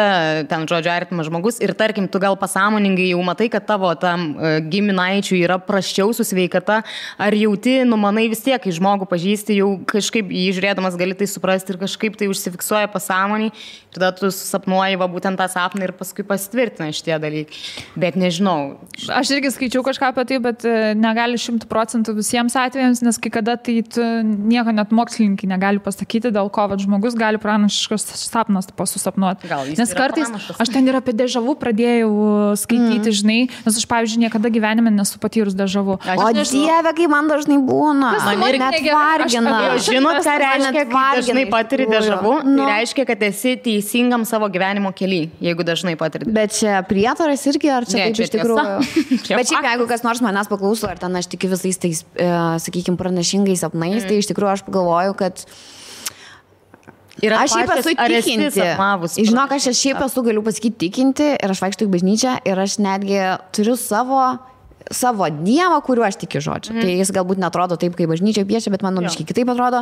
Speaker 2: ten, žodžiu, artimas žmogus ir tarkim, tu gal pasąmoningai jau matai, kad tavo tam giminaičiui yra prasčiau su sveikata, ar jauti, manai vis tiek, kai žmogų pažįsti, jau kažkaip jį žiūrėdamas gali tai suprasti ir kažkaip tai užsifiksuoja pasąmonį, tada tu sapnuoji būtent tą sapną ir paskui pasitvirtina šitie dalykai. Bet nežinau.
Speaker 3: Aš irgi skaičiau kažką apie tai, bet negali 100% visiems atvejams, nes kai kada tai nieko net mokslininkai negali pasakyti, dėl ko žmogus gali pranašiškas sapnas susapnuoti. Nes kartais aš ten ir apie dežavų pradėjau skaityti, žinai, nes aš, pavyzdžiui, niekada gyvenime nesu patyrus dežavų.
Speaker 1: O Dieve, kai man dažnai būna. Man ir net vargina.
Speaker 2: Žinot, ką reiškia, kai dažnai patiri dežavų? Tai reiškia, kad esi teisingam savo gyvenimo kely, jeigu dažnai patiri.
Speaker 1: Bet čia prietaras irgi, ar čia taip iš tikrųjų? Bet šiaip, jeigu kas nors manęs paklauso, ar ten aš tikiu visais tais, sakykime, pranašingais sapnais, tai iš tikrųjų aš pagalvoju, kad aš šiaip esu tikinti. Žinok, aš šiaip esu, galiu pasakyti, tikinti ir aš vaikštau į bažnyčią ir aš netgi turiu savo dievą, kuriuo aš tikiu, žodžiu. Tai jis galbūt netrodo taip, kaip bažnyčia piešia, bet man biškai kitaip atrodo.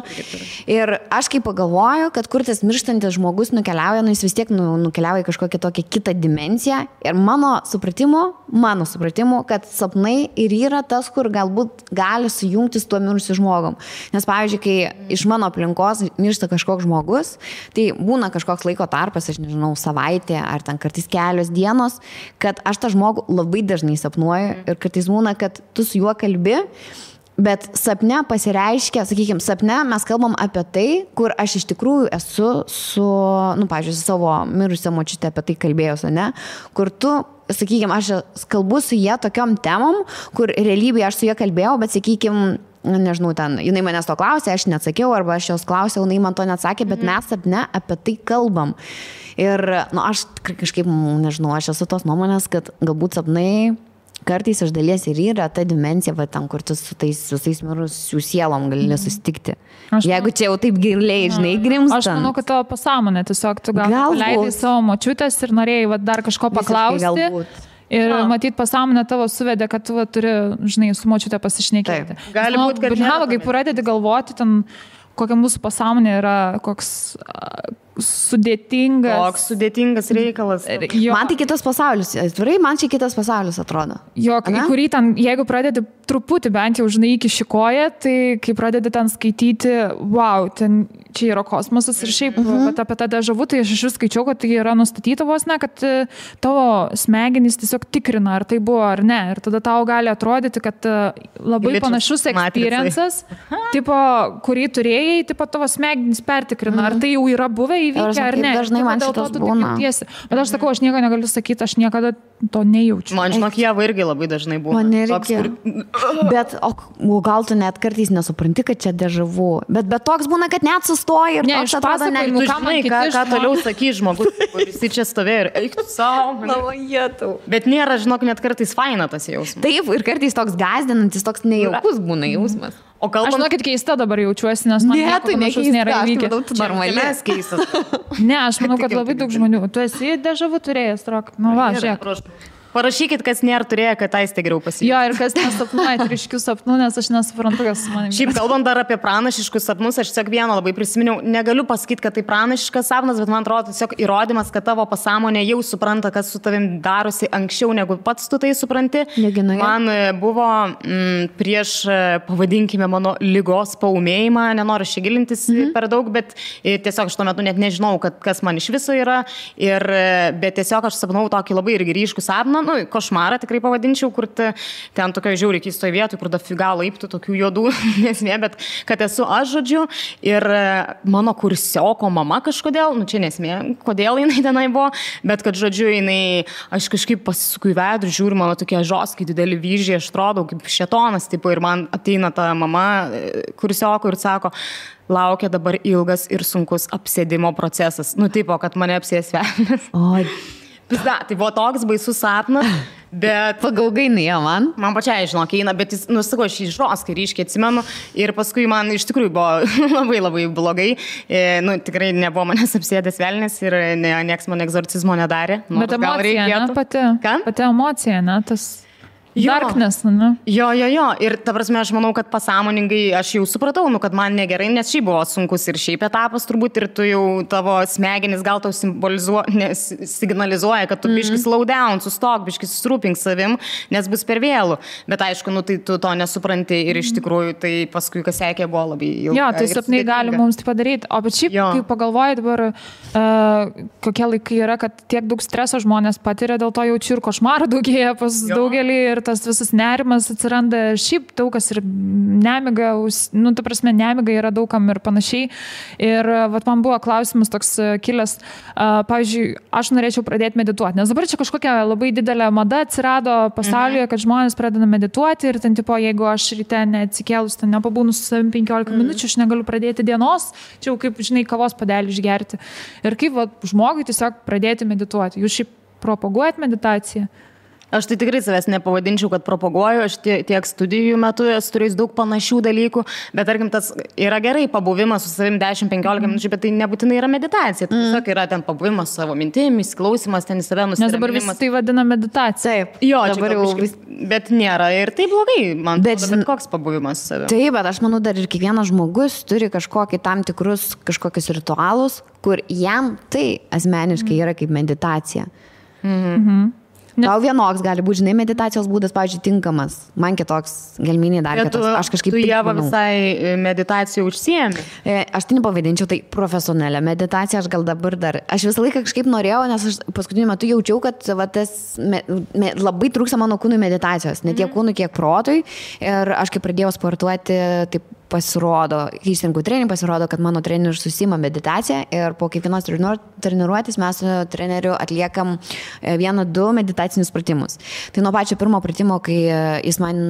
Speaker 1: Ir aš kaip pagalvoju, kad kur tas mirštantis žmogus nukeliauja, jis vis tiek nukeliauja į kažkokią tokią kitą dimensiją. Ir mano supratimu, kad sapnai ir yra tas, kur galbūt gali sujungti su tuo mirusiu žmogum. Nes, pavyzdžiui, kai iš mano aplinkos miršta kažkoks žmogus, tai būna kažkoks laiko tarpas, aš nežinau, savaitė ar ten kartais kelios dienos, kad aš tą žmogų labai dažnai sapnuoju ir kad kartais būna, kad tu su juo kalbi, bet sapne pasireiškia, sakykime, sapne mes kalbam apie tai, kur aš iš tikrųjų esu su, pavyzdžiui, su savo mirusią močiutę apie tai kalbėjus, ne? Kur tu, sakykime, aš kalbu su jie tokiom temom, kur realybėje aš su jie kalbėjau, bet, sakykime, nežinau, ten, jinai manęs to klausė, aš neatsakiau, arba aš jos klausiau, jinai man to neatsakė, bet mes sapne apie tai kalbam. Ir, aš kažkaip, nežinau, aš esu tos nuomonės, kad galbūt sapnai kartais iš dalies ir yra ta dimensija, va, ten, kur tu su tais visais mirusių sielom gali susitikti. Jeigu čia jau taip giliai, žinai, grimstant.
Speaker 3: Aš manau, kad tavo pasąmonė, tiesiog tu gal leidai savo močiutės ir norėjai va, dar kažko paklausti. Ir matyt, pasąmonė tavo suvedė, kad tu turi, žinai, su močiutė pasišnekėti.
Speaker 2: Gali būti, kad
Speaker 3: kai pradedi galvoti, ten, kokia mūsų pasąmonė yra, koks sudėtingas.
Speaker 2: Koks sudėtingas reikalas.
Speaker 1: Man tai kitas pasaulis. Atvirai, man čia kitas pasaulis atrodo.
Speaker 3: Jo, į kurį ten, jeigu pradedi truputį bent jau, žinai, iki šikoje, tai kai pradedi ten skaityti, wow, ten čia yra kosmosas ir šiaip, bet apie tą dežavų, tai aš iš vis skaičiau, kad tai yra nustatyta vos ne, kad tavo smegenys tiesiog tikrina, ar tai buvo ar ne. Ir tada tau gali atrodyti, kad labai panašus experiences, tipo, kurį turėjai, tipo, tavo smegenys pertikrina, ar tai jau yra buvę įvykę ar ne.
Speaker 1: Dažnai man šitas būna.
Speaker 3: Bet aš sakau, aš nieko negaliu sakyti, aš niekada to nejaučiu.
Speaker 2: Man žinok, Ieva irgi labai dažnai būna.
Speaker 1: Man nereikia. Bet, o gal tu net kartais nesupranti, kad čia dežavų. Bet toks būna, kad net sustoji ir toks atrodo,
Speaker 2: tu žinai, ką toliau sakys žmogus, kuris čia stovėjo ir eik tu savo. Bet nėra, žinok, net kartais faina tas jausmas.
Speaker 1: Taip, ir kartais toks gąsdinantis, toks nejaukus būna jausmas.
Speaker 2: O kalbant...
Speaker 3: Aš žinokit, keista dabar jaučiuosi, nes man
Speaker 1: tai
Speaker 3: nėra įvykę.
Speaker 2: Normalės keistas.
Speaker 3: Ne, aš manau, kad labai daug žmonių. Tu esi dežavų turėjęs, Rok. Nu va, žiūrėk.
Speaker 2: Parašykit, kas nėra turėję, kad aiste geriau pasiimti.
Speaker 3: Jo, ir kas nesapnuoja ryškių sapnų, nes aš nesuprantu, kas su manimi.
Speaker 2: Šiaip kalbant dar apie pranašiškus sapnus, aš tiesiog vieną labai prisiminiau. Negaliu pasakyti, kad tai pranašiškas sapnas, bet man atrodo tiesiog įrodymas, kad tavo pasąmonė jau supranta, kas su tavim darosi anksčiau, negu pats tu tai supranti. Man buvo prieš, pavadinkime, mano ligos paūmėjimą, nenoriu čia gilintis per daug, bet tiesiog aš tuo metu net nežinau, kas man iš viso yra. Bet tiesiog aš sapnau tokį labai irgi ryškų sapną. Košmarą tikrai pavadinčiau, kur ten tokio žiauriai keistoje vietoje, kur dafiga laiptų tokių juodų nesmė, bet kad esu aš, žodžiu, ir mano kursioko mama kažkodėl, čia nesmė, kodėl jinai tenai buvo, bet kad, žodžiu, aš kažkaip pasisuku į veidrodį, žiūriu, mano tokie žoskai dideli vyžiai, aš atrodau kaip šėtonas, tipo, ir man ateina ta mama kursioko ir sako, laukia dabar ilgas ir sunkus apsėdimo procesas. Tipo, kad mane apsės velnias. Pizda, tai buvo toks baisus sapnas, bet...
Speaker 1: Pagaugainai, man?
Speaker 2: Man pačiai, žinok, eina, bet jis, sako, aš jį žoskai ryškiai atsimenu ir paskui man iš tikrųjų buvo labai labai blogai. Tikrai nebuvo manęs apsėdęs velnės ir nieks man egzorcizmo nedarė.
Speaker 3: Bet emocija, ne, pati?
Speaker 2: Ką?
Speaker 3: Pati emocija, ne, tas... Darkness, ne?
Speaker 2: Jo. Ir ta prasme, aš manau, kad pasąmoningai aš jau supratau, kad man negerai, nes šiaip buvo sunkus ir šiaip etapas turbūt ir tu jau tavo smegenis gal tau signalizuoja, kad tu biškis slow down, sustok, biškis susirūpink savim, nes bus per vėlų. Bet aišku, tai tu to nesupranti ir iš tikrųjų tai paskui, kas sekė, buvo labai ilga.
Speaker 3: Jo, tai sapnai gali mums tai padaryti. O bet šiaip, kai pagalvoji dabar, kokie laikai yra, kad tiek daug streso žmonės patiria, dėl to jaučiu ir košmarų daugėja pas daugelį ir tas visas nerimas atsiranda, šiaip daug kas ir nemiga, ta prasme, nemiga yra daugam ir panašiai. Ir man buvo klausimas toks kilęs, pavyzdžiui, aš norėčiau pradėti medituoti, nes dabar čia kažkokia labai didelė mada atsirado pasaulyje, kad žmonės pradeda medituoti ir ten, tipo, jeigu aš ryte neatsikėlus, ten nepabūnu su savim 15 minučių, aš negaliu pradėti dienos, čia jau kaip, žinai, kavos puodelį išgerti. Ir kaip žmogui tiesiog pradėti medituoti. Jūs šiaip propaguojat meditaciją?
Speaker 2: Aš tai tikrai savęs nepavadinčiau, kad propaguoju, aš tiek studijų metu esu turėjus daug panašių dalykų, bet tarkim, tas yra gerai pabuvimas su savim 10-15 minučių, bet tai nebūtinai yra meditacija. Tai tiesiog yra ten pabuvimas savo mintimis, klausimas, ten į save nusiraminimas.
Speaker 3: Nes dabar visi tai vadina meditacija.
Speaker 2: Taip, jo, dabar jau bet nėra ir tai blogai, man atrodo, bet koks pabuvimas su savim.
Speaker 1: Taip, bet aš manau, dar ir kiekvienas žmogus turi kažkokį tam tikrus kažkokius ritualus, kur jam tai asmeniškai yra kaip meditacija. Tau vienoks gali būti, žinai, meditacijos būdas, pavyzdžiui, tinkamas. Man kitoks gelminiai dar kitos. Aš kažkaip...
Speaker 2: Tu Ieva visai meditacijų užsiemi.
Speaker 1: Aš tai nepavadinčiau, tai profesionalią meditaciją, aš gal dabar dar... Aš visą laiką kažkaip norėjau, nes aš paskutiniu metu jaučiau, kad labai trūksta mano kūnui meditacijos. Ne tiek kūnui, kiek protui. Ir aš kai pradėjau sportuoti, taip pasirodo, kai išsirinkau treningą, pasirodo, kad mano treneris susima meditaciją ir po kiekvienos treniruotės mes su treneriu atliekam 1-2 meditacinius pratimus. Tai nuo pačio pirmo pratimo, kai jis man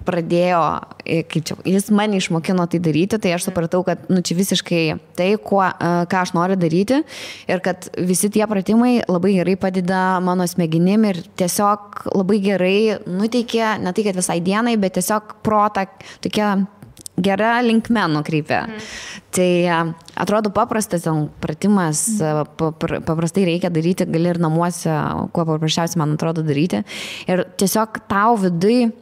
Speaker 1: pradėjo, jis mane išmokino tai daryti, tai aš supratau, kad čia visiškai tai, ką aš noriu daryti ir kad visi tie pratimai labai gerai padeda mano smegenim ir tiesiog labai gerai nuteikia, ne tai, kad visai dienai, bet tiesiog protą tokia gera linkme nukreipia. Tai atrodo paprastas pratimas, paprastai reikia daryti, gali ir namuose, kuo paprasčiausiai man atrodo daryti. Ir tiesiog tau vidui,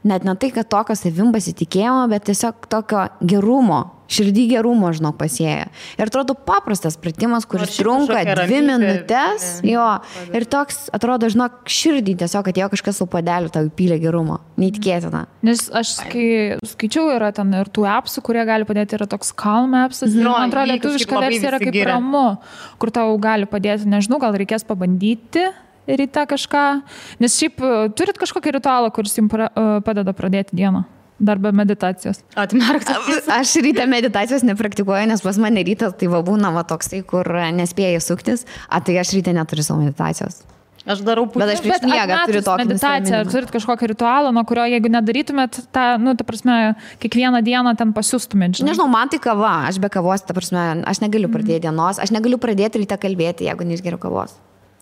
Speaker 1: net ne tai, kad tokio savim pasitikėjimo, bet tiesiog tokio gerumo, širdį gerumo, žinok, pasėja. Ir atrodo paprastas pratimas, kuris trunka 2 minutės, jo, ir toks, atrodo, žinok, širdį tiesiog atėjo kažkas su padeliu, tau įpylė gerumo. Neįtikėtina.
Speaker 3: Nes aš skaičiau, yra ten ir tų appsų, kurie gali padėti, yra toks Calm appsas, man atrodo, lietuviška versija yra kaip ramu, kur tau gali padėti, nežinau, gal reikės pabandyti ryte kažką, nes šiaip turit kažkokį ritualą, kuris jums padeda pradėti dieną, dar be meditacijos.
Speaker 1: Aš ryte meditacijos nepraktikuoju, nes pas mane rytas tai va būna va toksai, kur nespėjai suktis, tai aš ryte neturiu savo meditacijos.
Speaker 2: Aš darau pusę.
Speaker 1: Bet aš prieš miegą turiu tokį
Speaker 3: meditaciją. Ar turit kažkokį ritualą, nuo kurio, jeigu nedarytumėt, ta prasme, kiekvieną dieną ten pasiustumėt?
Speaker 1: Nežinau, man tai kava. Aš be kavos, ta prasme, aš negaliu pradėti dienos. Aš negaliu pradėti ryte kalbėti, jeigu neišgeriu kavos.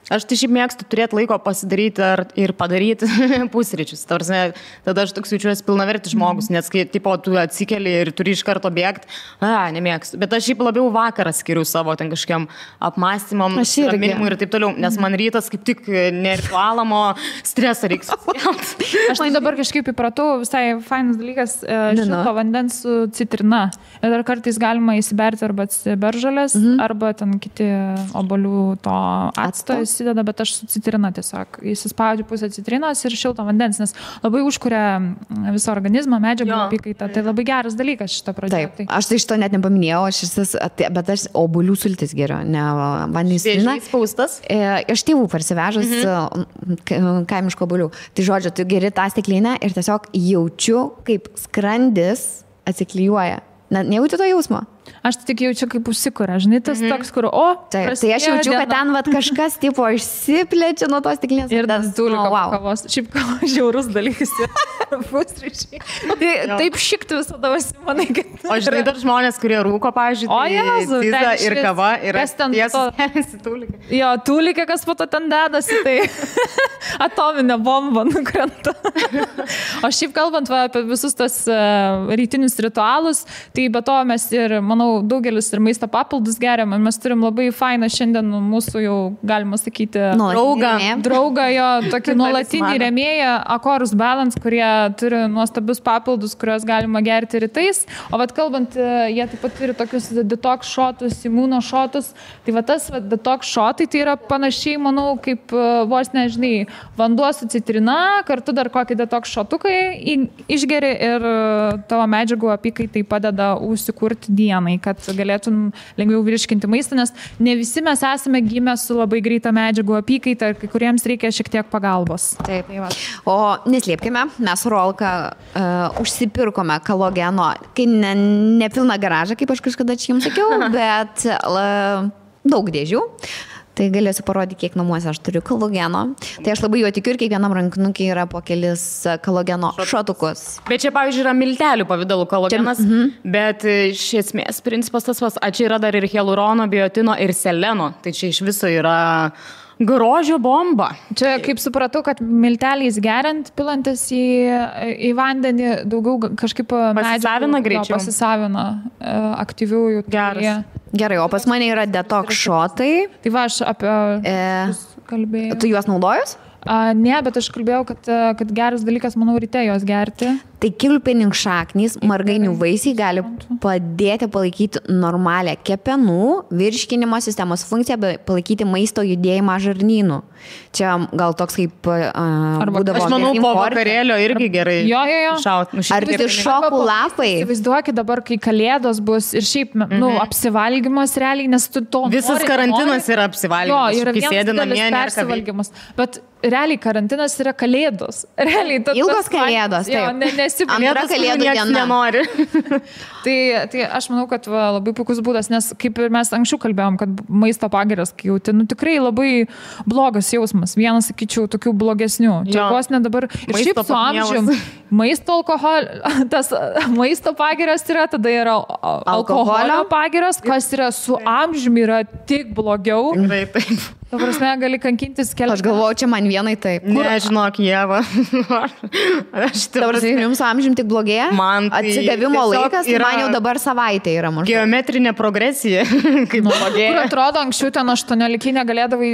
Speaker 2: Aš tai šiaip mėgstu turėti laiko pasidaryti ir padaryti pusryčius. Tada aš toks jaučiuosi pilnavertis žmogus, nes kai tu atsikeli ir turi iš karto bėgti, nemėgstu. Bet aš šiaip labiau vakarą skiriu savo ten kažkiam apmąstymam, raminimui ir taip toliau, nes man rytas kaip tik neritualamo stresą reiks.
Speaker 3: Aš tai dabar kažkaip įpratau, visai fainas dalykas, šilto vandens su citrina. Ir dar kartais galima įsiberti arba beržalės, arba ten kiti obuolių to acto įsideda, bet aš su citrina tiesiog įsispaudžiu pusę citrinos ir šilto vandens, nes labai užkuria visą organizmą, medžiagų apykaitą. Tai labai geras dalykas šitą pradėti.
Speaker 1: Taip, aš tai šito net nepaminėjau, bet aš obuolių sultis geriu, ne vandens citrina.
Speaker 2: Spaustas?
Speaker 1: Iš tėvų parsivežus kaimiško obuolių. Tai žodžiu, tu geri tą stiklinę ir tiesiog jaučiu, kaip skrandis atsiklijuoja. Nejauti to jausmo?
Speaker 3: Aš tik jaučiu, kaip užsikuria, žinai, tas toks, kur,
Speaker 1: tai aš jaučiu, kad ten kažkas tipo išsiplečia nuo tos stiklinės.
Speaker 3: Ir tas tūliko kavos. Šiaip kavos žiaurus dalykas. Pusryčiai. Taip šikti visada manai, kad...
Speaker 2: O žinai, dar žmonės, kurie rūko, pavyzdžiui, ciza ir kava yra tiesiasi tūlika.
Speaker 3: Jo, tūlika, kas po to ten dedasi, tai atominė bomba nukrenta. O šiaip kalbant apie visus tas rytinius ritualus, tai be to mes ir, manau, daugelis ir maisto papildus geriam. Mes turim labai fainą šiandien mūsų jau, galima sakyti, draugą jo, tokį nuolatinį rėmėją, Akorus Balance, kurie turi nuostabius papildus, kuriuos galima gerti rytais. O vat kalbant, jie taip pat turi tokius detox šotus, imuno šotus. Tai va tas detox šotai tai yra panašiai, manau, kaip vos nežinai, vanduo su citrina, kartu dar kokį detox šotukai išgeri ir tavo medžiagų apykaitai padeda užsikurti dienai, kad galėtum lengviau virškinti maistą, nes ne visi mes esame gimę su labai greita medžiagų apykaita, kai kuriems reikia šiek tiek pagalbos.
Speaker 1: Taip. O neslėpkime, mes su Rolka užsipirkome kolageno, kai ne pilną garažą, kaip aš kažkada čia jums sakiau, bet daug dėžių. Tai galėsiu parodyti, kiek namuose aš turiu kolageno. Tai aš labai jo tikiu ir kiekvienam rankinukiai yra po kelis kolageno šotukus.
Speaker 2: Bet čia, pavyzdžiui, yra miltelių pavidalų kolagenas, bet iš esmės principas tas vas, čia yra dar ir hialurono, biotino ir seleno. Tai čia iš viso yra grožio bomba.
Speaker 3: Čia, kaip supratau, kad milteliais geriant, pilantis į vandenį, daugiau kažkaip
Speaker 2: pasisavina greičiau.
Speaker 3: Pasisavina aktyviųjų.
Speaker 1: Gerai, o pas mane yra detox šotai.
Speaker 3: Tai va, aš apie kalbėjau.
Speaker 1: Tu juos naudojus?
Speaker 3: Ne, bet aš kalbėjau, kad geras dalykas, manau, ryte juos gerti.
Speaker 1: Tai kilpininkšaknys, margainių vaisiai gali padėti palaikyti normalią kepenų, virškinimo sistemos funkciją, bei palaikyti maisto judėjimą žarnynų. Čia gal toks kaip būdavo.
Speaker 2: Aš manau, po vakarėlio irgi gerai.
Speaker 3: Jo.
Speaker 1: Ar tai šokų lapai?
Speaker 3: Įsivaizduokit dabar, kai kalėdos bus ir šiaip, apsivalgymas realiai, nes tu to
Speaker 2: visas karantinas yra apsivalgymas.
Speaker 3: Jo, yra vienas persivalgymas. Bet realiai karantinas yra kalėdos. Realiai,
Speaker 1: ilgos kalėdos.
Speaker 3: Jo,
Speaker 1: antra kalėdų diena.
Speaker 2: Nenori.
Speaker 3: tai aš manau, kad labai puikus būdas, nes kaip ir mes anksčiau kalbėjom, kad maisto pagirios, kai jauti, tikrai labai blogas jausmas. Vienas, sakyčiau, tokių blogesnių. Čia vos ne dabar. Ir šiaip su amžium maisto tas maisto pagirios yra, tada yra alkoholio pagirios, kas yra su amžiumi yra tik blogiau.
Speaker 2: Taip.
Speaker 3: Ta prasme, gali kankintis kelias.
Speaker 1: Aš galvoju, čia man vienai taip.
Speaker 2: Nežinok, Ieva.
Speaker 1: Dabar jums amžium tik blogėja?
Speaker 2: Man tai
Speaker 1: atsigavimo laikas, man jau dabar savaitė yra maždaug.
Speaker 2: Geometrinė progresija, kaip blogėja.
Speaker 3: Kur atrodo, anksčiau ten 18 negalėdavai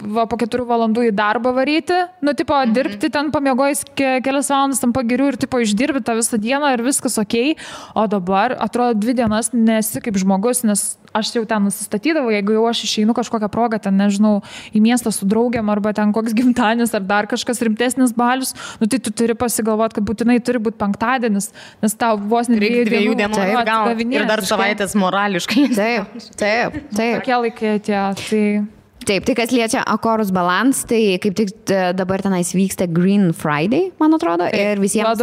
Speaker 3: po 4 valandų į darbą varyti, dirbti ten pamiegojus kelias valandas tam pagirių ir išdirbi tą visą dieną ir viskas okei, o dabar atrodo 2 dienas nesi kaip žmogus, nes aš jau ten nusistatydavau, jeigu jau aš išeinu kažkokią progą, ten nežinau, į miestą su draugiam arba ten koks gimtadienis ar dar kažkas rimtesnis balius, tai tu turi pasigalvoti, kad būtinai turi būti penktadienis, nes tau vos ne 2 dienų
Speaker 2: ir dar savaitės morališkai.
Speaker 1: Taip.
Speaker 3: Tokie laikai tie,
Speaker 1: Taip, tai kas liečia Akorus Balance, tai kaip tik dabar tenais vyksta Green Friday, man atrodo, ir visiems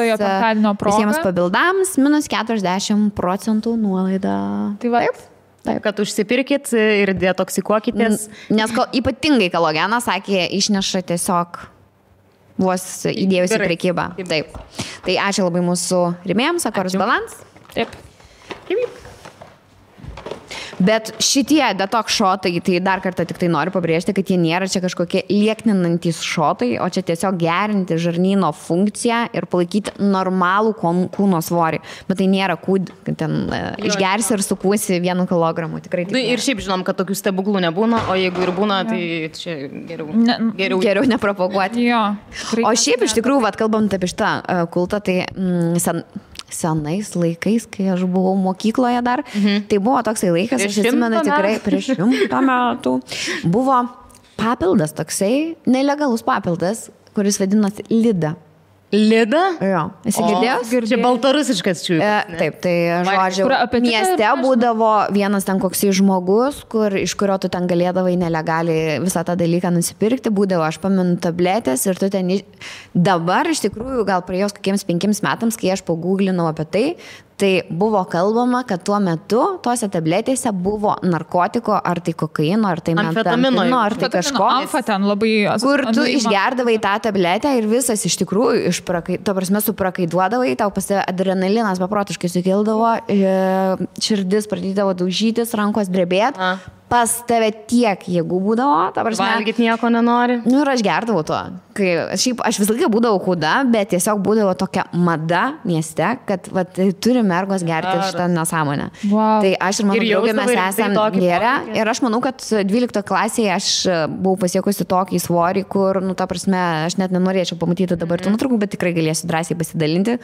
Speaker 1: pabildams minus 40% nuolaida.
Speaker 2: Taip. Kad užsipirkit ir detoksikuokitės.
Speaker 1: Nes ypatingai kalogenas, sakė, išneša tiesiog vos įdėjus į prekybą. Taip. Tai ačiū labai mūsų rėmėjams, Akorus Balance.
Speaker 3: Taip.
Speaker 1: Bet šitie detox šotai, tai dar kartą tik tai noriu pabrėžti, kad jie nėra čia kažkokie liekninantys šotai, o čia tiesiog gerinti žarnyno funkciją ir palaikyti normalų kūno svorį. Bet tai nėra kad ten išgersi ir sukūsi 1 kilogramų. Tikrai taip.
Speaker 2: Ir šiaip žinom, kad tokių stebuklų nebūna, o jeigu ir būna, tai čia
Speaker 1: geriau nepropaguoti.
Speaker 3: Jo.
Speaker 1: O šiaip iš tikrųjų, kalbant apie šitą kultą, tai senais laikais, kai aš buvau mokykloje dar, tai buvo toksai laikas, aš atsimenu tikrai prieš 100 metų, buvo papildas toksai, nelegalus papildas, kuris vadinosi Lida.
Speaker 2: Lida?
Speaker 1: Jo. Esi girdėjęs?
Speaker 2: Čia baltarusiškas čiūjas.
Speaker 1: Taip, tai žodžiu, mieste būdavo vienas ten koksai žmogus, iš kurio tu ten galėdavai nelegaliai visą tą dalyką nusipirkti, būdavo, aš pamenu, tabletės ir tu ten dabar iš tikrųjų gal praėjus kokiems 5 metams, kai aš paguglinau apie tai buvo kalbama, kad tuo metu tose tabletėse buvo narkotiko, ar tai kokaino, ar tai metamfetamino, ar tai kažko.
Speaker 3: Amfetamino labai.
Speaker 1: Kur tu išgerdavai tą tabletę ir visas iš tikrųjų suprakaiduodavai, tau adrenalinas beprotiškai sukildavo, širdis pradėdavo daužytis, rankos drebėti. Pas tave tiek jėgų būdavo,
Speaker 2: valgyti nieko nenori.
Speaker 1: Ir aš gerdavau to. Aš visą laiką būdavau kūda, bet tiesiog būdavo tokia mada mieste, kad turi mergos gerti šitą nesąmonę.
Speaker 3: Wow.
Speaker 1: Tai aš ir mano draugė mes esame gėrę. Ir aš manau, kad 12 klasėje aš buvau pasiekusi tokį svorį, kur, ta prasme, aš net nenorėčiau pamatyti dabar tų nuotraukų, bet tikrai galėsiu drąsiai pasidalinti,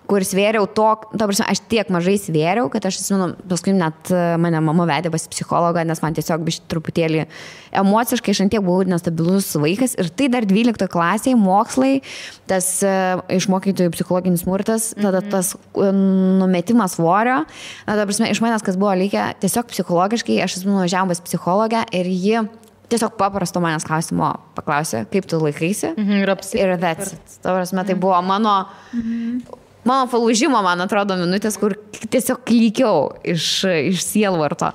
Speaker 1: kur svėriau ta prasme, aš tiek mažai svėriau, kad aš atsimenu, paskui net mane mama vedė pas psichologą, nes man tiesiog biškį truputėlį emociškai aš ant tiek buvau nestabilus vaikas ir tai dar 12 klasėje mokslai, tas iš mokytojų psichologinis smurtas, tada tas numetimas svorio, ta prasme, iš manęs kas buvo likę, tiesiog psichologiškai, aš esu nuvažiavom pas psichologę ir ji tiesiog paprasto manęs klausimo paklausė, kaip tu laikaisi ir that's it. Ta prasme, tai buvo mano palūžimo, man atrodo, minutės, kur tiesiog klykiau iš sielvarto.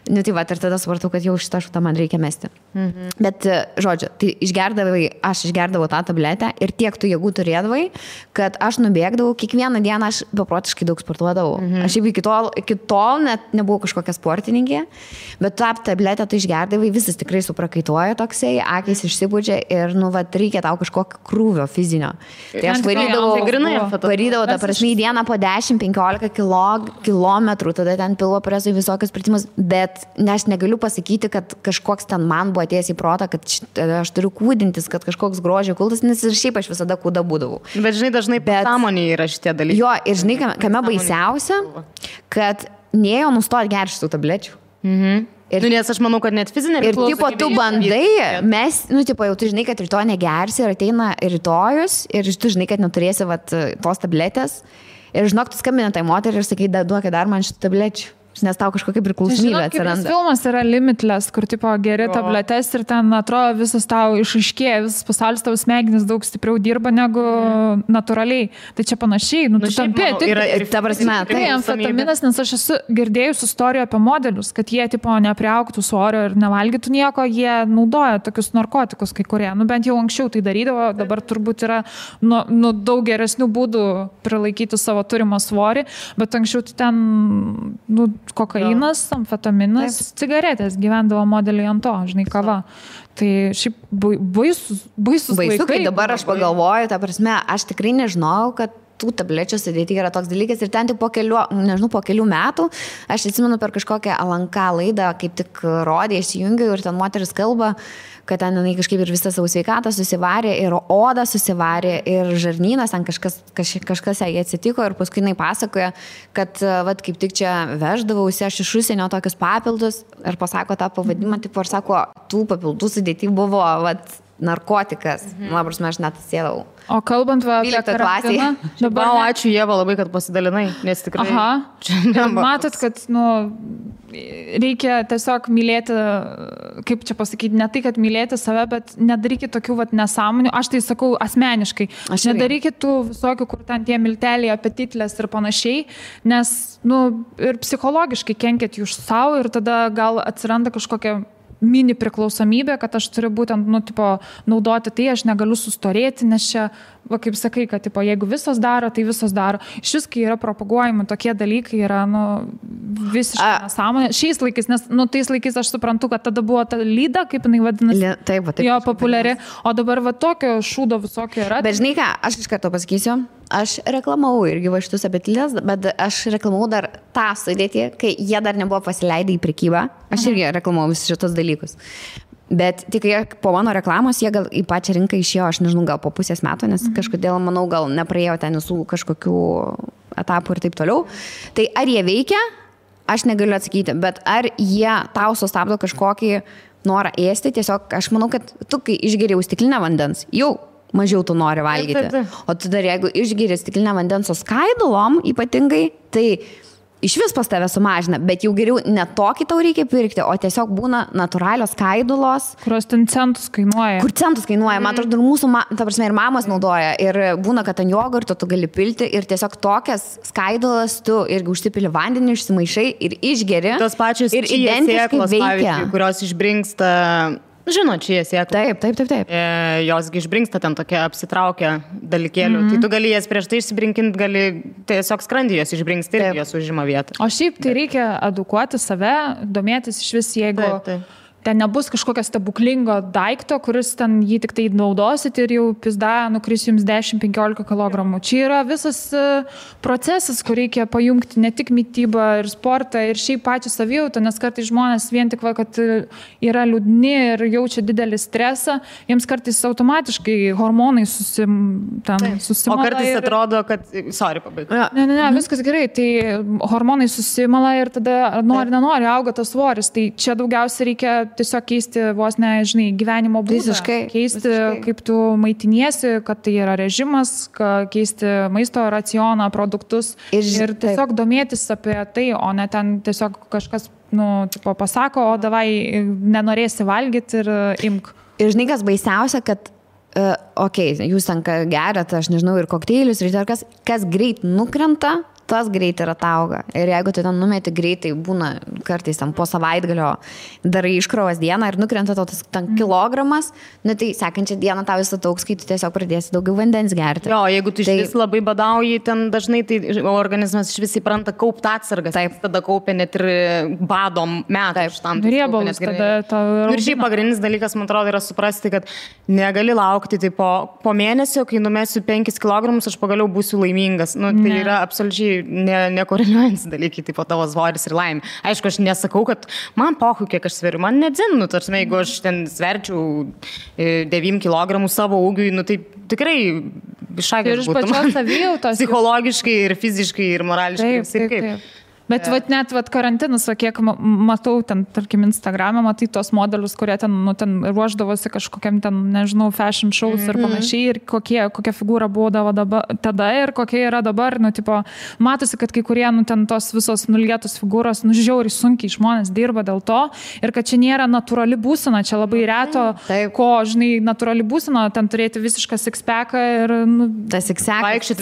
Speaker 1: Tai va, ir tada supratau, kad jau šitą šutą man reikia mesti. Bet, žodžiu, tai aš išgerdavau tą tabletę ir tiek tų jėgų turėdavai, kad aš nubėgdavau, kiekvieną dieną aš beprotiškai daug sportuodavau. Aš jau iki tol net nebuvau kažkokia sportininkė, bet tą tabletę tu išgerdavai, visas tikrai suprakaituoja toksai, akys išsipūdžia ir, reikia tau kažkokio krūvio fizinio. Tai aš varydavau tą ta prasme, į dieną po 10-15 kilometrų, tada ten pilvo presui visokius pratimus, bet aš negaliu pasakyti, kad kažkoks ten man buvo atėjęs į protą, kad aš turiu kūdintis, kad kažkoks grožio kultas, nes ir šiaip aš visada kūda būdavau.
Speaker 2: Bet žinai, dažnai pasąmonėje yra šitie dalykai.
Speaker 1: Jo, ir žinai, kame baisiausia, kad nėjo nustoti gerti šitų tablečių.
Speaker 2: Ir, nes aš manau, kad net fizinė
Speaker 1: ir tipo tu bandai, mes, tipo jau tu žinai, kad rytoj negersi ir ateina rytojus ir tu žinai, kad neturėsi tos tabletės ir žinok, tu skambini tai moteriai ir sakai, duokit dar man šitų tablečių. Nes tau kažkokia priklausomybė atsiranda.
Speaker 3: Filmas yra Limitless, kur tipo geri tabletes ir ten atrodo visas tau išaiškėja, visas pasaulis tavo smegenis daug stipriau dirba negu natūraliai. Tai čia panašiai, tu tampi tik...
Speaker 1: Ta prasme,
Speaker 3: tai amfetaminas, nes aš esu girdėjus istoriją apie modelius, kad jie tipo nepriaugtų svorio ir nevalgytų nieko, jie naudoja tokius narkotikus kai kurie. Bent jau anksčiau tai darydavo, dabar turbūt yra daug geresnių būdų prilaikyti savo turimą svorį, bet anksčiau tai ten... kokainas, amfetaminas, cigaretės gyvendavo modeliai ant to, žinai, kava. Tai šiaip baisus laikai.
Speaker 1: Kai dabar aš pagalvoju, ta prasme, aš tikrai nežinau, kad tų tablečių sudėti yra toks dalykas ir ten tik po kelių metų, aš atsimenu per kažkokią LNK laidą, kaip tik rodė, įsijungiau ir ten moteris kalba, kad ten jinai kažkaip ir visą savo sveikatą susivarė, ir odą susivarė, ir žarnynas, ten kažkas jai atsitiko ir paskui jinai pasakoja, kad kaip tik čia veždavausi aš iš užsienio tokius papildus ir pasako tą pavadimą, tipo, ir sako, tų papildų sudėti buvo narkotikas. Prasme, aš net sėdau.
Speaker 3: O kalbant apie karantiną,
Speaker 2: dabar... Ačiū Ieva labai, kad pasidalinai, nes tikrai...
Speaker 3: Matot, kad, reikia tiesiog mylėti, kaip čia pasakyti, ne tai, kad mylėti save, bet nedarykit tokių nesąmonių. Aš tai sakau asmeniškai. Nedarykit tų visokių, kur ten tie milteliai, apetitlės ir panašiai, nes, ir psichologiškai kenkėt jūs savo ir tada gal atsiranda kažkokia mini priklausomybė, kad aš turiu būtent, naudoti tai, aš negaliu sustorėti, nes čia, kaip sakai, kad, jeigu visos daro, tai visos daro. Šis, kai yra propaguojami tokie dalykai, yra, visiškai nesąmonė. Šiais laikais, nes, tais laikais aš suprantu, kad tada buvo ta lyda, kaip jinai vadinasi,
Speaker 1: taip,
Speaker 3: jo populiari, o dabar tokio šūdo visokio yra.
Speaker 1: Bet žinai ką, aš iš karto pasakysiu, aš reklamavau irgi šitus abetilės, bet aš reklamavau dar tą sudėtį, kai jie dar nebuvo pasileidę į prekybą. Aš irgi reklamavau visus šitus dalykus. Bet tik po mano reklamos jie gal į pačią rinką išėjo, aš nežinau, gal po pusės metų, nes kažkodėl, manau, gal nepraėjo ten visų kažkokių etapų ir taip toliau. Tai ar jie veikia, aš negaliu atsakyti, bet ar jie tau sustabdo kažkokį norą ėsti, tiesiog aš manau, kad tu, kai išgeriau stiklinę vandens, jau mažiau tu nori valgyti. O tu dar jeigu išgeri stiklinę vandens su skaidulom ypatingai, tai iš vis pas tave sumažina, bet jau geriau ne tokį tau reikia pirkti, o tiesiog būna natūralios skaidulos.
Speaker 3: Kurios ten centus kainuoja.
Speaker 1: Kur centus kainuoja, man atrodo, ir mūsų, ta prasme, ir mamos naudoja. Ir būna, kad ant jogurto tu gali pilti ir tiesiog tokias skaidulas tu irgi užsipili vandenį, išsimaišai ir išgeri.
Speaker 2: Tos pačios
Speaker 1: ir identiškai veikia.
Speaker 2: Kurios išbrinksta... Žinot, čia sėkla.
Speaker 1: Taip.
Speaker 2: Josgi išbrinksta ten tokia apsitraukia dalykėlių. Tai tu gali jas prieš tai išsibrinkinti, gali tiesiog skrandį jos išbrinksti ir jos užima vietą.
Speaker 3: O šiaip tai reikia edukuoti save, domėtis iš vis, jeigu... Ten nebus kažkokio stebuklingo daikto, kuris ten jį tik tai naudosit ir jau pizda nukris jums 10-15 kg. Čia yra visas procesas, kur reikia pajungti ne tik mitybą ir sportą ir šiaip pačią savijautą, nes kartais žmonės vien tik, kad yra liūdni ir jaučia didelį stresą, jiems kartais automatiškai hormonai susimala.
Speaker 2: O kartais atrodo, kad... Sorry, pabaigai.
Speaker 3: Ne, viskas gerai. Tai hormonai susimala ir tada nenori auga tas svoris. Tai čia daugiausiai reikia tiesiog keisti vos gyvenimo būdą. Keisti, kaip tu maitiniesi, kad tai yra režimas, keisti maisto racioną, produktus ir tiesiog domėtis apie tai, o ne ten tiesiog kažkas pasako, o davai nenorėsi valgyti ir imk.
Speaker 1: Ir žinai, kas baisiausia, kad jūs ten geriat, aš nežinau, ir kokteilius, ir kas greit nukrenta, tas greit ir atauga. Ir jeigu tu ten numeti greitai, būna kartais ten po savaitgalio darai iškrovas dieną ir nukrenta tas ten kilogramas, tai sekančią dieną tau vis ataugs, kai tu tiesiog pradėsi daugiau vandens gerti.
Speaker 2: Jo, jeigu tu iš vis labai badauji, ten dažnai tai organizmas iš vis įpranta kaupti atsargas. Taip. Tada kaupia net ir badom metų.
Speaker 3: Riebalus tada.
Speaker 2: Ir šiaip pagrindinis dalykas, man atrodo, yra suprasti, kad negali laukti tipo po mėnesio, kai numesiu 5 kg, aš pagaliau būsiu laimingas. Nu, tai yra absoliučiai nekoreliuojantis dalykai, tipo tavo svoris ir laimė. Aišku, aš nesakau, kad man pohu, kiek aš sveriu, man nedzin, nu, tarsi, jeigu aš ten sverčiau 9 kg savo ūgiui, nu, tai tikrai iššakas būtų. Psichologiškai ir fiziškai ir morališkai.
Speaker 3: Taip. Bet net karantinas, kiek matau ten, tarkim, Instagram'e, matai tos modelius, kurie ten ruoždavosi kažkokiam ten, nežinau, fashion shows ir panašiai, ir kokia figūra būdavo tada ir kokia yra dabar, nu, tipo, matosi, kad kai kurie, nu, ten tos visos nulietos figūros, nu, žiauriai sunkiai žmonės dirba dėl to ir kad čia nėra natūrali būsena, čia labai reto, ko, žinai, natūrali būsena, ten turėti visišką six-packą ir, nu,
Speaker 1: tas six-packas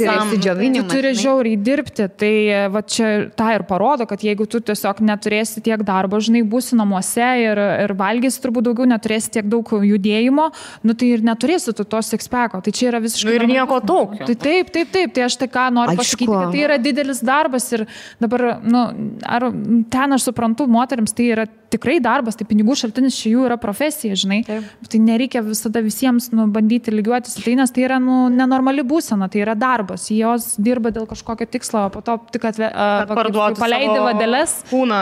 Speaker 1: yra išsidžiovinimas.
Speaker 3: Tu turi žiauriai dirbti, tai va čia tą ir parodo, kad jeigu tu tiesiog neturėsi tiek darbo, žinai, būsi namuose ir valgysi turbūt daugiau, neturėsi tiek daug judėjimo, nu tai ir neturėsi tu to six-packo. Tai čia yra visiškai...
Speaker 2: Ir nieko tokio.
Speaker 3: Tai taip. Tai aš tai ką noriu pasakyti, kad tai yra didelis darbas ir dabar, nu, ar ten aš suprantu, moteriams tai yra tikrai darbas, tai pinigų šaltinis čia jų yra profesija, žinai. Taip. Tai nereikia visada visiems, nu, bandyti lygiuotis, tai nes tai yra, nu, nenormali būsena, tai yra darbas. Jos dirba dėl kažkokio tikslo, po to tik paleidė vadeles.
Speaker 2: Kūną,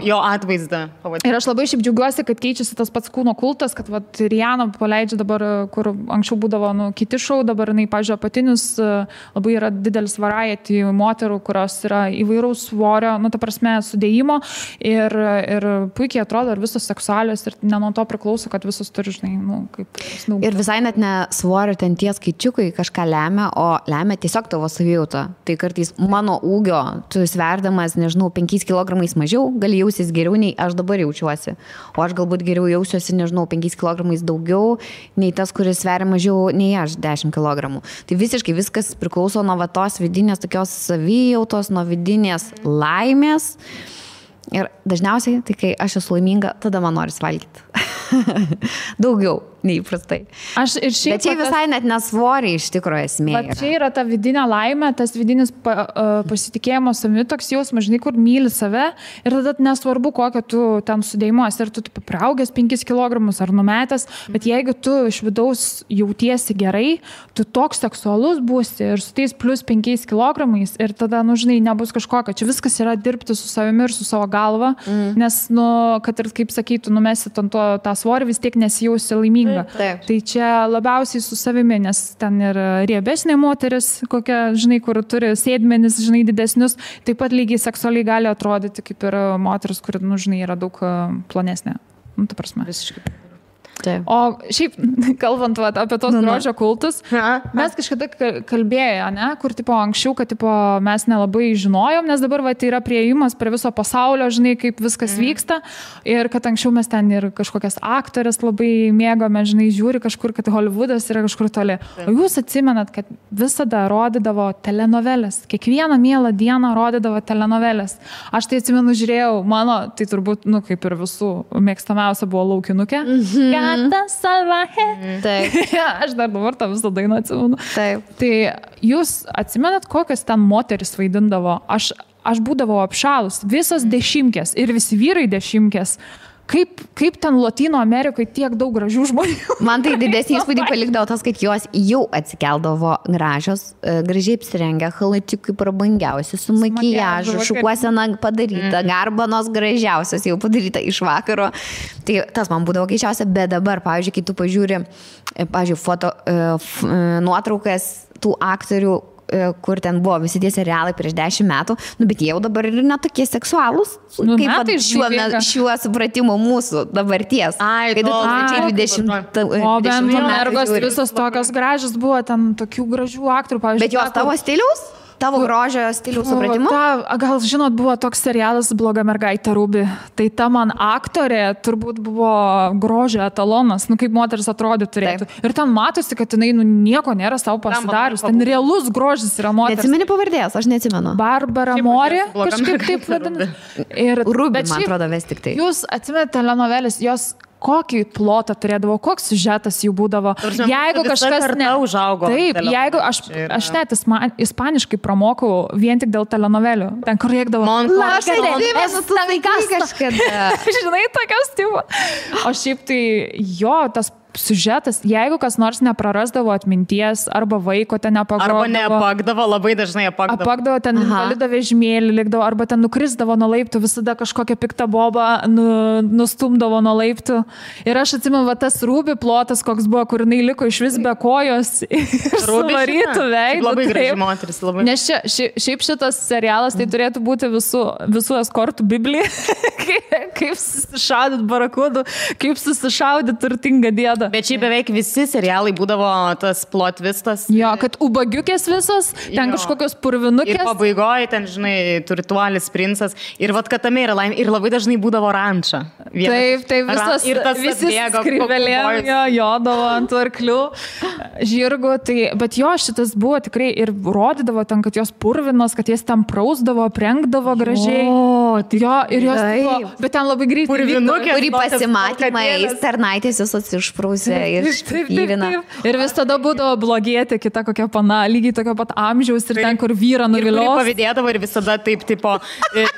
Speaker 2: jo atvaizdą.
Speaker 3: Ir aš labai šiaip džiaugiuosi, kad keičiasi tas pats kūno kultas, kad Rihanna paleidžia dabar, kur anksčiau būdavo kiti šou, dabar jinai, pažiūrėjau, apatinius, labai yra didelis variety moterų, kurios yra įvairaus svorio, nu, ta prasme, sudėjimo ir puikiai atrodo ir visos seksualios ir ne nuo to priklauso, kad visos turi, žinai, nu, kaip snaugti.
Speaker 1: Ir visai net ne svorio ten tie skaičiukai kažką lemia, o lemia tiesiog tavo savijauta. Tai kartais mano ūgio, tu sverdamas, nežinau, 5 kg mažiau, gali jausis geriau nei aš dabar jaučiuosi. O aš galbūt geriau jausiuosi, nežinau, 5 kg daugiau nei tas, kuris sveria mažiau nei aš 10 kg. Tai visiškai viskas priklauso nuo tos vidinės tokios savijautos, nuo vidinės laimės. Ir dažniausiai, tai kai aš esu laiminga, tada man noris valgyti. Daugiau neįprastai. Bet čia visai net nesvoriai iš tikrųjų esmė.
Speaker 3: Bet čia yra ta vidinė laimė, tas vidinis pasitikėjimo savimi, toks jausmas, žinai, kur myli save ir tada nesvarbu, kokio tu ten sudėjimuos, ar tu priaugęs 5 kg ar numetęs, bet jeigu tu iš vidaus jautiesi gerai, tu toks seksualus būsi ir su tais plus 5 kg ir tada, nu, žinai, nebus kažkokio. Čia viskas yra dirbti su savimi ir su savo galva, nes, nu, kad ir, kaip sakytų, numesi tą svorį, vis tiek nesijausi laiminga.
Speaker 1: Taip.
Speaker 3: Tai čia labiausiai su savimi, nes ten ir riebesnė moteris, kokia, žinai, kur turi sėdmenis, žinai, didesnius, taip pat lygiai seksualiai gali atrodyti kaip ir moteris, kuri, nu, žinai, yra daug plonesnė. Nu, ta prasme.
Speaker 2: Visiškai.
Speaker 3: Taip. O šiaip, kalbant apie tos grožio kultus, mes kažkada kalbėjo, ne, kur tipo anksčiau, kad tipo, mes nelabai žinojom, nes dabar tai yra priėjimas prie viso pasaulio, žinai, kaip viskas vyksta ir kad anksčiau mes ten ir kažkokias aktorės labai mėgome, žinai, žiūri kažkur, kad Hollywoodas yra kažkur toli. O jūs atsimenat, kad visada rodydavo telenovelės, kiekvieną mielą dieną rodydavo telenovelės. Aš tai atsimenu, žiūrėjau, mano, tai turbūt, nu, kaip ir visų mėgstamiausia buvo Laukinukė.
Speaker 1: Taip.
Speaker 3: Aš dar dabar tą visą dainą atsimenu.
Speaker 1: Taip.
Speaker 3: Tai jūs atsimenat, kokias ten moteris vaidindavo? Aš būdavau apšalus, visos dešimkės ir visi vyrai dešimkės. Kaip ten Latino Amerikoje tiek daug gražių žmonių?
Speaker 1: Man tai didesnį įspūdį palikdavo tas, kad jos jau atsikeldavo gražios, gražiai apsirengę, halatikai prabangiausi, su makijažu, šukuosena padaryta, garbanos gražiausios jau padaryta iš vakaro. Tai tas man būdavo keičiausia, bet dabar, pavyzdžiui, kai tu pažiūri, nuotraukas tų aktorių, kur ten buvo visi tie serialai prieš 10 metų, nu, bet jie jau dabar ir netokie seksualūs,
Speaker 3: nu,
Speaker 1: kaip šiuo supratimu mūsų dabarties. Kai 2020
Speaker 3: O bent mergos visos tokios gražios buvo, ten tokių gražių aktorių, pavyzdžiui.
Speaker 1: Bet jos tavo stiliaus? Tavo grožio stiliaus supratimu?
Speaker 3: Gal žinot, buvo toks serialas Bloga mergaitė Ruby. Tai ta man aktorė turbūt buvo grožio etalonas, nu kaip moteris atrodė turėtų. Taip. Ir ten matosi, kad jinai nieko nėra savo pasidarius. Ten realus grožis yra moteris.
Speaker 1: Neatsimeni pavardės, aš neatsimenu.
Speaker 3: Barbara Mori, kažkaip taip vadinasi.
Speaker 1: Ruby, man atrodo, vis tik tai.
Speaker 3: Jūs atsimenate telenovelės, jos kokį plotą turėdavo, koks siužetas jų būdavo. Jeigu kažkas
Speaker 2: užaugo.
Speaker 3: Taip, jeigu aš net ispaniškai pramokau vien tik dėl telenovelių. Ten kur rėkdavo. Žinai, tokios tipo. O šiaip tai jo, tas siužetas, jeigu kas nors neprarasdavo atminties, arba vaiko ten nepagrodavo.
Speaker 2: Arba neapakdavo, labai dažnai apakdavo.
Speaker 3: Apakdavo, ten valido vežimėlį likdavo, arba ten nukrisdavo nuo laiptų, visada kažkokią piktą bobą nustumdavo nuo laiptų. Ir aš atsimenu, va, tas Rūbi plotas, koks buvo, kur jinai liko iš vis be kojos ir suvarytų veidų.
Speaker 2: Labai graži moteris, labai.
Speaker 3: Nes šiaip šitas serialas tai turėtų būti visų eskortų biblija. Kaip susišaudyt barakudų, kaip susišaudyt turtingą dėdą.
Speaker 2: Bet šiaip beveik visi serialai būdavo tas plot twistas.
Speaker 3: Jo, kad ubagiukės visos, ten kažkokios purvinukės.
Speaker 2: Ir pabaigoje ten, žinai, turtuolis princas. Ir vat, kad tame yra laimė. Ir labai dažnai būdavo ranča.
Speaker 3: Taip, visas, visi skrivelėm jodavo ant arklių, žirgų. Tai, bet jo, šitas buvo tikrai ir rodydavo ten, kad jos purvinos, kad jas ten prausdavo, aprengdavo gražiai. Jo, ir jos buvo, bet ten labai greitai.
Speaker 1: Purvinukė, kurį pasimatymais tarnaitės visos išprūsė ir išpyvina.
Speaker 3: Ir vis tada būdavo blogėti kita kokia pana, lygiai tokio pat amžiaus ir ten, kur vyrą nuvilios.
Speaker 2: Ir pavydėdavo ir visada taip, tipo,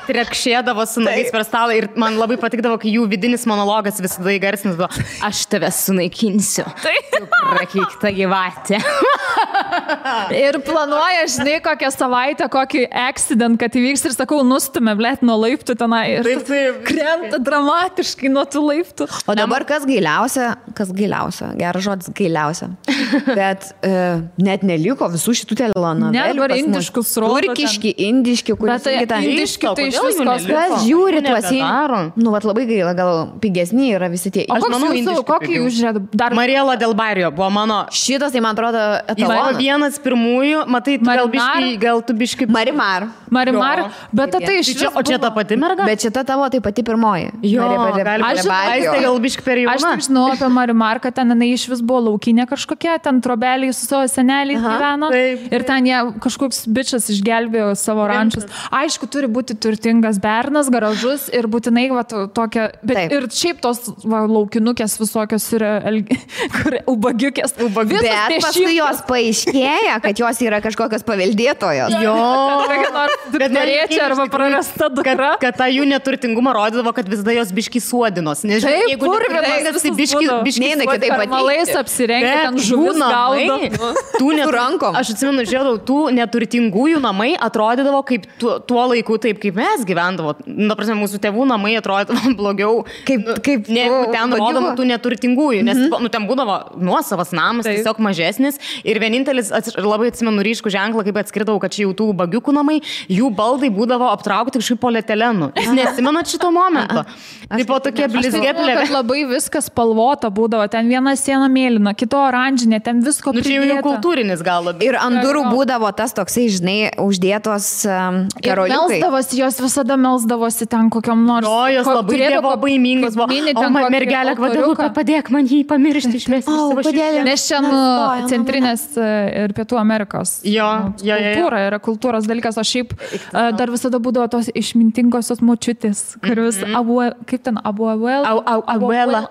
Speaker 2: trekšėdavo su nagais per stalą ir man labai patikdavo, kai jų vidinis monologas visada įgarsinis buvo, aš tave sunaikinsiu. Prakeikta gyvatė.
Speaker 3: Ir planuoja, žinai, kokią savaitę, kokį accident, kad įvyks ir sakau, nustumė, blėt, nuo laiptų tenai ir krenta dramatiškai nuo tų laiptų.
Speaker 1: O dabar kas gailiausia, geras žodis gailiausia, bet net neliko visų šitų telenovelių.
Speaker 3: Ne, dabar indiškus rodo.
Speaker 1: Turkiški, indiški, kuris
Speaker 3: ten. Indiški tai iš viskos.
Speaker 1: Kas žiūri tuos į... Nu, vat labai gaila, gal pigesni yra visi tie.
Speaker 3: O kokį jūs žiūrėt?
Speaker 2: Mariela Del Barrio buvo mano...
Speaker 1: Šitas, tai man atrodo, etalonas.
Speaker 2: Vienas pirmųjų, matai, gal tu biškai...
Speaker 1: Marimar,
Speaker 3: bet tai iš viso...
Speaker 2: O čia ta pati merga?
Speaker 1: Bet šita tavo tai pati pirmoji.
Speaker 2: Jo, gal biškai per jauna.
Speaker 3: Aš tik žinau apie Marimar, kad ten jinai iš vis buvo laukinė kažkokia, ten trobeliai su savo seneliais gyveno. Ir ten jie kažkoks bičas išgelbėjo savo rančius. Aišku, turi būti turtingas bernas, garažus ir būtinai va, tokia... Bet ir šiaip tos laukinukės visokios yra ubagiukės.
Speaker 1: Bet paskui jos paaiškėja, kad jos yra kažkokios paveldėtojos.
Speaker 2: Jo.
Speaker 3: Norėčiau arba prarasta dukra.
Speaker 2: Kad tą jų neturtingumą rodydavo, kad visada jos biški suodinos. Nežinau, jeigu neturtingas, tai biški
Speaker 3: malais apsirengia, ten žuvis gaudo.
Speaker 2: Tų rankom. Aš atsimenu, žiūrėjau, tų neturtingųjų namai atrodydavo kaip tuo laiku, taip kaip mes gyvendavo. Na, prasme, mūsų tėvų namai atrodydavo blogiau, kaip ten rodoma tų neturtingųjų. Nes ten būdavo nuosavas namas, tiesiog mažesnis. Ir vienintelis, labai atsimenu ryškų ženklą, kaip atskirdavau, kad čia jau tų bagiukų namai, jų baldai būdavo aptraukti kažkaip polietilenu. Jūs neatsimenat šito momento? Taip po tokie blizgėplė.
Speaker 3: Labai viskas spalvota būdavo. Ten viena siena mėlyna, kito oranžinė, ten visko pridėta.
Speaker 2: Čia jau kultūrinis gal labiau.
Speaker 1: Ir ant durų būdavo tas toksai, žinai, uždėtos karoliukai.
Speaker 3: Jos visada melsdavosi ten kokiam nors.
Speaker 2: O, jos labai dievo baimingos buvo. O, mergelė, Gvadelupe, padėk man jį pamiršti, išmesti iš savo širdį.
Speaker 3: Nes čia centrinės ir Pietų Amerikos kultūra yra kultūros dalykas, o šiaip dar visada būdavo tos išmintingosios močiutės, kuris kaip ten, abuela.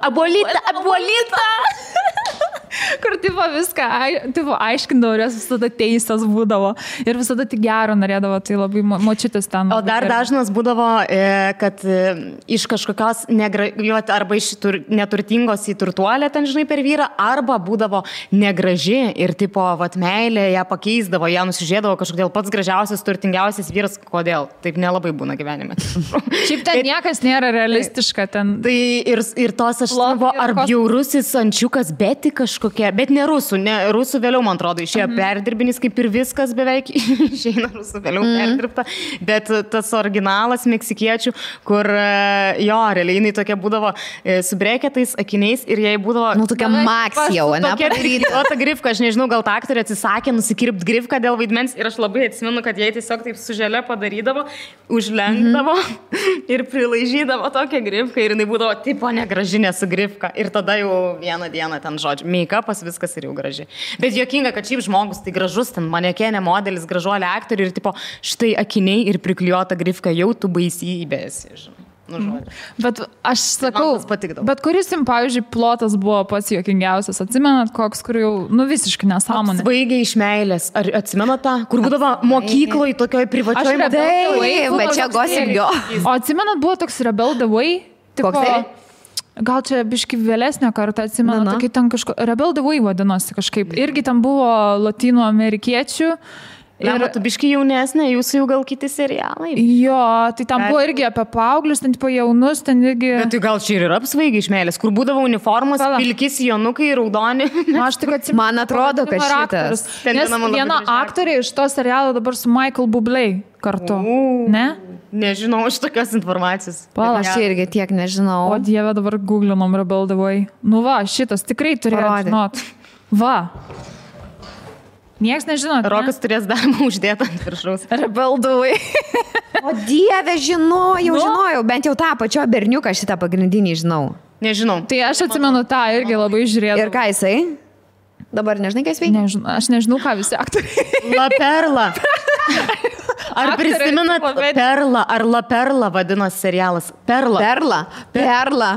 Speaker 3: Abuolita. Kur tipo viską aiškindavo ir jos visada teisės būdavo ir visada tik gero norėdavo, tai labai močiutės ten.
Speaker 2: O dar dažnas būdavo, kad iš kažkokios arba iš neturtingos į turtuolę ten, žinai, per vyrą, arba būdavo negraži ir tipo, vat meilė ją pakeisdavo, ją nusižiūrėdavo kažkodėl pats gražiausias, turtingiausias vyras, kodėl? Taip nelabai būna gyvenime.
Speaker 3: Šiaip ten niekas nėra realistiška ten.
Speaker 2: Tai ir tos aš buvo, ar bjaurusis ančiukas, bet kažkokia, bet ne rusų, rusų vėliau, man atrodo, išėjo perdirbinis, kaip ir viskas beveik išeina rusų vėliau perdirbta, bet tas originalas meksikiečių, kur jo, realiai jinai tokia būdavo su breketais, akiniais ir jai būdavo...
Speaker 1: Nu, tokia Max jau, ne?
Speaker 2: O ta grifka, aš nežinau, gal ta aktorė atsisakė nusikirpti grifką dėl vaidmens ir aš labai atsimenu, kad jai tiesiog taip su želė padarydavo, užlenkdavo ir prilaižydavo tokią grifką ir jinai būdavo tipo negražinė su grifka ir tada jau vieną dieną ten žodžiu, make-upas viskas ir jau graži. Bet juokinga, kad šiaip žmogus tai gražus, ten manekenė modelis, gražuolė aktorių ir tipo štai akiniai ir priklijuota grifka, jau tu baisybės, žinai.
Speaker 3: Bet aš sakau, bet kuris jums, pavyzdžiui, plotas buvo pats juokingiausias, atsimenat koks, kur jau, nu visiškai nesąmonė.
Speaker 2: Svaigiai iš meilės, ar atsimenat tą, kur būdavo mokykloje, tokioj privačioj
Speaker 1: bet čia Gossip Girl.
Speaker 3: O atsimenat, buvo toks Rebel the Way?
Speaker 1: Koks tai?
Speaker 3: gal čia biški vėlesnė kartą atsimenu, kai ten Rebel the Way vadinosi kažkaip. Irgi ten buvo latino amerikiečių.
Speaker 2: Ir tu biški jaunesnė, jūsų jau gal kiti serialai.
Speaker 3: Jo, tai ten buvo irgi apie paauglius, ten tipo jaunus, ten irgi...
Speaker 2: Bet tai gal čia ir yra apsvaigi iš meilės, kur būdavo uniformos, pilkis, jonukai, raudoni.
Speaker 3: Aš tik atsimenu.
Speaker 1: Man atrodo, kad šitas.
Speaker 3: Nes viena aktorė iš to serialo dabar su Michael Bublé kartu. Ne?
Speaker 2: Nežinau iš tokios informacijos.
Speaker 1: Aš irgi tiek nežinau.
Speaker 3: O Dieve, dabar googlinom Rebel the Way. Nu va, šitas tikrai turėjo žinot. Va. Niekas nežinot.
Speaker 2: Rokas turės darbą uždėtą ant viršaus.
Speaker 3: Rebel the Way.
Speaker 1: O Dieve, žinojau, bent jau tą pačio berniuką šitą pagrindinį žinau.
Speaker 2: Nežinau.
Speaker 3: Tai aš atsimenu tą irgi labai žiūrėjau.
Speaker 1: Ir ką jisai? Dabar nežinai, ką jis veikia?
Speaker 3: Aš nežinau, ką visi aktoriai.
Speaker 2: La Perla. Ar prisimenat Perla, ar La Perla vadinosi serialas? Perla.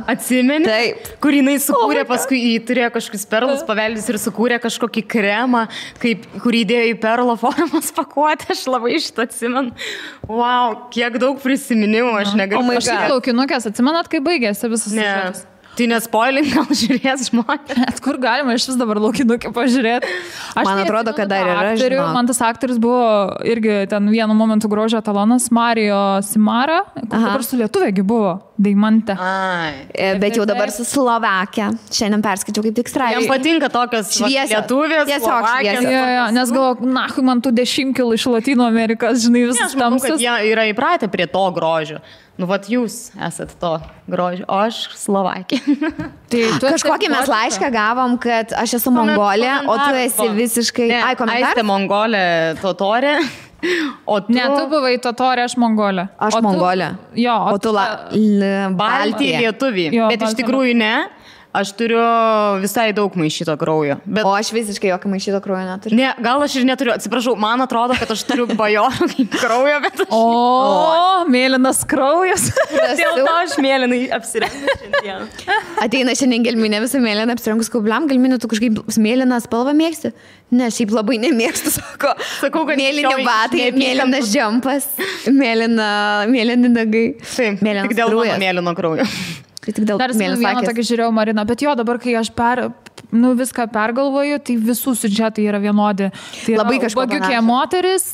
Speaker 2: Atsimeni?
Speaker 1: Taip.
Speaker 2: Kur jinai sukūrė, paskui jį turėjo kažkokius perlus paveldys ir sukūrė kažkokį kremą, kur įdėjo į perlo formas pakuotę, aš labai šitą atsimenu. Wow, kiek daug prisiminimų, aš negaliu.
Speaker 3: Aš laukinukės, atsimenat, kai baigėsi visas siužetas?
Speaker 2: Tai nespoilink, gal žiūrės žmonės.
Speaker 3: Net kur galima iš vis dabar laukinukį pažiūrėti.
Speaker 1: Man atrodo, kad dar yra, žinok.
Speaker 3: Man tas aktorius buvo irgi ten vienu momentu grožio etalonas, Mario Simara, kur dabar su lietuviegi buvo, Deimante.
Speaker 1: Bet jau dabar su Slovakija. Šiandien perskaičiau kaip tik straipsnį.
Speaker 2: Jam patinka tokios lietuvės, Slovakijos.
Speaker 3: Nes galvoju, nahui man tų 10 kilų iš Latino Amerikos, žinai, visas tamsus.
Speaker 2: Kad jie yra įpratę prie to grožio. Nu, vat jūs esat to grožio, o aš Slovakija.
Speaker 1: Tai kažkokį mes laišką gavom, kad aš esu Mongolė, o tu esi visiškai...
Speaker 2: Aistė Mongolė, totorė.
Speaker 3: Ne, tu buvai totorė, aš Mongolė.
Speaker 1: Aš Mongolė.
Speaker 3: Jo,
Speaker 1: o tu
Speaker 2: Baltija lietuvį. Bet iš tikrųjų ne. Aš turiu visai daug maišyto kraujo.
Speaker 1: O aš visiškai jokio maišyto kraujo neturiu.
Speaker 2: Ne, gal aš ir neturiu. Atsiprašau, man atrodo, kad aš turiu bajorų kraujo, bet aš...
Speaker 3: O, mėlynas kraujas.
Speaker 2: Dėl to aš mėlynai apsirengiu šiandien.
Speaker 1: Ateina šiandien gelminė visą mėlyną apsirengus kaubliam. Gelminė, tu kažkaip mėlyną spalvą mėgsti? Ne, šiaip labai nemėgstu, sakau, kad mėlyni batai, mėlynas džempas, mėlyni nagai.
Speaker 2: Taip, tik dėl mano mėlyno kraujo.
Speaker 3: Dar vieną tokį žiūrėjau, Marina, bet jo, dabar, kai aš viską pergalvoju, tai visų siužetai yra vienodi. Tai
Speaker 1: labai kažkokia
Speaker 3: bagiukė moteris,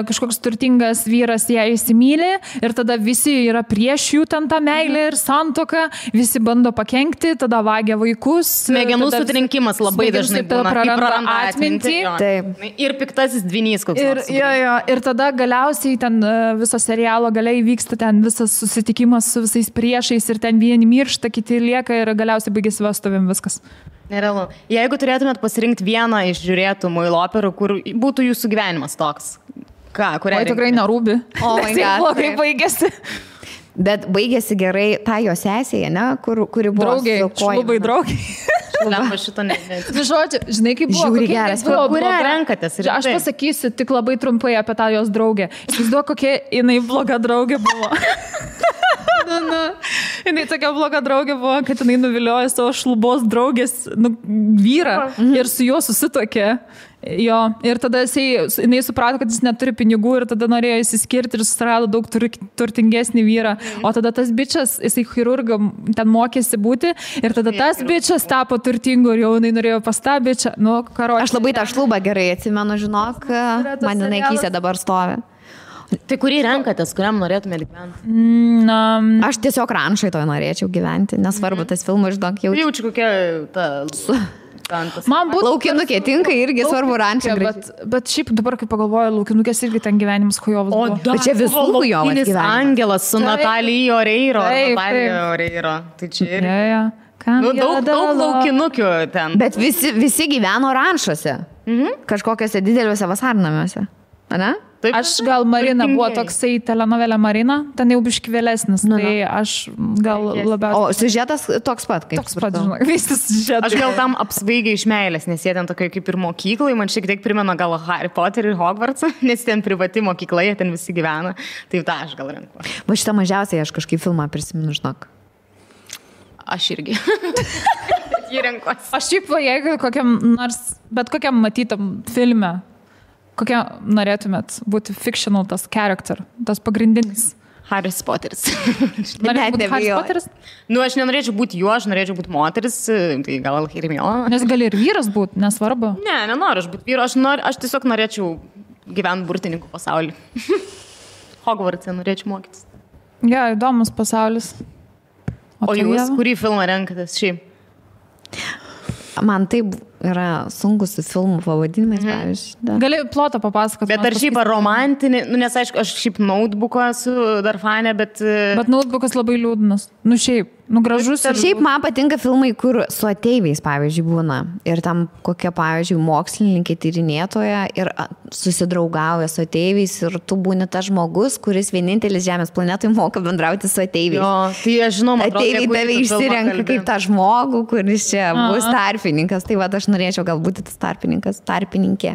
Speaker 3: kažkoks turtingas vyras ją įsimylė ir tada visi yra prieš jų ten tą meilę ir santuoką, visi bando pakenkti, tada vagia vaikus.
Speaker 2: Smegenų sutrinkimas labai dažnai būna, praranda atmintį. Ir piktasis dvynys koks nors.
Speaker 3: Ir tada galiausiai ten viso serialo galiai vyksta ten visas susitikimas su visais priešais ir ten vieni miršta, kiti lieka ir galiausiai baigėsi vestuvėm viskas.
Speaker 2: Nerealu. Jeigu turėtumėt pasirinkti vieną iš žiūrėtų muilo operų, kur būtų jūsų gyvenimas toks, kurią...
Speaker 3: Oi, tikrai nerūbi.
Speaker 1: O,
Speaker 3: blogai baigėsi.
Speaker 1: Bet baigėsi gerai ta jo sesėje, ne? Kuri buvo
Speaker 3: draugiai, šlubai draugiai.
Speaker 2: Lempa šito ne.
Speaker 3: Žodžiu, žinai, kaip buvo.
Speaker 1: Žiūri geras.
Speaker 2: Kurią renkatės?
Speaker 3: Aš pasakysiu tik labai trumpai apie tą jos draugę. Įsivaizduoju, kokia jinai bloga draugė buvo. Jinai tokia bloga draugė buvo, kad jinai nuviliojo savo šlubos draugės vyrą ir su juo susituokė. Jo, ir tada jinai suprato, kad jis neturi pinigų ir tada norėjo įsiskirti ir susirado daug turtingesnį vyrą. O tada tas bičas, jisai chirurgą ten mokėsi būti ir tada tas bičas tapo turtingu ir jau jinai norėjo pas tą bičą.
Speaker 1: Aš labai tą šlubą gerai atsimenu, žinok, man jinai akise dabar stovi.
Speaker 2: Tai kurį renkatės, kuriam norėtumėte gyventi?
Speaker 1: Aš tiesiog ranšai to norėčiau gyventi, nesvarbu, tas filmas, žinok, jau...
Speaker 2: Jaučiu kokia ta...
Speaker 3: Man būtų...
Speaker 1: Laukinukė tinka irgi svarbu ranšai.
Speaker 3: Bet šiaip dabar, kai pagalvoju, laukinukės irgi ten gyvenimas hujovas buvo.
Speaker 1: Bet čia visų hujovas gyvenimas.
Speaker 2: Angelas su Natalija Oreiro. Tai čia ir... Daug laukinukių ten.
Speaker 1: Bet visi gyveno ranšuose. Kažkokiuose dideliuose vasarnamiuose. Ane?
Speaker 2: Taip,
Speaker 3: aš gal Marina buvo toksai telenovelė Marina, ten jau biški vėlesnis, tai aš gal labiausiai...
Speaker 1: O siužetas toks pat, kaip
Speaker 3: toks pat, žinok, visas siužetas.
Speaker 2: Aš gal tam apsvaigiai iš meilės, nes jie ten tokia kaip ir mokyklai, man šiek tiek primena gal Harry Potter ir Hogwartsą, nes ten privati mokykla, jie ten visi gyvena, tai tą aš gal renku.
Speaker 1: Va šitą mažiausiai aš kažkaip filmą prisimenu, žinok.
Speaker 2: Aš irgi. Jį renkuosi.
Speaker 3: Aš šiaip, jeigu bet kokiam matytam filme, kokia norėtumėt būti fictional tas character, tas pagrindinis?
Speaker 2: Haris Poteris.
Speaker 3: Norėčiau būti Haris Poteris?
Speaker 2: Nu, aš nenorėčiau būti juo, aš norėčiau būti moteris, tai gal Hermiona.
Speaker 3: Nes gali ir vyras būti, nesvarbu.
Speaker 2: Ne, nenoriu aš būti vyru, aš tiesiog norėčiau gyventi burtininkų pasaulį. Hogwarts'e norėčiau mokytis.
Speaker 3: Ja, įdomus pasaulis.
Speaker 2: O jūs, kurį filmą renkatės šiaip?
Speaker 1: Man taip yra sunkus su filmų pavadinimais, pavyzdžiui.
Speaker 3: Gali plotą papasakoti.
Speaker 2: Bet ar šiaip romantinį, nu, nes aišku, aš šiaip Notebooką esu dar fanė, bet...
Speaker 3: Bet Notebookas labai liūdnas. Nu šiaip, nu gražus.
Speaker 1: Šiaip man patinka filmai, kur su ateiviais, pavyzdžiui, būna. Ir tam kokia, pavyzdžiui, mokslininkė tyrinėtoja ir susidraugauja su ateiviais ir tu būni tas žmogus, kuris vienintelis Žemės planetoje moka bendrauti su ateiviais.
Speaker 2: Jo, tai aš žinau, man
Speaker 1: ateiviai tave išsirenka kaip tą žmogų, kuris čia bus tarpininkas. Tai va, aš norėčiau galbūt tas tarpininkė.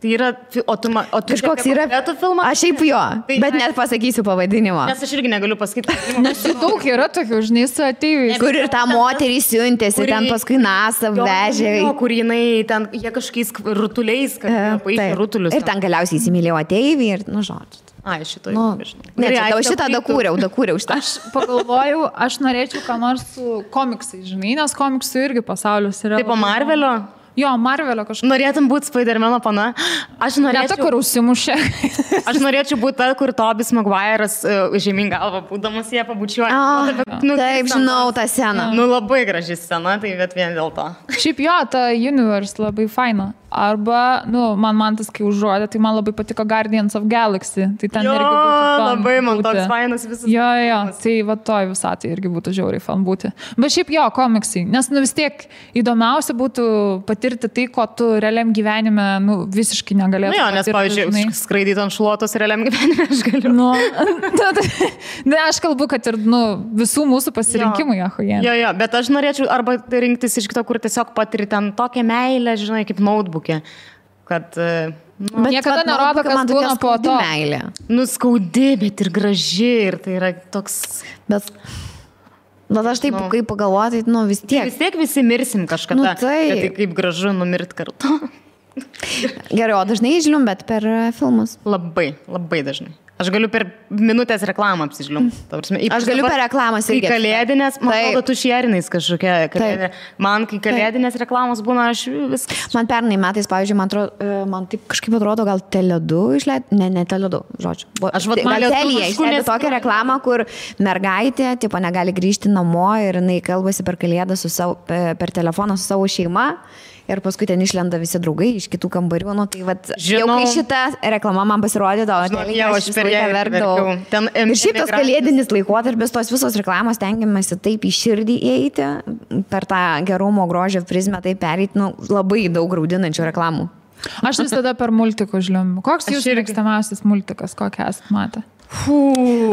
Speaker 2: Tai yra, o tu
Speaker 1: kažkoks yra
Speaker 2: filmas?
Speaker 1: Aš šiaip jo, tai, bet net pasakysiu pavadinimą.
Speaker 2: Nes aš irgi negaliu pasakyti.
Speaker 3: Nes daug yra tokių, žinai, su ateiviais.
Speaker 1: Kur ir tą moterį siuntėsi, ten paskui NASA vežė.
Speaker 2: Kur jinai ten, jie kažkokiais rutuliais, paaiškė rutulius.
Speaker 1: Ir ten galiausiai įsimylėjo ateivį ir, nu, žodžiu.
Speaker 2: Ai, šito
Speaker 1: jau nežinau. Ne, tau šitą dakūriau šitą.
Speaker 3: Aš pagalvojau, aš norėčiau ką nors su komiksais, žinai, nes komiksų irgi pasaulis yra.
Speaker 2: Taip, po Marvelio?
Speaker 3: Jo, Marvelio kažkaip.
Speaker 2: Norėtum būti Spider-Mano pana? Aš norėčiau...
Speaker 3: Ne ta, kur užsimušė.
Speaker 2: Aš norėčiau būti ta, kur Tobis Maguire'as žemyn galvą būdamas jie pabučiuoja.
Speaker 1: Taip, žinau tą sceną.
Speaker 2: Nu, labai graži scena, tai bet vien dėl to.
Speaker 3: Šiaip jo, ta Universe labai faina. Arba, nu, man tas, kai užrodė, tai man labai patiko Guardians of Galaxy. Tai ten irgi būtų
Speaker 2: labai man toks fainas visas.
Speaker 3: Jo, tai va toj visatį irgi būtų žiauriai fan būti. Bet šiaip jo, komiksai. Nes, nu, vis tiek įdomiausia būtų patirti tai, ko tu realiam gyvenime, nu, visiškai negalėtum.
Speaker 2: Nu jo, nes, pavyzdžiui, skraidyti ant šluotos realiam gyvenime aš galiu.
Speaker 3: Nu, ne, aš kalbu, kad ir, nu, visų mūsų pasirinkimai, ahojė.
Speaker 2: Jo, bet aš norėčiau arba rinktis iš kito, kur tiesiog patiri ten tokią meilę, žinai, kaip Notebook. Kad...
Speaker 3: Bet niekada nerodo, kas būna po to.
Speaker 1: Meilė.
Speaker 2: Nu, skaudi, bet ir graži. Ir tai yra toks...
Speaker 1: Bet aš taip, kaip pagalvoju, tai, nu, vis tiek.
Speaker 2: Vis tiek visi mirsim kažkada.
Speaker 1: Nu, tai
Speaker 2: kaip gražu numirt kartu.
Speaker 1: Gerai, o dažnai žliumbėt per filmus?
Speaker 2: Labai, labai dažnai. Aš galiu per minutės reklamą apsižliumbti.
Speaker 1: Aš galiu per reklamas irgi.
Speaker 2: Kai kalėdinės, man atrodo, tu šierinais kažkokia kalėdinė. Man, kai kalėdinės reklamos būna, aš viskas.
Speaker 1: Man pernai metais, pavyzdžiui, man taip kažkaip atrodo, gal Tele2 išleido, ne Tele2, žodžiu.
Speaker 2: Aš
Speaker 1: gal Telija išleido tokią reklamą, kur mergaitė, tipo, negali grįžti namo ir jinai kalbasi per kalėdą per telefoną su savo šeima. Ir paskui ten išlenda visi draugai iš kitų kambarių. Nu, tai vat, jau kai šita reklama man pasirodė, aš visą laiką verkdavau. Ir šiaip tas kalėdinis laikotarpis, tos visos reklamos tengiamasi taip į širdį įeiti, per tą gerumo grožio prizmę taip pereiti, nu, labai daug graudinančių reklamų.
Speaker 3: Aš visada per multikus žliumbiu. Koks jūsų mėgstamiausias multikas, kokią esat matę?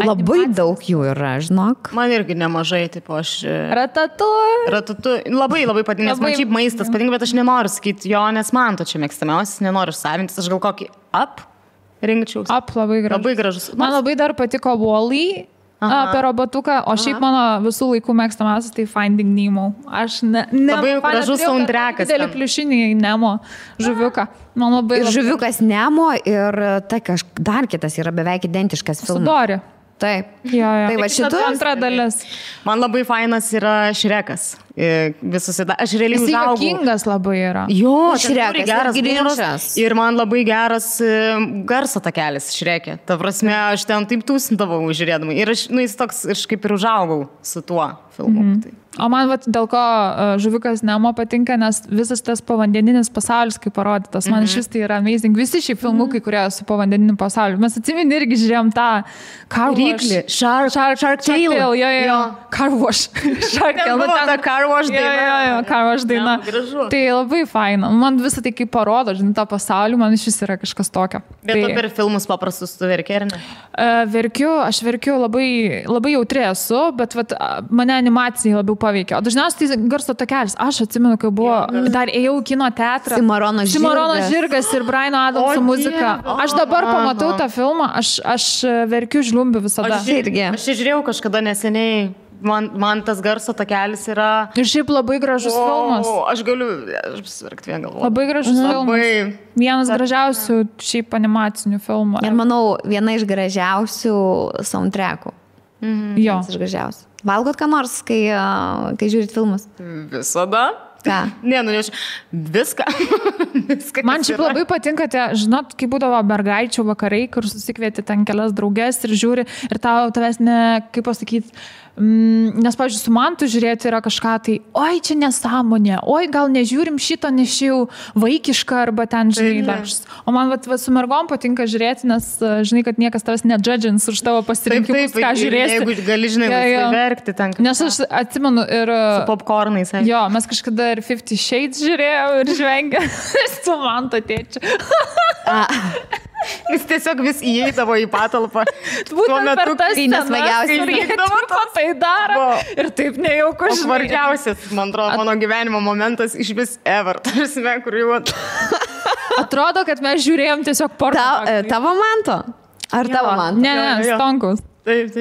Speaker 1: Labai daug jų yra, žinok.
Speaker 2: Man irgi nemažai, tipo aš...
Speaker 3: Ratatouille.
Speaker 2: Labai patinka, nes man šiaip maistas patinka, bet aš nenoriu sakyti jo, nes man to čia mėgstamiausias, nenoriu savintis, aš gal kokį Up rinkčiaus.
Speaker 3: Up labai gražus.
Speaker 2: Labai gražus.
Speaker 3: Man labai dar patiko Wall-E apie robotuką, o šiaip mano visų laikų mėgstamiausias tai Finding Nemo. Aš
Speaker 2: labai gražus soundtrackas.
Speaker 3: Didelį pliušinį Nemo žuviuką. Man labai
Speaker 1: ir žuviukas Nemo ir tai dar kitas yra beveik identiškas filmas.
Speaker 3: Su Dori.
Speaker 1: Taip.
Speaker 3: Jo.
Speaker 1: Tai va šitų
Speaker 3: antra dalis.
Speaker 2: Man labai fainas yra Šrekas. Aš realiai užaugau.
Speaker 3: Jis juokingas labai yra.
Speaker 2: Jo,
Speaker 1: Šrekas
Speaker 2: geras
Speaker 1: Grinčas.
Speaker 2: Ir man labai geras garso takelis Šrekė. Ta prasme, aš ten taip tūsindavau žiūrėdama. Ir aš, nu, jis toks, aš kaip ir užaugau su tuo filmu.
Speaker 3: O man dėl ko žuviukas Nemo patinka, nes visas tas povandeninis pasaulis, kaip parodytas, man šis tai yra amazing. Visi šie filmukai, kurie su povandeniniu pasauliu. Mes atsimeni irgi žiūrėjom tą Car Wash.
Speaker 2: Shark Tale.
Speaker 3: Jo. Car Wash. Shark Tale.
Speaker 2: Buvo ta Car Wash daina.
Speaker 3: Jo, Car Wash daina. Tai labai faina. Man visą tai kaip parodo, žinai, tą pasaulį, man šis yra kažkas tokio.
Speaker 2: Bet tu per filmus paprastus tu verki, ar ne?
Speaker 3: Aš verkiu labai jautri esu, bet mane animacijai labiau paveikia. O dažniausiai tai garso takelis. Aš atsimenu, kai buvo, dar ėjau į kino teatrą.
Speaker 1: Cimarono
Speaker 3: žirgas ir Briano Adamso muzika. Aš dabar pamatau tą filmą, aš verkiu žliumbiu visada.
Speaker 2: Aš žiūrėjau kažkada neseniai man tas garso takelis yra...
Speaker 3: Ir šiaip labai gražus filmas.
Speaker 2: Aš apsverkti vien galvoju.
Speaker 3: Labai gražus filmas. Vienas gražiausių šiaip animacinių filmų.
Speaker 1: Ir manau, viena iš gražiausių soundtrackų.
Speaker 3: Jo.
Speaker 1: Vienas iš gražiausių. Valgot ką nors, kai žiūrit filmus?
Speaker 2: Visada.
Speaker 1: Ką?
Speaker 2: Ne, viską.
Speaker 3: Man šiaip labai patinka, žinot, kai būdavo mergaičių vakarai, kur susikvieti ten kelias draugės ir žiūri, ir tavęs kaip pasakyti, nes, pavyzdžiui, su mantu žiūrėti yra kažką, tai, oi, čia nesąmonė, oi, gal nežiūrim šito, nes jau vaikiška, arba ten, žinai, dažs. O man su mergom patinka žiūrėti, nes, žinai, kad niekas tavęs nedžadžins už tavo pasirinkimus, ką žiūrėsi.
Speaker 2: Jeigu gali, žinai, verkti ten.
Speaker 3: Nes aš atsimenu ir...
Speaker 2: Su popcornais.
Speaker 3: Jo, mes kažkada ir 50 Shades žiūrėjau ir žvengė su manto tėčiu.
Speaker 2: Jis tiesiog vis įeidavo į patalpą.
Speaker 3: Būtent per tas
Speaker 1: nesmagiausias
Speaker 3: ir įeidavo tai daro. Ir taip nejauku.
Speaker 2: Svarbiausias, man atrodo, mano gyvenimo momentas iš vis ever. Tarsi, kur jau...
Speaker 3: Atrodo, kad mes žiūrėjom tiesiog porno.
Speaker 1: Tavo manto? Ar tavo manto?
Speaker 3: Ne, Stonkus.
Speaker 2: Taip.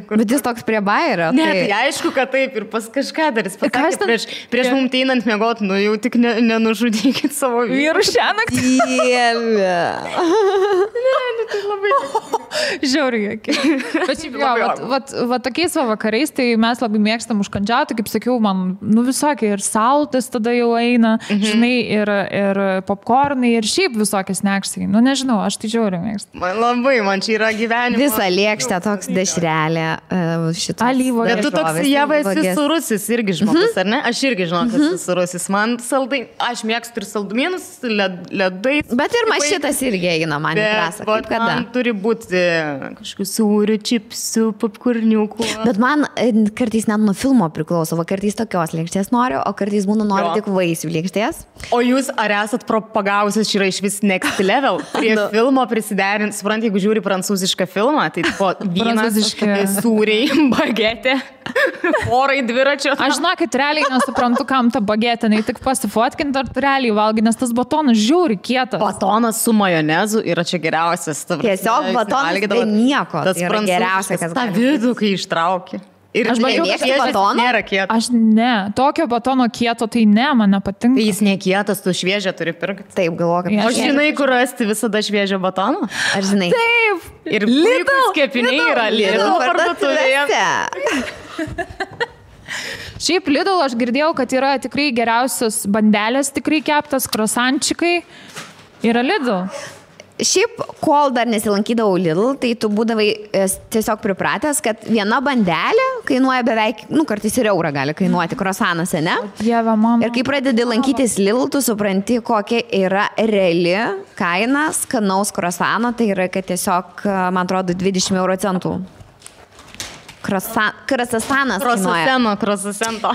Speaker 1: Bet jis toks prie bairio.
Speaker 2: Ne, tai aišku, kad taip ir pas kažką dar jis pasakė, prieš mums einant miegot, jau tik nenužudykit savo
Speaker 3: vyrų šią naktį.
Speaker 1: Dieve.
Speaker 2: Ne, tai labai...
Speaker 3: Žiauriai. Bet šiaip va tokiais vakarais, tai mes labai mėgstam užkandžiauti, kaip sakiau, man, visokie ir saltas tada jau eina, žinai, ir popcornai, ir šiaip visokie sneksai. Nežinau, aš tai žiauriai mėgstu.
Speaker 2: Man čia yra gyvenimas.
Speaker 1: Visą lėkštę toks dešrelė šitą.
Speaker 3: Alyvo.
Speaker 2: Bet tu toks Ieva esi surusis irgi žmogus, ar ne? Aš irgi žinau, kad esi surusis. Man saldai, aš mėgstu ir saldumynus, ledais.
Speaker 1: Bet ir mašitas irgi eina man į trasą.
Speaker 2: Bet man turi būti kažkokių sūrių, čipsų, popkurniukų.
Speaker 1: Bet man kartais net nuo filmo priklauso, kartais tokios lėkštės noriu, o kartais būna noriu tik vaisių lėkštės.
Speaker 2: O jūs ar esat propagavusios, čia yra iš vis next level, prie filmo prisiderint, suprant, jeigu žiūri prancūzišką filmą, tai po vynas, sūriai, bagetė, porai dviračio.
Speaker 3: Aš žinokit, realiai nesuprantu, kam ta bagetė, nei tik pasifotkinti, ar tu realiai valgai, nes tas batonas žiauri kietas.
Speaker 2: Batonas su majonezu yra čia geriausias.
Speaker 1: Tiesiog batonas be nieko.
Speaker 2: Tas yra geriausias, kas tą vidų, kai ištrauki. Ir
Speaker 1: aš mėgstu batoną.
Speaker 2: Nėra kieto.
Speaker 3: Aš ne. Tokio batono kieto tai ne, man nepatinka.
Speaker 2: Tai jis nekietas, tu šviežią turi pirkti.
Speaker 1: Taip, galvoju, kad...
Speaker 2: O žinai, kur rasti visada šviežią batoną?
Speaker 1: Aš žinai.
Speaker 3: Taip.
Speaker 2: Ir puikus kepiniai yra Lidl parduotuvėje.
Speaker 3: Šiaip Lidl aš girdėjau, kad yra tikrai geriausios bandelės, tikrai keptas, krosančikai. Yra Lidl.
Speaker 1: Šiaip, kol dar nesilankydavau Lidl, tai tu būdavai tiesiog pripratęs, kad viena bandelė kainuoja beveik, kartais ir eurą gali kainuoti krosanas, ne?
Speaker 3: Dieve, mano.
Speaker 1: Ir kai pradedi lankytis Lidl, tu supranti, kokia yra reali kaina skanaus krosano, tai yra, kad tiesiog, man atrodo, 20 euro centų. Krosasanas kainuoja.
Speaker 2: Krosasento.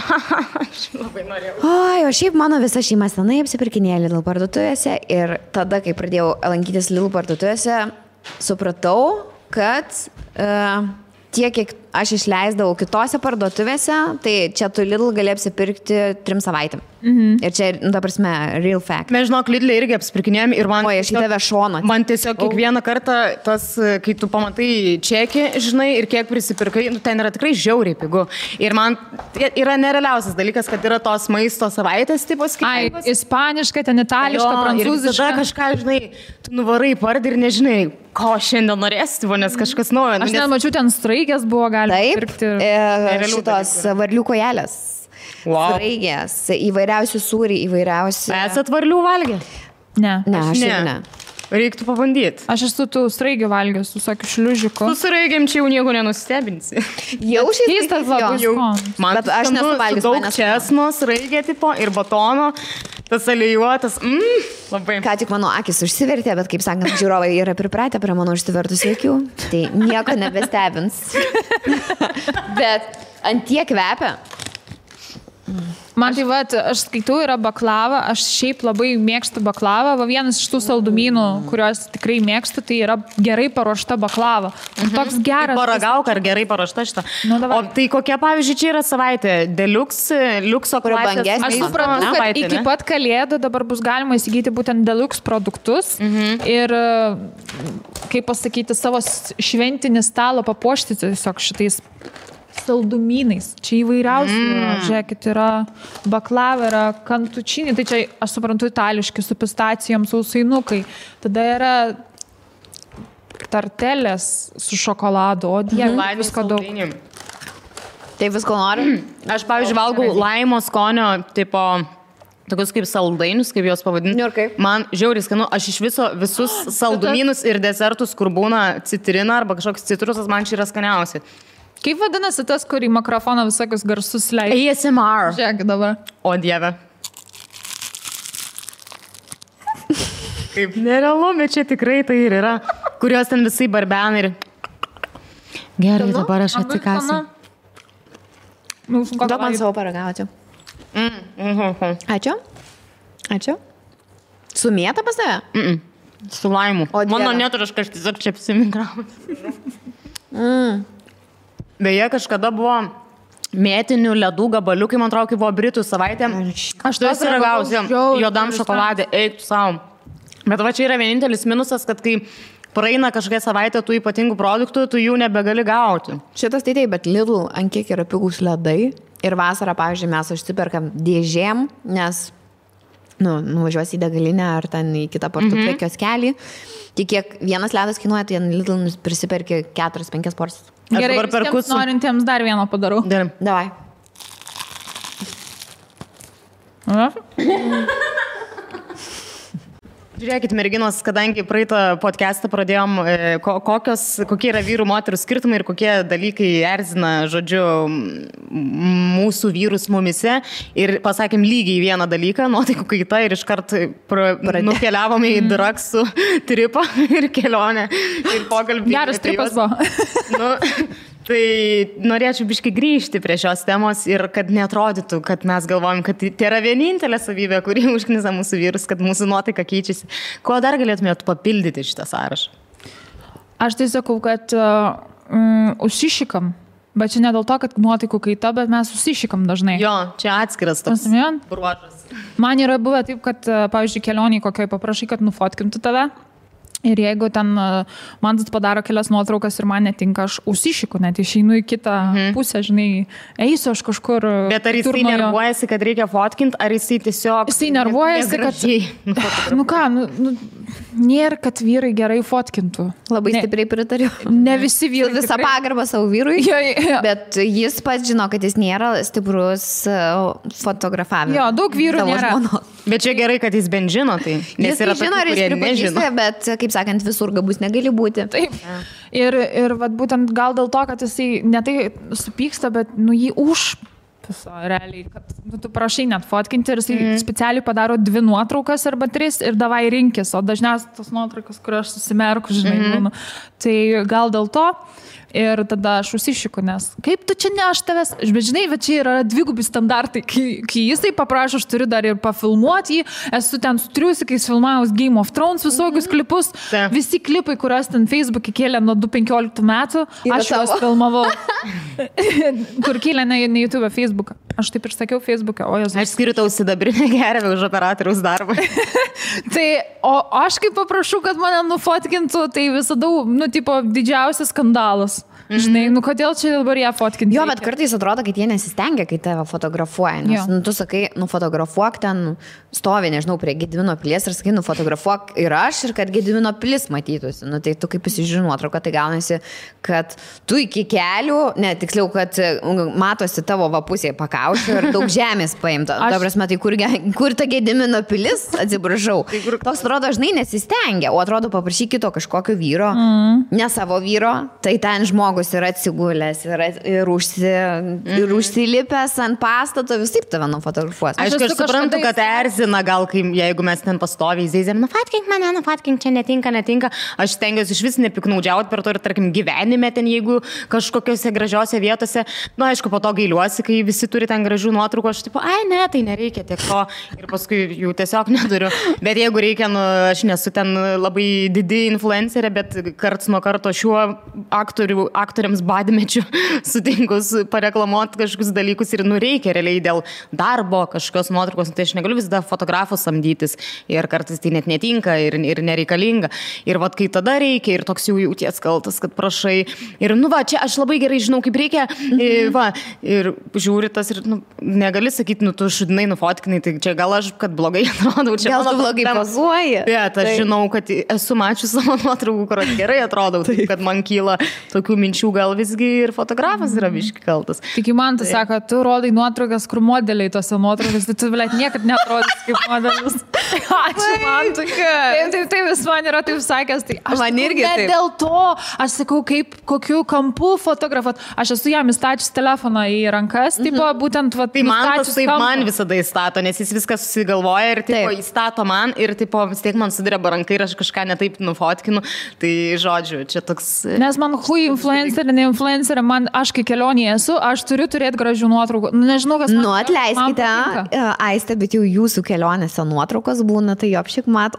Speaker 2: Aš labai norėjau.
Speaker 1: Oi, o šiaip mano visa šeima senai apsipirkinėjo Lidl parduotuvėse ir tada, kai pradėjau lankytis Lidl parduotuvėse, supratau, kad tiek, kiek aš išleisdavau kitose parduotuvėse, tai čia tu Lidl gali apsipirkti 3 savaitėm. Ir čia, ta prasme, real fact.
Speaker 2: Mes žinok, Lidl irgi apsipirkinėjom ir man...
Speaker 1: Oi, aš į tave šoną.
Speaker 2: Man tiesiog kiekvieną kartą tas, kai tu pamatai čekį, žinai, ir kiek prisipirkai, ten yra tikrai žiauriai pigu. Ir man yra nerealiausias dalykas, kad yra tos maisto savaitės tipos skirtingos.
Speaker 3: Ai, ispaniška, ten itališka, prancūziška.
Speaker 2: Ir tada kažką, žinai, tu nuvarai pardį ir nežinai, ko šiandien norėsi, nes kažkas naujo.
Speaker 3: Aš nemačiau, ten straigės buvo galima pirkti.
Speaker 1: Taip, šitos varlių kojelės.
Speaker 2: Wow.
Speaker 1: Straigės, įvairiausių sūriai, įvairiausių...
Speaker 2: Esat varlių valgę?
Speaker 3: Ne.
Speaker 1: Ne, aš ne.
Speaker 2: Reiktų pabandyti.
Speaker 3: Aš esu tų straigių valgęs, su tokiu šliužiku.
Speaker 2: Su straigiam čia jau nieko nenustebinsi.
Speaker 1: Jau šis
Speaker 3: tas labai skonis.
Speaker 2: Man aš nesu valgęs. Daug česno, straigė tipo ir batono, tas alijuotas. Labai.
Speaker 1: Ką tik mano akis užsivertė, bet kaip sakant, žiūrovai yra pripratę prie mano užsivertusių akių, tai nieko nebestebins. Bet ant tiek kvepia.
Speaker 3: Man tai aš skaitau, yra baklava, aš šiaip labai mėgstu baklavą, vienas iš tų saldumynų, kuriuos tikrai mėgstu, tai yra gerai paruošta baklava. Toks geras.
Speaker 2: Paragauk, ar gerai paruošta šitą. O tai kokia, pavyzdžiui, čia yra savaitė? Deluxe, liukso klasės?
Speaker 3: Aš suprantu, kad iki pat kalėdų dabar bus galima įsigyti būtent deluxe produktus ir, kaip pasakyti, savo šventinį stalą papuošti tiesiog šitais saldumynais. Čia įvairiausių, žiūrėkit, yra baklava, yra kantučinį, tai čia, aš suprantu, itališki, su pistacijom, sausainukai. Tada yra tartelės su šokoladu, o dieve, visko daug.
Speaker 1: Tai visko nori?
Speaker 2: Aš, pavyzdžiui, valgau laimo skonio, tipo, tokius kaip saldainius, kaip juos pavadinti.
Speaker 1: Ir kaip?
Speaker 2: Man žiauriai skanu, aš iš visus saldumynus ir desertus, kur būna citrina arba kažkoks citrusas, man čia yra skaniausi.
Speaker 3: Kaip vadinasi tas, kur į mikrofoną visokius garsus leidžia?
Speaker 2: ASMR.
Speaker 3: Žiūrėk dabar.
Speaker 2: O dieve. Kaip nerealu, bet čia tikrai tai ir yra, kurios ten visai barbena ir... Gerai, dabar aš atsikasiu.
Speaker 1: Duok man savo paragauti. Ačiū. Ačiū. Su mėta pas tave?
Speaker 2: Su laimu. Mano neturiškas tiesiog čia apsimigramas. Beje, kažkada buvo mėtinių ledų gabaliukai, man atrodo, kai buvo Britų savaitė. Aš tu esi ragausi juodam šokoladė, eik tu savo. Bet va čia yra vienintelis minusas, kad kai praeina kažkokia savaitė tų ypatingų produktų, tu jų nebegali gauti.
Speaker 1: Šitas tai taip, bet Lidl ant kiek yra pigus ledai. Ir vasarą, pavyzdžiui, mes užsiperkam dėžėm, nes nuvažiuosi į degalinę ar ten į kitą parduotuvę kioskelį. Tik kiek vienas ledas kainuoja, tai Lidl prisiperki 4-5 porcijas.
Speaker 3: Gerai, visiems norintiems dar vieną padarau.
Speaker 2: Gerai.
Speaker 1: Davai.
Speaker 2: Žiūrėkit, merginos, kadangi praeitą podcastą pradėjom, kokie yra vyrų moterų skirtumai ir kokie dalykai erzina, žodžiu, mūsų vyrus mumise. Ir pasakėm lygiai vieną dalyką, nuotaikų kaita ir iškart nukeliavome į draksų tripą ir kelionę ir pokalbį.
Speaker 3: Geras tripas buvo.
Speaker 2: Tai norėčiau biškai grįžti prie šios temos ir kad neatrodytų, kad mes galvojam, kad tai yra vienintelė savybė, kuri užknisa mūsų vyrus, kad mūsų nuotaika keičiasi. Ko dar galėtumėt papildyti šitą sąrašą?
Speaker 3: Aš tai sakau, kad užsišikam, bet čia ne dėl to, kad nuotaikų kaita, bet mes užsišikam dažnai.
Speaker 2: Jo, čia atskiras toks bruožas.
Speaker 3: Man yra buvę taip, kad, pavyzdžiui, kelioniai kokioj paprašai, kad nufotkintų tave. Ir jeigu ten man padaro kelias nuotraukas ir man netinka, aš užsišiku, net išeinu į kitą pusę, žinai, eisiu aš kažkur.
Speaker 2: Bet ar jisai nervuojasi, kad reikia fotkinti, ar jisai tiesiog...
Speaker 3: Jisai nervuojasi, kad... Nėra, kad vyrai gerai fotkintų.
Speaker 1: Labai stipriai pritariu.
Speaker 3: Ne visi vyrai.
Speaker 1: Visą pagarbą savo vyrui. Bet jis pats žino, kad jis nėra stiprus fotografavimas.
Speaker 3: Jo, daug vyrų nėra.
Speaker 2: Bet čia gerai, kad jis bent žino tai.
Speaker 1: Jis žino, ar jis pripažįsta, bet, kaip sakant, visur gabus negali būti.
Speaker 3: Taip. Ir vat, būtent gal dėl to, kad jisai ne tai supyksta, bet jį realiai, kad tu prašai net fotkinti ir jisai specialiai padaro 2 nuotraukas arba 3 ir davai rinkis, o dažniausiai tos nuotraukas, kur aš susimerku, žinai, tai gal dėl to. Ir tada aš užsišiku, nes kaip tu čia ne aš tavęs, bet žinai, bet čia yra dvigubi standartai, kai jisai paprašo, aš turiu dar ir pafilmuoti jį, esu ten su triusikais filmavus Game of Thrones visokius klipus, visi klipai, kuriuos ten Facebook'e kėlė nuo 2015 metų, aš juos filmavau, kur kėlė ne YouTube, Facebook'ą. Aš taip ir sakiau Facebook'e, o jos...
Speaker 2: Aš skiriu tau sidabrinę gervę už operatoriaus darbą.
Speaker 3: Tai, o aš kaip paprašau, kad mane nufotkintų, tai visada, tipo, didžiausias skandalas. Žinai, kodėl čia dabar ją fotkinti?
Speaker 1: Jo, bet kartais atrodo, kad jie nesistengia, kai tave fotografuoja. Nes tu sakai, nufotografuok ten, stovi, nežinau, prie Gedimino pilies ir sakai, nufotografuok ir aš, ir kad Gedimino pilis matytųsi. Tai tu kaip pasižiūrė nuotrauką, tai gaunasi, kad tu iki kelių, tiksliau, kad matosi tavo pusėje pakaušio ir daug žemės paimta. Ta prasme, tai kur ta Gedimino pilis, atsiprašau. Toks atrodo, žinai, nesistengia, o atrodo paprašy kito kažkokio vyro, ne savo vyro, tai ten žmogus yra atsigulęs ir užsilipęs ant pastato, visai tave nufotografuos.
Speaker 2: Aš suprantu, kad erzina gal, jeigu mes ten pastoviai zeizėm, nufatkink mane, nufatkink, čia netinka. Aš stengiuosi iš vis nepiknaudžiauti per to ir, tarkim, gyvenime ten, jeigu kažkokiose gražiose vietose. Aišku, po to gailiuosi, kai visi turi tą ten gražių nuotraukų, aš tipo, ai ne, tai nereikia tiek to ir paskui jų tiesiog neturiu. Bet jeigu reikia, nu, aš nesu ten labai didi influencerė, bet karts nuo karto šiuo aktoriams badmečiu sutinkus pareklamuoti kažkokius dalykus ir nu reikia realiai dėl darbo kažkokios nuotraukos, tai aš negaliu visada fotografų samdytis ir kartais tai net netinka ir nereikalinga. Ir vat kai tada reikia ir toks jau jauties kaltas, kad prašai. Ir nu va, čia aš labai gerai žinau, kaip reikia. Va, ir žiūri tas ir nu, negali sakyti, nu tu šudinai nufotkinai, tai čia gal aš, kad blogai atrodau. Čia
Speaker 1: gal tu blogai pozuoji.
Speaker 2: Bet aš žinau, kad esu mačius savo nuotraukų, kur gerai atrodau, tai kad man kyla tokių minčių, gal visgi ir fotografas yra biški kaltas.
Speaker 3: Tik man tu sako, tu rodai nuotraukas, kur modeliai tose nuotraukas, tai tu vilėt niekad netrodys kaip modelis. Ačiū man, tai vis man yra taip sakęs, tai aš man irgi ne dėl to, aš sakau, kaip kokiu kampu fotografuot. Aš esu jam įstačius telefoną į rankas, tipo, būtent va,
Speaker 2: tai man tas taip man visada įstato, nes jis viską susigalvoja ir tipo, įstato man ir tipo, vis tiek man sudireba rankai ir aš kažką netaip nufotkinu. Tai žodžiu, čia toks...
Speaker 3: Nes man hui influencerė, ne influencerė, man aš kai kelionėje esu, aš turiu turėti gražių nuotraukų. Nežinau, kas man...
Speaker 1: Nu, atleiskite, Aiste, bet jau jūsų kelionėse nuotraukos būna, tai jopšik mat,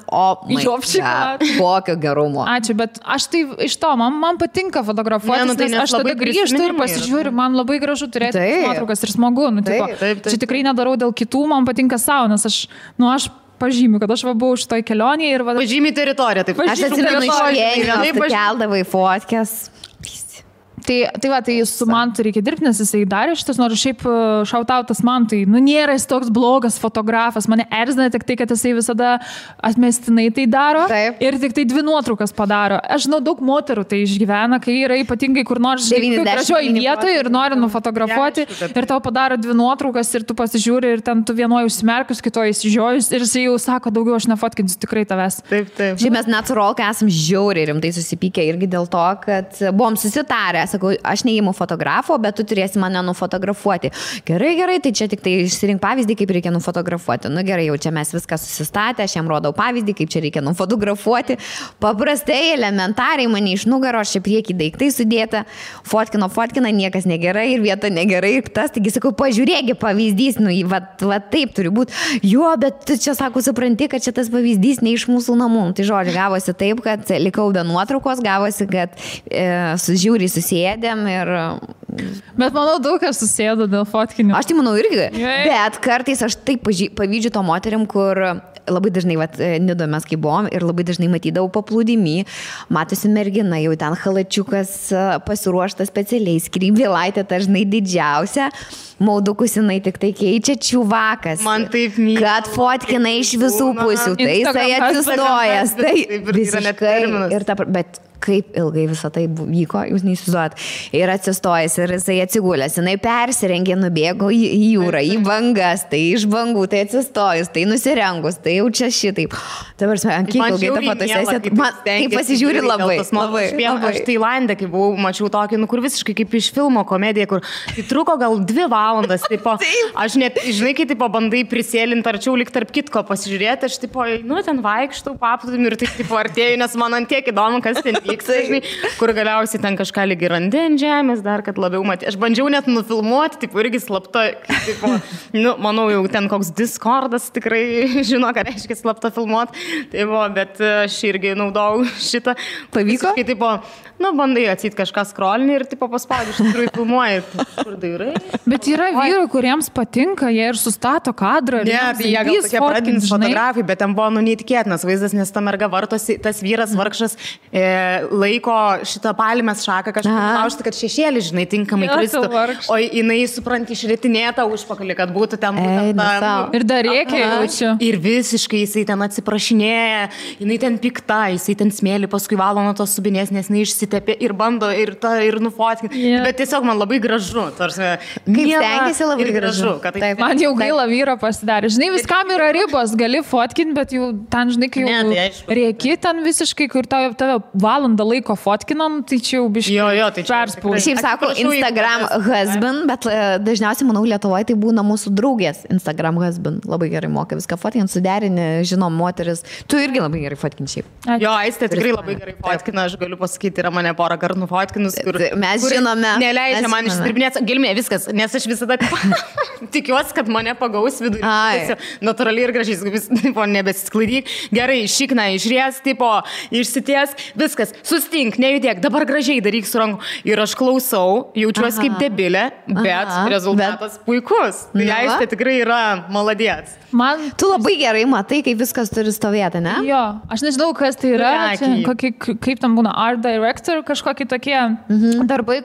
Speaker 1: kokio gerumo.
Speaker 3: Ačiū, bet aš tai iš to, man patinka fotografuoti, tai nes aš tada grįžtu ir pasižiūriu, man labai gražu turėti nuotraukas ir smagu. Nu, taip. Čia tikrai nedarau dėl kitų, man patinka savo, nes aš pažymiu, kad aš buvau šitoj kelionėje ir...
Speaker 2: Pažymi teritoriją, taip.
Speaker 1: Aš atsimenu išėjimą, keldavai fotkės.
Speaker 3: Tai su Mantu reikia dirbti, nes jisai darė šitas, nors šiaip šautautas Mantui, nu nėra jis toks blogas fotografas, mane erzina tik tai, kad jisai visada atmestinai tai daro. Taip. Ir tik tai 2 nuotraukas padaro. Aš žinau, daug moterų tai išgyvena, kai yra ypatingai kur nors gražioje vietoje ir nori nufotografuoti ir tau padaro 2 nuotraukas ir tu pasižiūri ir ten tu vienoje užsimerkus, kitoje įsižiojus ir jisai jau sako, daugiau aš nefotkinsiu tikrai tavęs.
Speaker 2: Taip.
Speaker 1: Šiaip mes net su Rolka esam žiauriai rimtai susipykę irgi dėl to, kad buvom susitarę. Sakau, aš neįimu fotografo, bet tu turėsi mane nufotografuoti. Gerai, tai čia tik tai išsirink pavyzdį, kaip reikia nufotografuoti. Nu gerai, jau čia mes viską susistatę, aš jam rodau pavyzdį, kaip čia reikia nufotografuoti. Paprastai, elementariai mane iš nugaro, aš čia priekį daiktai sudėta, fotkina, niekas negerai ir vieta negerai ir tas, taigi sakau, pažiūrėgi pavyzdys, nu, va taip turi būti. Jo, bet tu čia, sako, supranti, kad čia tas pavyzdys ne iš mūsų namų. Tai žodžiu, gavosi taip, kad likau be nuotraukos, gavosi, kad žiūri susėdėm ir...
Speaker 3: Bet manau, daug kas susėdo dėl fotkinių.
Speaker 1: Aš tai manau irgi. Bet kartais aš taip pavydžiu to moterim, kur labai dažnai, Nidoje mes kai buvom ir labai dažnai matydavau paplūdimy, matosi mergina, jau ten halačiukas pasiruoštas specialiai, skrybėlaitė dažnai didžiausia, maudukus jinai tik tai keičia čiuvakas.
Speaker 2: Man taip myli.
Speaker 1: Kad fotkina iš visų pusių, tai jisai atsistojęs, tai visiškai. Bet kaip ilgai visą tai vyko, jūs neįsivaizduojat. Ir atsistojęs, ir jisai atsigulęs, jinai persirengė, nubėgo į jūrą, į bangas, tai iš bangų, tai atsistojus, tai nusirengus, tai jau čia šitaip. Dabar, ant kiek ilgai ta fotosesija, tai pasižiūri labai.
Speaker 2: Aš Tailande, kai buvau, mačiau tokį, kur visiškai kaip iš filmo komedija, kur tai truko gal 2 valandas, tipo, aš net, žinai, kai tipo, bandai prisėlinti arčiau, lyg tarp kitko pasižiūrėti, aš tipo, nu, ten vaikštau, paplūdimį ir tai tipo artėju, nes man ant tiek įdomu, kas ten vyksta, žinai, kur galiausiai ten kažką lygiai randi ant žemės, dar kad labiau matė. Aš bandžiau net nufilmuoti, tipo, irgi slapta, tipo, nu, manau, jau ten koks Discordas tikrai žino, ką reiškia slapta filmuoti, tai buvo, bet aš irgi naudojau šitą.
Speaker 1: Pavyko?
Speaker 2: Kai, tipo, nu, bandai atsiti kažką scrollinį ir, tipo, paspaudži, iš tikrųjų filmuoji. Kur dairai?
Speaker 3: Bet yra vyrų, kuriems patinka, jie ir sustato kadrą.
Speaker 2: Ne, tai jie gal tokie pradinis fotografai, bet ten buvo, nu, neįtikėtinas vaizdas, nes ta merga vartosi, tas vyras vargšas laiko šitą palmės šaką kažkaip laužti, kad šešėlį, žinai, tinkamai kristų. O jinai, supranti, išritinėta užpakalį, kad būtų ten būtent ta...
Speaker 3: Ir dar reikia jaučiu.
Speaker 2: Ir visiškai jisai ten atsiprašinėja, jinai ten pikta, jisai ten smėlį paskui valo nuo tos subinės, nes jinai išsitepė ir bando ir nufotkinti. Bet tiesiog man labai gražu.
Speaker 1: Kaip stengiasi labai gražu.
Speaker 3: Man jau gaila vyro pasidarė. Žinai, viskam yra ribos, gali fotkinti, bet jau ten, žinai, kai jau rėki ten visiškai, kur tave valo valandą laiko fotkinam, tai čia jau biškai
Speaker 2: tai
Speaker 3: perspaudžiu.
Speaker 1: Šiaip sako Instagram husband, bet dažniausiai, manau, Lietuvoje tai būna mūsų draugės Instagram husband. Labai gerai moka viską fotkinti, suderinti, žinom, moteris. Tu irgi labai gerai fotkinti šiaip.
Speaker 2: Jo, Aistė tikrai labai gerai fotkina, aš galiu pasakyti, yra mane porą kartų nufotkinus, kur
Speaker 1: mes žinome.
Speaker 2: Neleidžia man išdirbinėti, gelmė viskas, nes aš visada tikiuosi, kad mane pagaus vidurį. Natūraliai ir gražiai, nebesisklaidyk. Gerai, šikna, išries, išsities, viskas, sustink, nejudėk, dabar gražiai daryk su ranku. Ir aš klausau, jaučiuosi kaip debilė, bet rezultatas puikus. Tai Aistė tikrai yra maladėts.
Speaker 1: Tu labai gerai matai, kaip viskas turi stovėti, ne?
Speaker 3: Jo, aš nežinau, kas tai yra, kaip tam būna art director, kažkokie tokie darbai,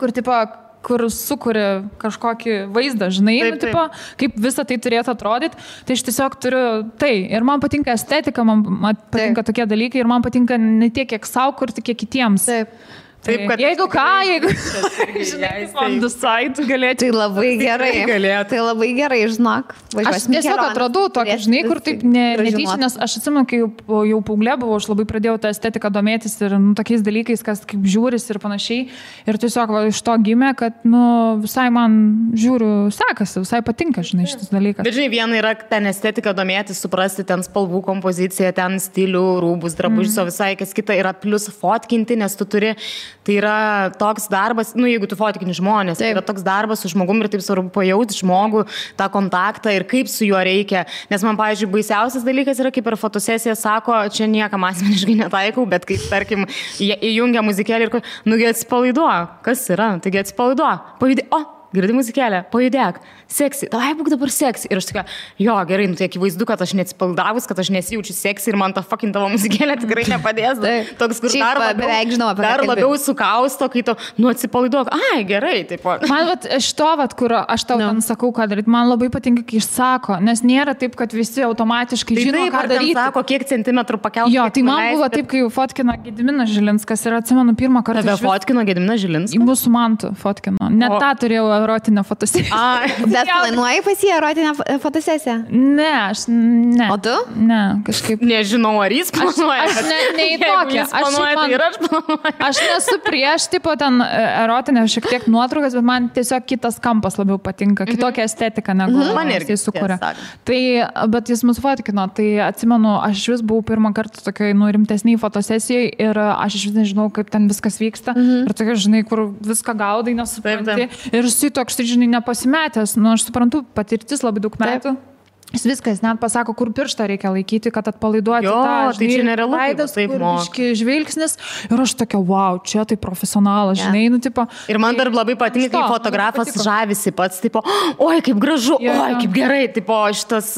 Speaker 3: kur sukuria kažkokį vaizdą, žinai, tipo, kaip visą tai turėtų atrodyti. Tai aš tiesiog turiu tai. Ir man patinka estetika, man patinka tokie dalykai ir man patinka ne tiek, kiek savo kurti, kiek kitiems.
Speaker 2: Taip, kad
Speaker 3: jeigu žinai, on the side galėtų.
Speaker 1: Tai labai gerai. Tai labai gerai, žinok.
Speaker 3: Aš tiesiog atradau tokį, žinai, kur taip netyčia, nes aš atsimenu, kai jau paauglė buvau, aš labai pradėjau tą estetiką domėtis ir tokiais dalykais, kas kaip žiūris ir panašiai. Ir tiesiog iš to gimė, kad visai man žiūriu sekasi, visai patinka, žinai, šitas dalykas.
Speaker 2: Bet žinai, viena yra ten estetika domėtis, suprasti ten spalvų kompoziciją, ten stilių, rūbus, drabužius, o visai kas kita yra plius fotkinti, nes tu turi. Tai yra toks darbas, jeigu tu fotkini žmonės, tai yra toks darbas su žmogumi ir taip svarbu pajauti žmogų, tą kontaktą ir kaip su juo reikia. Nes man, pavyzdžiui, baisiausias dalykas yra, kaip per fotosesiją sako, čia niekam asmeniškai netaikau, bet kaip, tarkim, įjungia muzikėlį ir, atsipalaiduok. Kas yra? Taigi atsipalaiduok. Pajudėk. Girdi muzikėlę, pajudėk, seksi, tavai būk dabar seksi. Ir aš tokia, jo, gerai, tai akivaizdu, kad aš neatsipaldavus, kad aš nesijaučiu seksi ir man ta fucking tavo muzikėlė tikrai nepadės. Toks, kur dar labiau sukausto, kai tu, atsipalaiduok. Ai, gerai, taip.
Speaker 3: Man kur aš tau sakau, ką daryti, man labai patinka, kai išsako, nes nėra taip, kad visi automatiškai žino, ką daryti.
Speaker 2: Sako, kiek centimetrų pakelti.
Speaker 3: Jo, tai man buvo taip, kai fotkino Gediminas Žilinskas ir atsimenu pirmą kartą.
Speaker 2: Tave fotkino Gediminas Žilinskas?
Speaker 3: Į mūsų mantų fotkino. Net tą turėjau erotinę fotosesiją.
Speaker 1: Bet planuoji pas jį erotinę fotosesiją?
Speaker 3: Ne.
Speaker 1: O tu?
Speaker 3: Ne, kažkaip.
Speaker 2: Nežinau, ar jis planuoja.
Speaker 3: Aš ne į tokią. Aš nesu prieš, tipo, ten erotinę šiek tiek nuotraukas, bet man tiesiog kitas kampas labiau patinka, kitokia estetika, negu jis sukuria. Tai, bet jis mus fotkino, tai atsimenu, aš vis buvau pirmą kartą tokiai, rimtesniai fotosesijai ir aš vis nežinau, kaip ten viskas vyksta. Ir tokia, žinai, kur viską gaudai, nesupranti. Ir toks, žinai, nepasimetęs, aš suprantu, patirtis labai daug metų. Jis viskas, net pasako, kur pirštą reikia laikyti, kad atpalaiduoti tą, žinai,
Speaker 2: tai čia nerealu,
Speaker 3: veidas, kur žvilgsnis. Ir aš tokia, wow, čia tai profesionalas, žinai, tipo.
Speaker 2: Ir man dar labai patinka, kai fotografas žavisi pats, tipo, oi, kaip gražu, oi, kaip gerai, tipo, šitas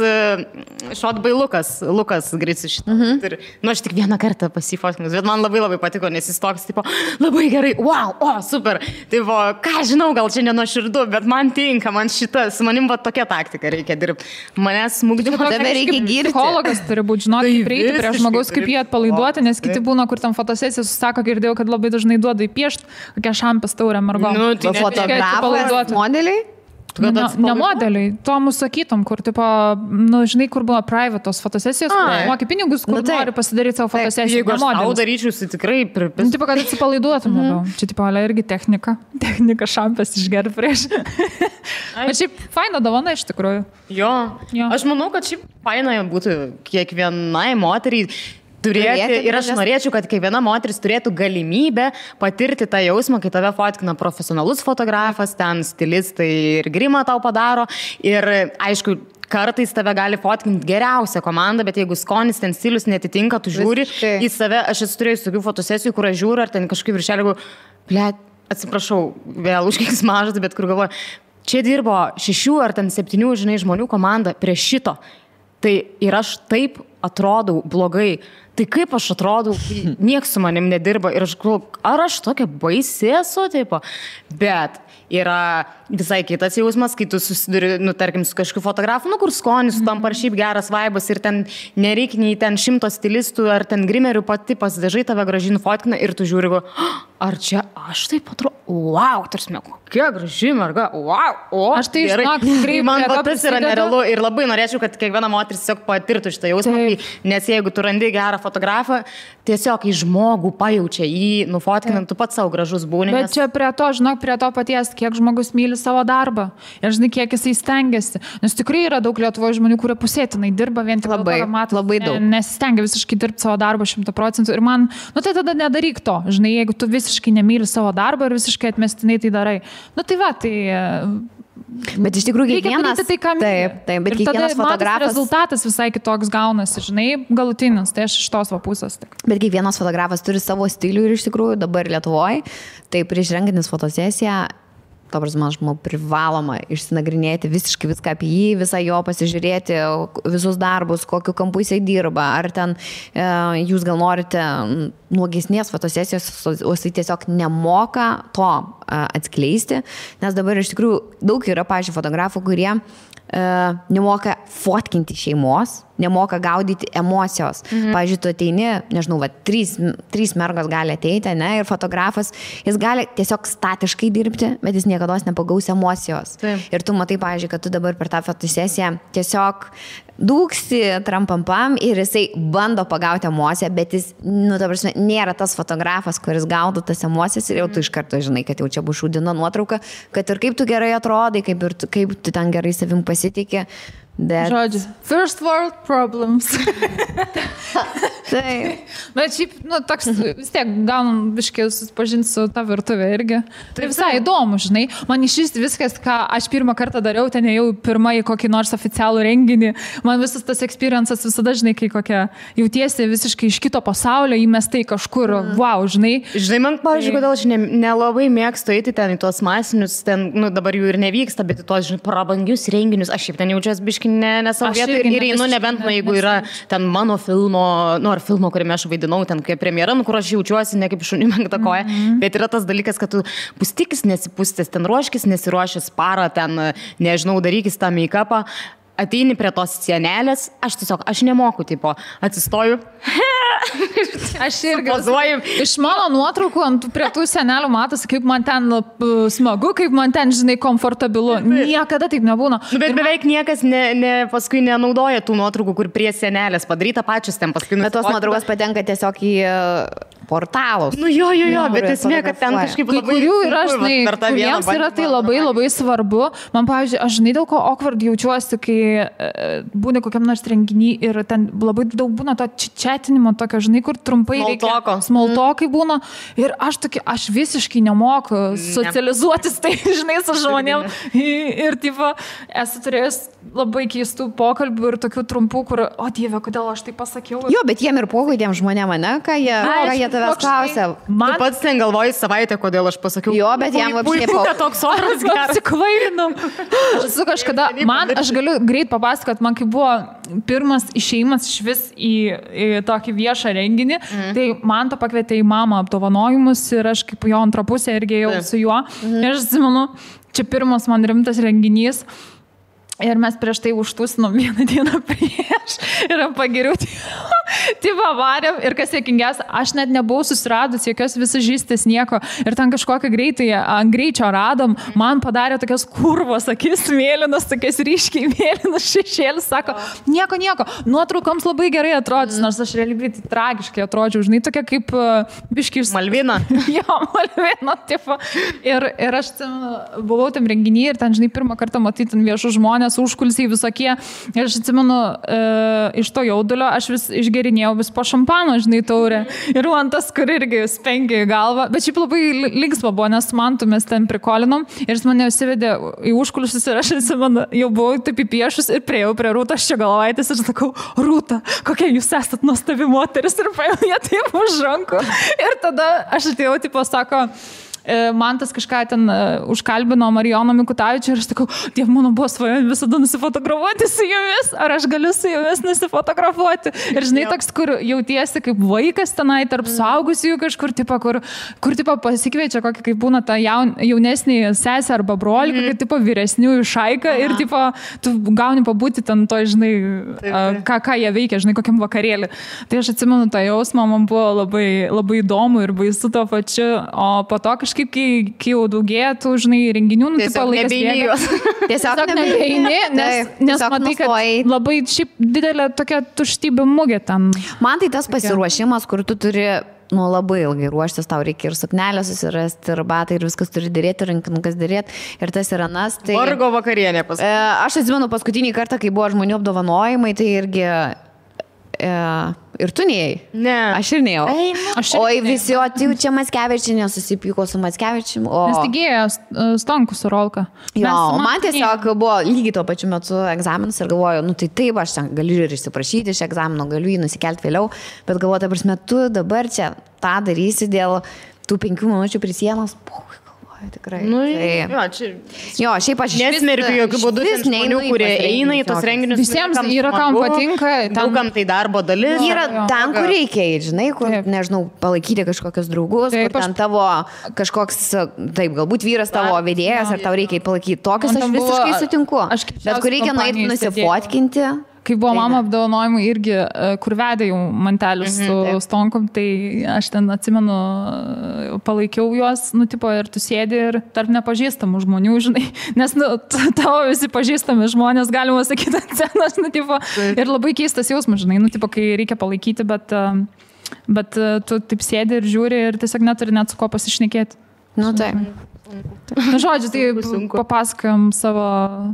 Speaker 2: Lukas Gricius šitą. Ir, aš tik vieną kartą pasifotkinus, bet man labai patiko, nes jis toks, tipo, labai gerai, wow, super. Tipo, ką žinau, gal čia nenuoširdu, bet man tinka, man šitas, manim va tokia taktika reikia dirbti. Smūgdimo,
Speaker 1: tave reikia girti.
Speaker 3: Psichologas turi būti, žinot, kaip prieiti prie žmogaus, kaip jį atpalaiduoti, nes kiti būna, kur tam fotosesija susako, girdėjau, kad labai dažnai duoda įpiešti, kokią šampės taurę mergom.
Speaker 1: Tai fotografas, modeliai?
Speaker 3: Ne modeliai, to mūsų sakytum, kur, tipo, žinai, kur buvo privatos fotosesijos, kur moki pinigus, kur nori pasidaryti savo fotosesiją.
Speaker 2: Jeigu aš tau daryčiau, tai tikrai pripis.
Speaker 3: Tipo, kad atsipalaiduotum labiau. Čia, tipo, irgi technika. Technika šampės išgerti prieš. Bet šiaip faina dovana iš tikrųjų.
Speaker 2: Jo. Aš manau, kad šiaip faina būtų kiekvienai moteriai turėti, ir aš norėčiau, kad kiekviena moteris turėtų galimybę patirti tą jausmą, kai tave fotkina profesionalus fotografas, ten stilistai ir grimą tau padaro. Ir aišku, kartais tave gali fotkinti geriausią komandą, bet jeigu skonis ten stilius netitinka, tu žiūri į save. Aš esu turėjus tokių fotosesijų, kur aš žiūriu, ar ten kažkaip viršelį, atsiprašau, vėl užkiks mažas, bet kur galvoju, čia dirbo 6 ar 7, žinai, žmonių komanda prie šito. Tai ir aš taip atrodau blogai. Tai kaip aš atrodau, nieks su manim nedirba ir aš galvoju, ar aš tokia baisi esu, tipo. Bet yra visai kitas jausmas, kai tu susiduri, tarkim, su kažkokiu fotografu, kur skonis, tam par šiaip geras vaibas ir ten nereikia nei ten 100 stilistų ar ten grimerių, pati pasidažai tave gražiai nufotkina ir tu žiūri, ar čia aš taip atrodo, wow, tarsi, kokia graži merga, wow,
Speaker 3: aš tai žinok, tikrai
Speaker 2: man tas yra nerealu ir labai norėčiau, kad kiekviena moteris tiesiog patirtų šitą jausmą, kai tikrai, nes jeigu tu randi gerą fotografą, tiesiog į žmogų pajaučia, jį nufotkinant, tu pats savo gražus būni.
Speaker 3: Bet čia prie to paties, kiek žmogus myli savo darbą ir žinai, kiek jisai stengiasi. Nes tikrai yra daug Lietuvoje žmonių, kurie pusėtinai dirba vien tik
Speaker 1: labai daug.
Speaker 3: Nesistengia visiškai dirbti savo darbą 100%. Ir man, tai tada nedaryk to. Žinai, jeigu tu visiškai nemyli savo darbą ir visiškai atmestinai tai darai.
Speaker 1: Bet iš tikrųjų kiekvienas...
Speaker 3: Tai,
Speaker 1: bet kiekvienas fotografas...
Speaker 3: Rezultatas visai kitoks gaunasi, žinai, galutinis, tai aš iš tos pusės.
Speaker 1: Bet kiekvienas fotografas turi savo stilių ir iš tikrųjų dabar Lietuvoje, tai prieš rengiantis fotosesiją, to prasme, aš manau, privaloma išsinagrinėti visiškai viską apie jį, visą jo pasižiūrėti, visus darbus, kokiu kampu jisai dirba, ar ten jūs gal norite nuogesnės fotosesijos, o jisai tiesiog nemoka to atskleisti, nes dabar iš tikrųjų daug yra, pavyzdžiui, fotografų, kurie nemoka fotkinti šeimos, nemoka gaudyti emocijos. Pavyzdžiui, tu ateini, nežinau, trys mergos gali ateiti, ne, ir fotografas, jis gali tiesiog statiškai dirbti, bet jis niekada nepagaus emocijos.
Speaker 2: Taip.
Speaker 1: Ir tu matai, pavyzdžiui, kad tu dabar per tą fotosesiją tiesiog dūksi trampampam ir jisai bando pagauti emociją, bet jis, ta prasme, nėra tas fotografas, kuris gaudo tas emocijas ir jau tu iš karto žinai, kad jau čia bus šūdina nuotrauka, kad ir kaip tu gerai atrodai, kaip tu ten gerai savim pasitikė.
Speaker 3: Žodžiu, first world problems.
Speaker 1: Taip.
Speaker 3: Bet šiaip, toks vis tiek gaunam biškiai susipažinti su ta virtuvė irgi. Tai visai įdomu, žinai. Man iš viskas, ką aš pirmą kartą dariau, ten jau pirmą į kokį nors oficialų renginį. Man visas tas experiences visada, žinai, kai kokia jautiesi visiškai iš kito pasaulio, įmestai kažkur, wow, žinai.
Speaker 2: Žinai, man, pavyzdžiui, kodėl aš nelabai mėgstu eiti ten į tuos masinius, ten, dabar jų ir nevyksta, bet į tuos, žinai, prabangius renginius. Aš šiaip ten jaučiuosi biškai ne savo vietą ir einu, nebent, jeigu yra ten mano filmo, ar filmo, kuriame aš vaidinau, ten kaip premjera, kur aš jaučiuosi ne kaip šunį menktą koją, bet yra tas dalykas, kad tu pustikis nesipustęs, ten ruoškis, nesiruošęs parą, ten, nežinau, darykis tą make-upą, ateini prie tos sienelės, aš nemoku, tipo, atsistoju.
Speaker 3: Aš irgi pozuoju. Iš mano nuotraukų prie tų senelių matosi, kaip man ten smagu, kaip man ten, žinai, komfortabilu. Niekada taip nebūna.
Speaker 2: Bet beveik niekas paskui nenaudoja tų nuotraukų, kur prie senelės padaryta pačius ten paskui.
Speaker 1: Bet tos nuotraukos patenka tiesiog į portalus.
Speaker 2: Jo, bet esmė, kad ten kažkaip labai...
Speaker 3: Kai kurių yra, žinai, kuriems yra tai labai, labai svarbu. Man, pavyzdžiui, aš žinai, dėl ko awkward jaučiuosi, kai būna kokiam nors renginį ir ten labai daug būna to čiatinimo tokio, žinai, kur trumpai reikia. Smalltalkai būna. Ir aš visiškai nemoku socializuotis, tai, žinai, su žmonėm. Ir, tipo, esu turėjęs labai keistų pokalbių ir tokių trumpų, kur, o Dieve, kodėl aš tai pasakiau.
Speaker 1: Jo, bet jiem ir pokai tiem žmonėm, ne, ką jie tavęs klausia.
Speaker 2: Tu pats ten galvoji savaitę, kodėl aš pasakiau.
Speaker 1: Jo, bet jam apškai
Speaker 2: puiku, toks oras geras.
Speaker 3: Apsikvailinu. Aš galiu greit papasakot, man kai buvo pirmas išėjimas iš vis į tokį viešą renginį, tai man to pakvietė į mamą apdovanojimus ir aš kaip jo antrą pusę irgi ėjau su juo. Ir aš atsimenu, čia pirmas man rimtas renginys. Ir mes prieš tai užtūsinom vieną dieną prieš ir pagiriau tipo varėm ir kas juokingiausia, aš net nebuvau susiradus jokios visažistės nieko ir ten kažkokią greičio radom, man padarė tokias kurvos akis mėlynas, tokias ryškiai mėlynas šešėlis, sako, nieko, nuotraukoms labai gerai atrodys, nors aš realiai tai tragiškai atrodžiau, žinai, tokia kaip biškiai
Speaker 2: Malvina.
Speaker 3: Jo, Malvina, tipo. Ir aš buvau tam renginį ir ten, žinai, pirmą kartą matyti viešų žmonės, užkulsiai visokie. Ir aš atsimenu, iš to jaudulio aš vis išgerinėjau vis po šampano, žinai, taurę. Ir man tas, kur irgi spengė į galvą. Bet šiaip labai linksma buvo, nes man tu mes ten prikolinom. Ir jis mane įsivedė į užkulsius ir aš atsimenu, jau buvau taip įpiešus ir priejau prie Rūtos Ščiogolevaitės ir sakau, Rūta, kokia jūs esat nuostabi moteris ir paėjau ją taip už rankų. Ir tada aš atėjau, tipo, sako, man tas kažką ten užkalbino Marijoną Mikutavičių ir aš sakau, Dieve, mano buvo svajonė visada nusifotografuoti su jumis, ar aš galiu su jumis nusifotografuoti. Ir žinai, toks, kur jautiesi kaip vaikas tenai tarp suaugusiųjų kažkur, kur tipo pasikviečia kokį, kaip būna ta jaunesnį sesę arba brolį, kokį tipo vyresniųjų šaiką ir tipo tu gauni pabūti ten to, žinai, ką jie veikia, žinai, kokiam vakarėlį. Tai aš atsimenu tą jausmą, man buvo labai, labai įdomu ir baisu to pačiu, o po to kažkaip kažkaip, kai jau daugėja, tu, žinai, renginių, nu, tipo, laikas bėga.
Speaker 1: Tiesiog
Speaker 3: nebeini, nes matai, kad labai šiaip didelė tokia tuštybė mugė ten.
Speaker 1: Man tai tas pasiruošimas, kur tu turi labai ilgai ruoštis, tau reikia ir suknelę susirasti, ir batai, ir viskas turi dėrėti, rankinukas dėrėti, ir tas yra nas. Tai...
Speaker 2: Vargo vakarienė pas.
Speaker 1: Aš atsimenu paskutinį kartą, kai buvo žmonių apdovanojimai, tai irgi... Ir tu neėjai?
Speaker 2: Ne.
Speaker 1: Aš ir neėjau. Oi, visi, o tai čia Mackevičienė susipyko su Mackevičiumi.
Speaker 3: Nes taigėjo Stonkus su Rolka.
Speaker 1: Jo, man tiesiog buvo lygiai tuo pačiu metu egzaminas ir galvoju, nu tai taip, aš ten galiu ir išsiprašyti iš egzamino, galiu jį nusikelti vėliau, bet galvoju, ta prasme, tu dabar čia tą darysi dėl tų 5 minučių prie sienos. Tikrai.
Speaker 2: Nu,
Speaker 1: tai... Jo, šiaip aš
Speaker 2: nesmerkiu jokių būdų žmonių, kurie eina į tos renginius.
Speaker 3: Visiems yra, kam patinka.
Speaker 2: Daugam tai darbo dalis.
Speaker 1: Yra ten, kur reikia, žinai, kur, nežinau, palaikyti kažkokius draugus, kur ten tavo kažkoks, taip, galbūt vyras tavo vedėjas, ar tau reikia palaikyti. Tokius aš visiškai sutinku. Bet kur reikia nueiti nusifotkinti.
Speaker 3: Kai buvo mama apdovanojimai irgi, kur vedė jau mantelius su Stonkom, tai aš ten atsimenu, palaikiau juos, nu, tipo, ir tu sėdi ir tarp nepažįstamų žmonių, žinai, nes, nu, tavo visi pažįstami žmonės, galima sakyti, ant scenos, nu, tipo, ir labai keistas jausmas, žinai, nu, tipo, kai reikia palaikyti, bet tu taip sėdi ir žiūri ir tiesiog neturi net su ko pasišnekėti.
Speaker 1: Nu, tai.
Speaker 3: Na, žodžiu, tai papasakojom savo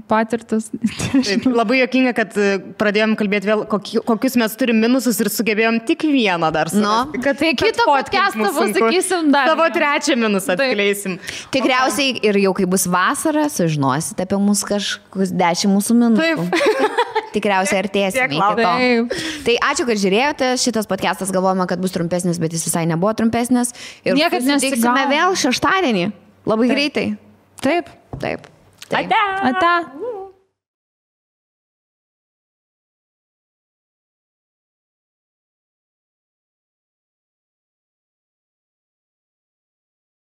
Speaker 3: patirtis.
Speaker 2: Taip, labai juokinga, kad pradėjom kalbėti vėl, kokius mes turim minusus ir sugebėjom tik vieną dar surasti.
Speaker 3: Kad tai kitą podcastą pasakysim dar.
Speaker 2: Savo trečią minusą atskleisim.
Speaker 1: Tikriausiai ir jau kai bus vasara, sužinosite apie mus kažkokius 10 mūsų minusų. Taip. Tikriausiai artėsime iki to. Tai ačiū, kad žiūrėjote. Šitas podcastas galvojame, kad bus trumpesnis, bet jis visai nebuvo trumpesnis. Ir
Speaker 3: niekad
Speaker 1: nesitiksime vėl šeštadienį. Labai greitai.
Speaker 3: Taip.
Speaker 1: Taip.
Speaker 3: Ate.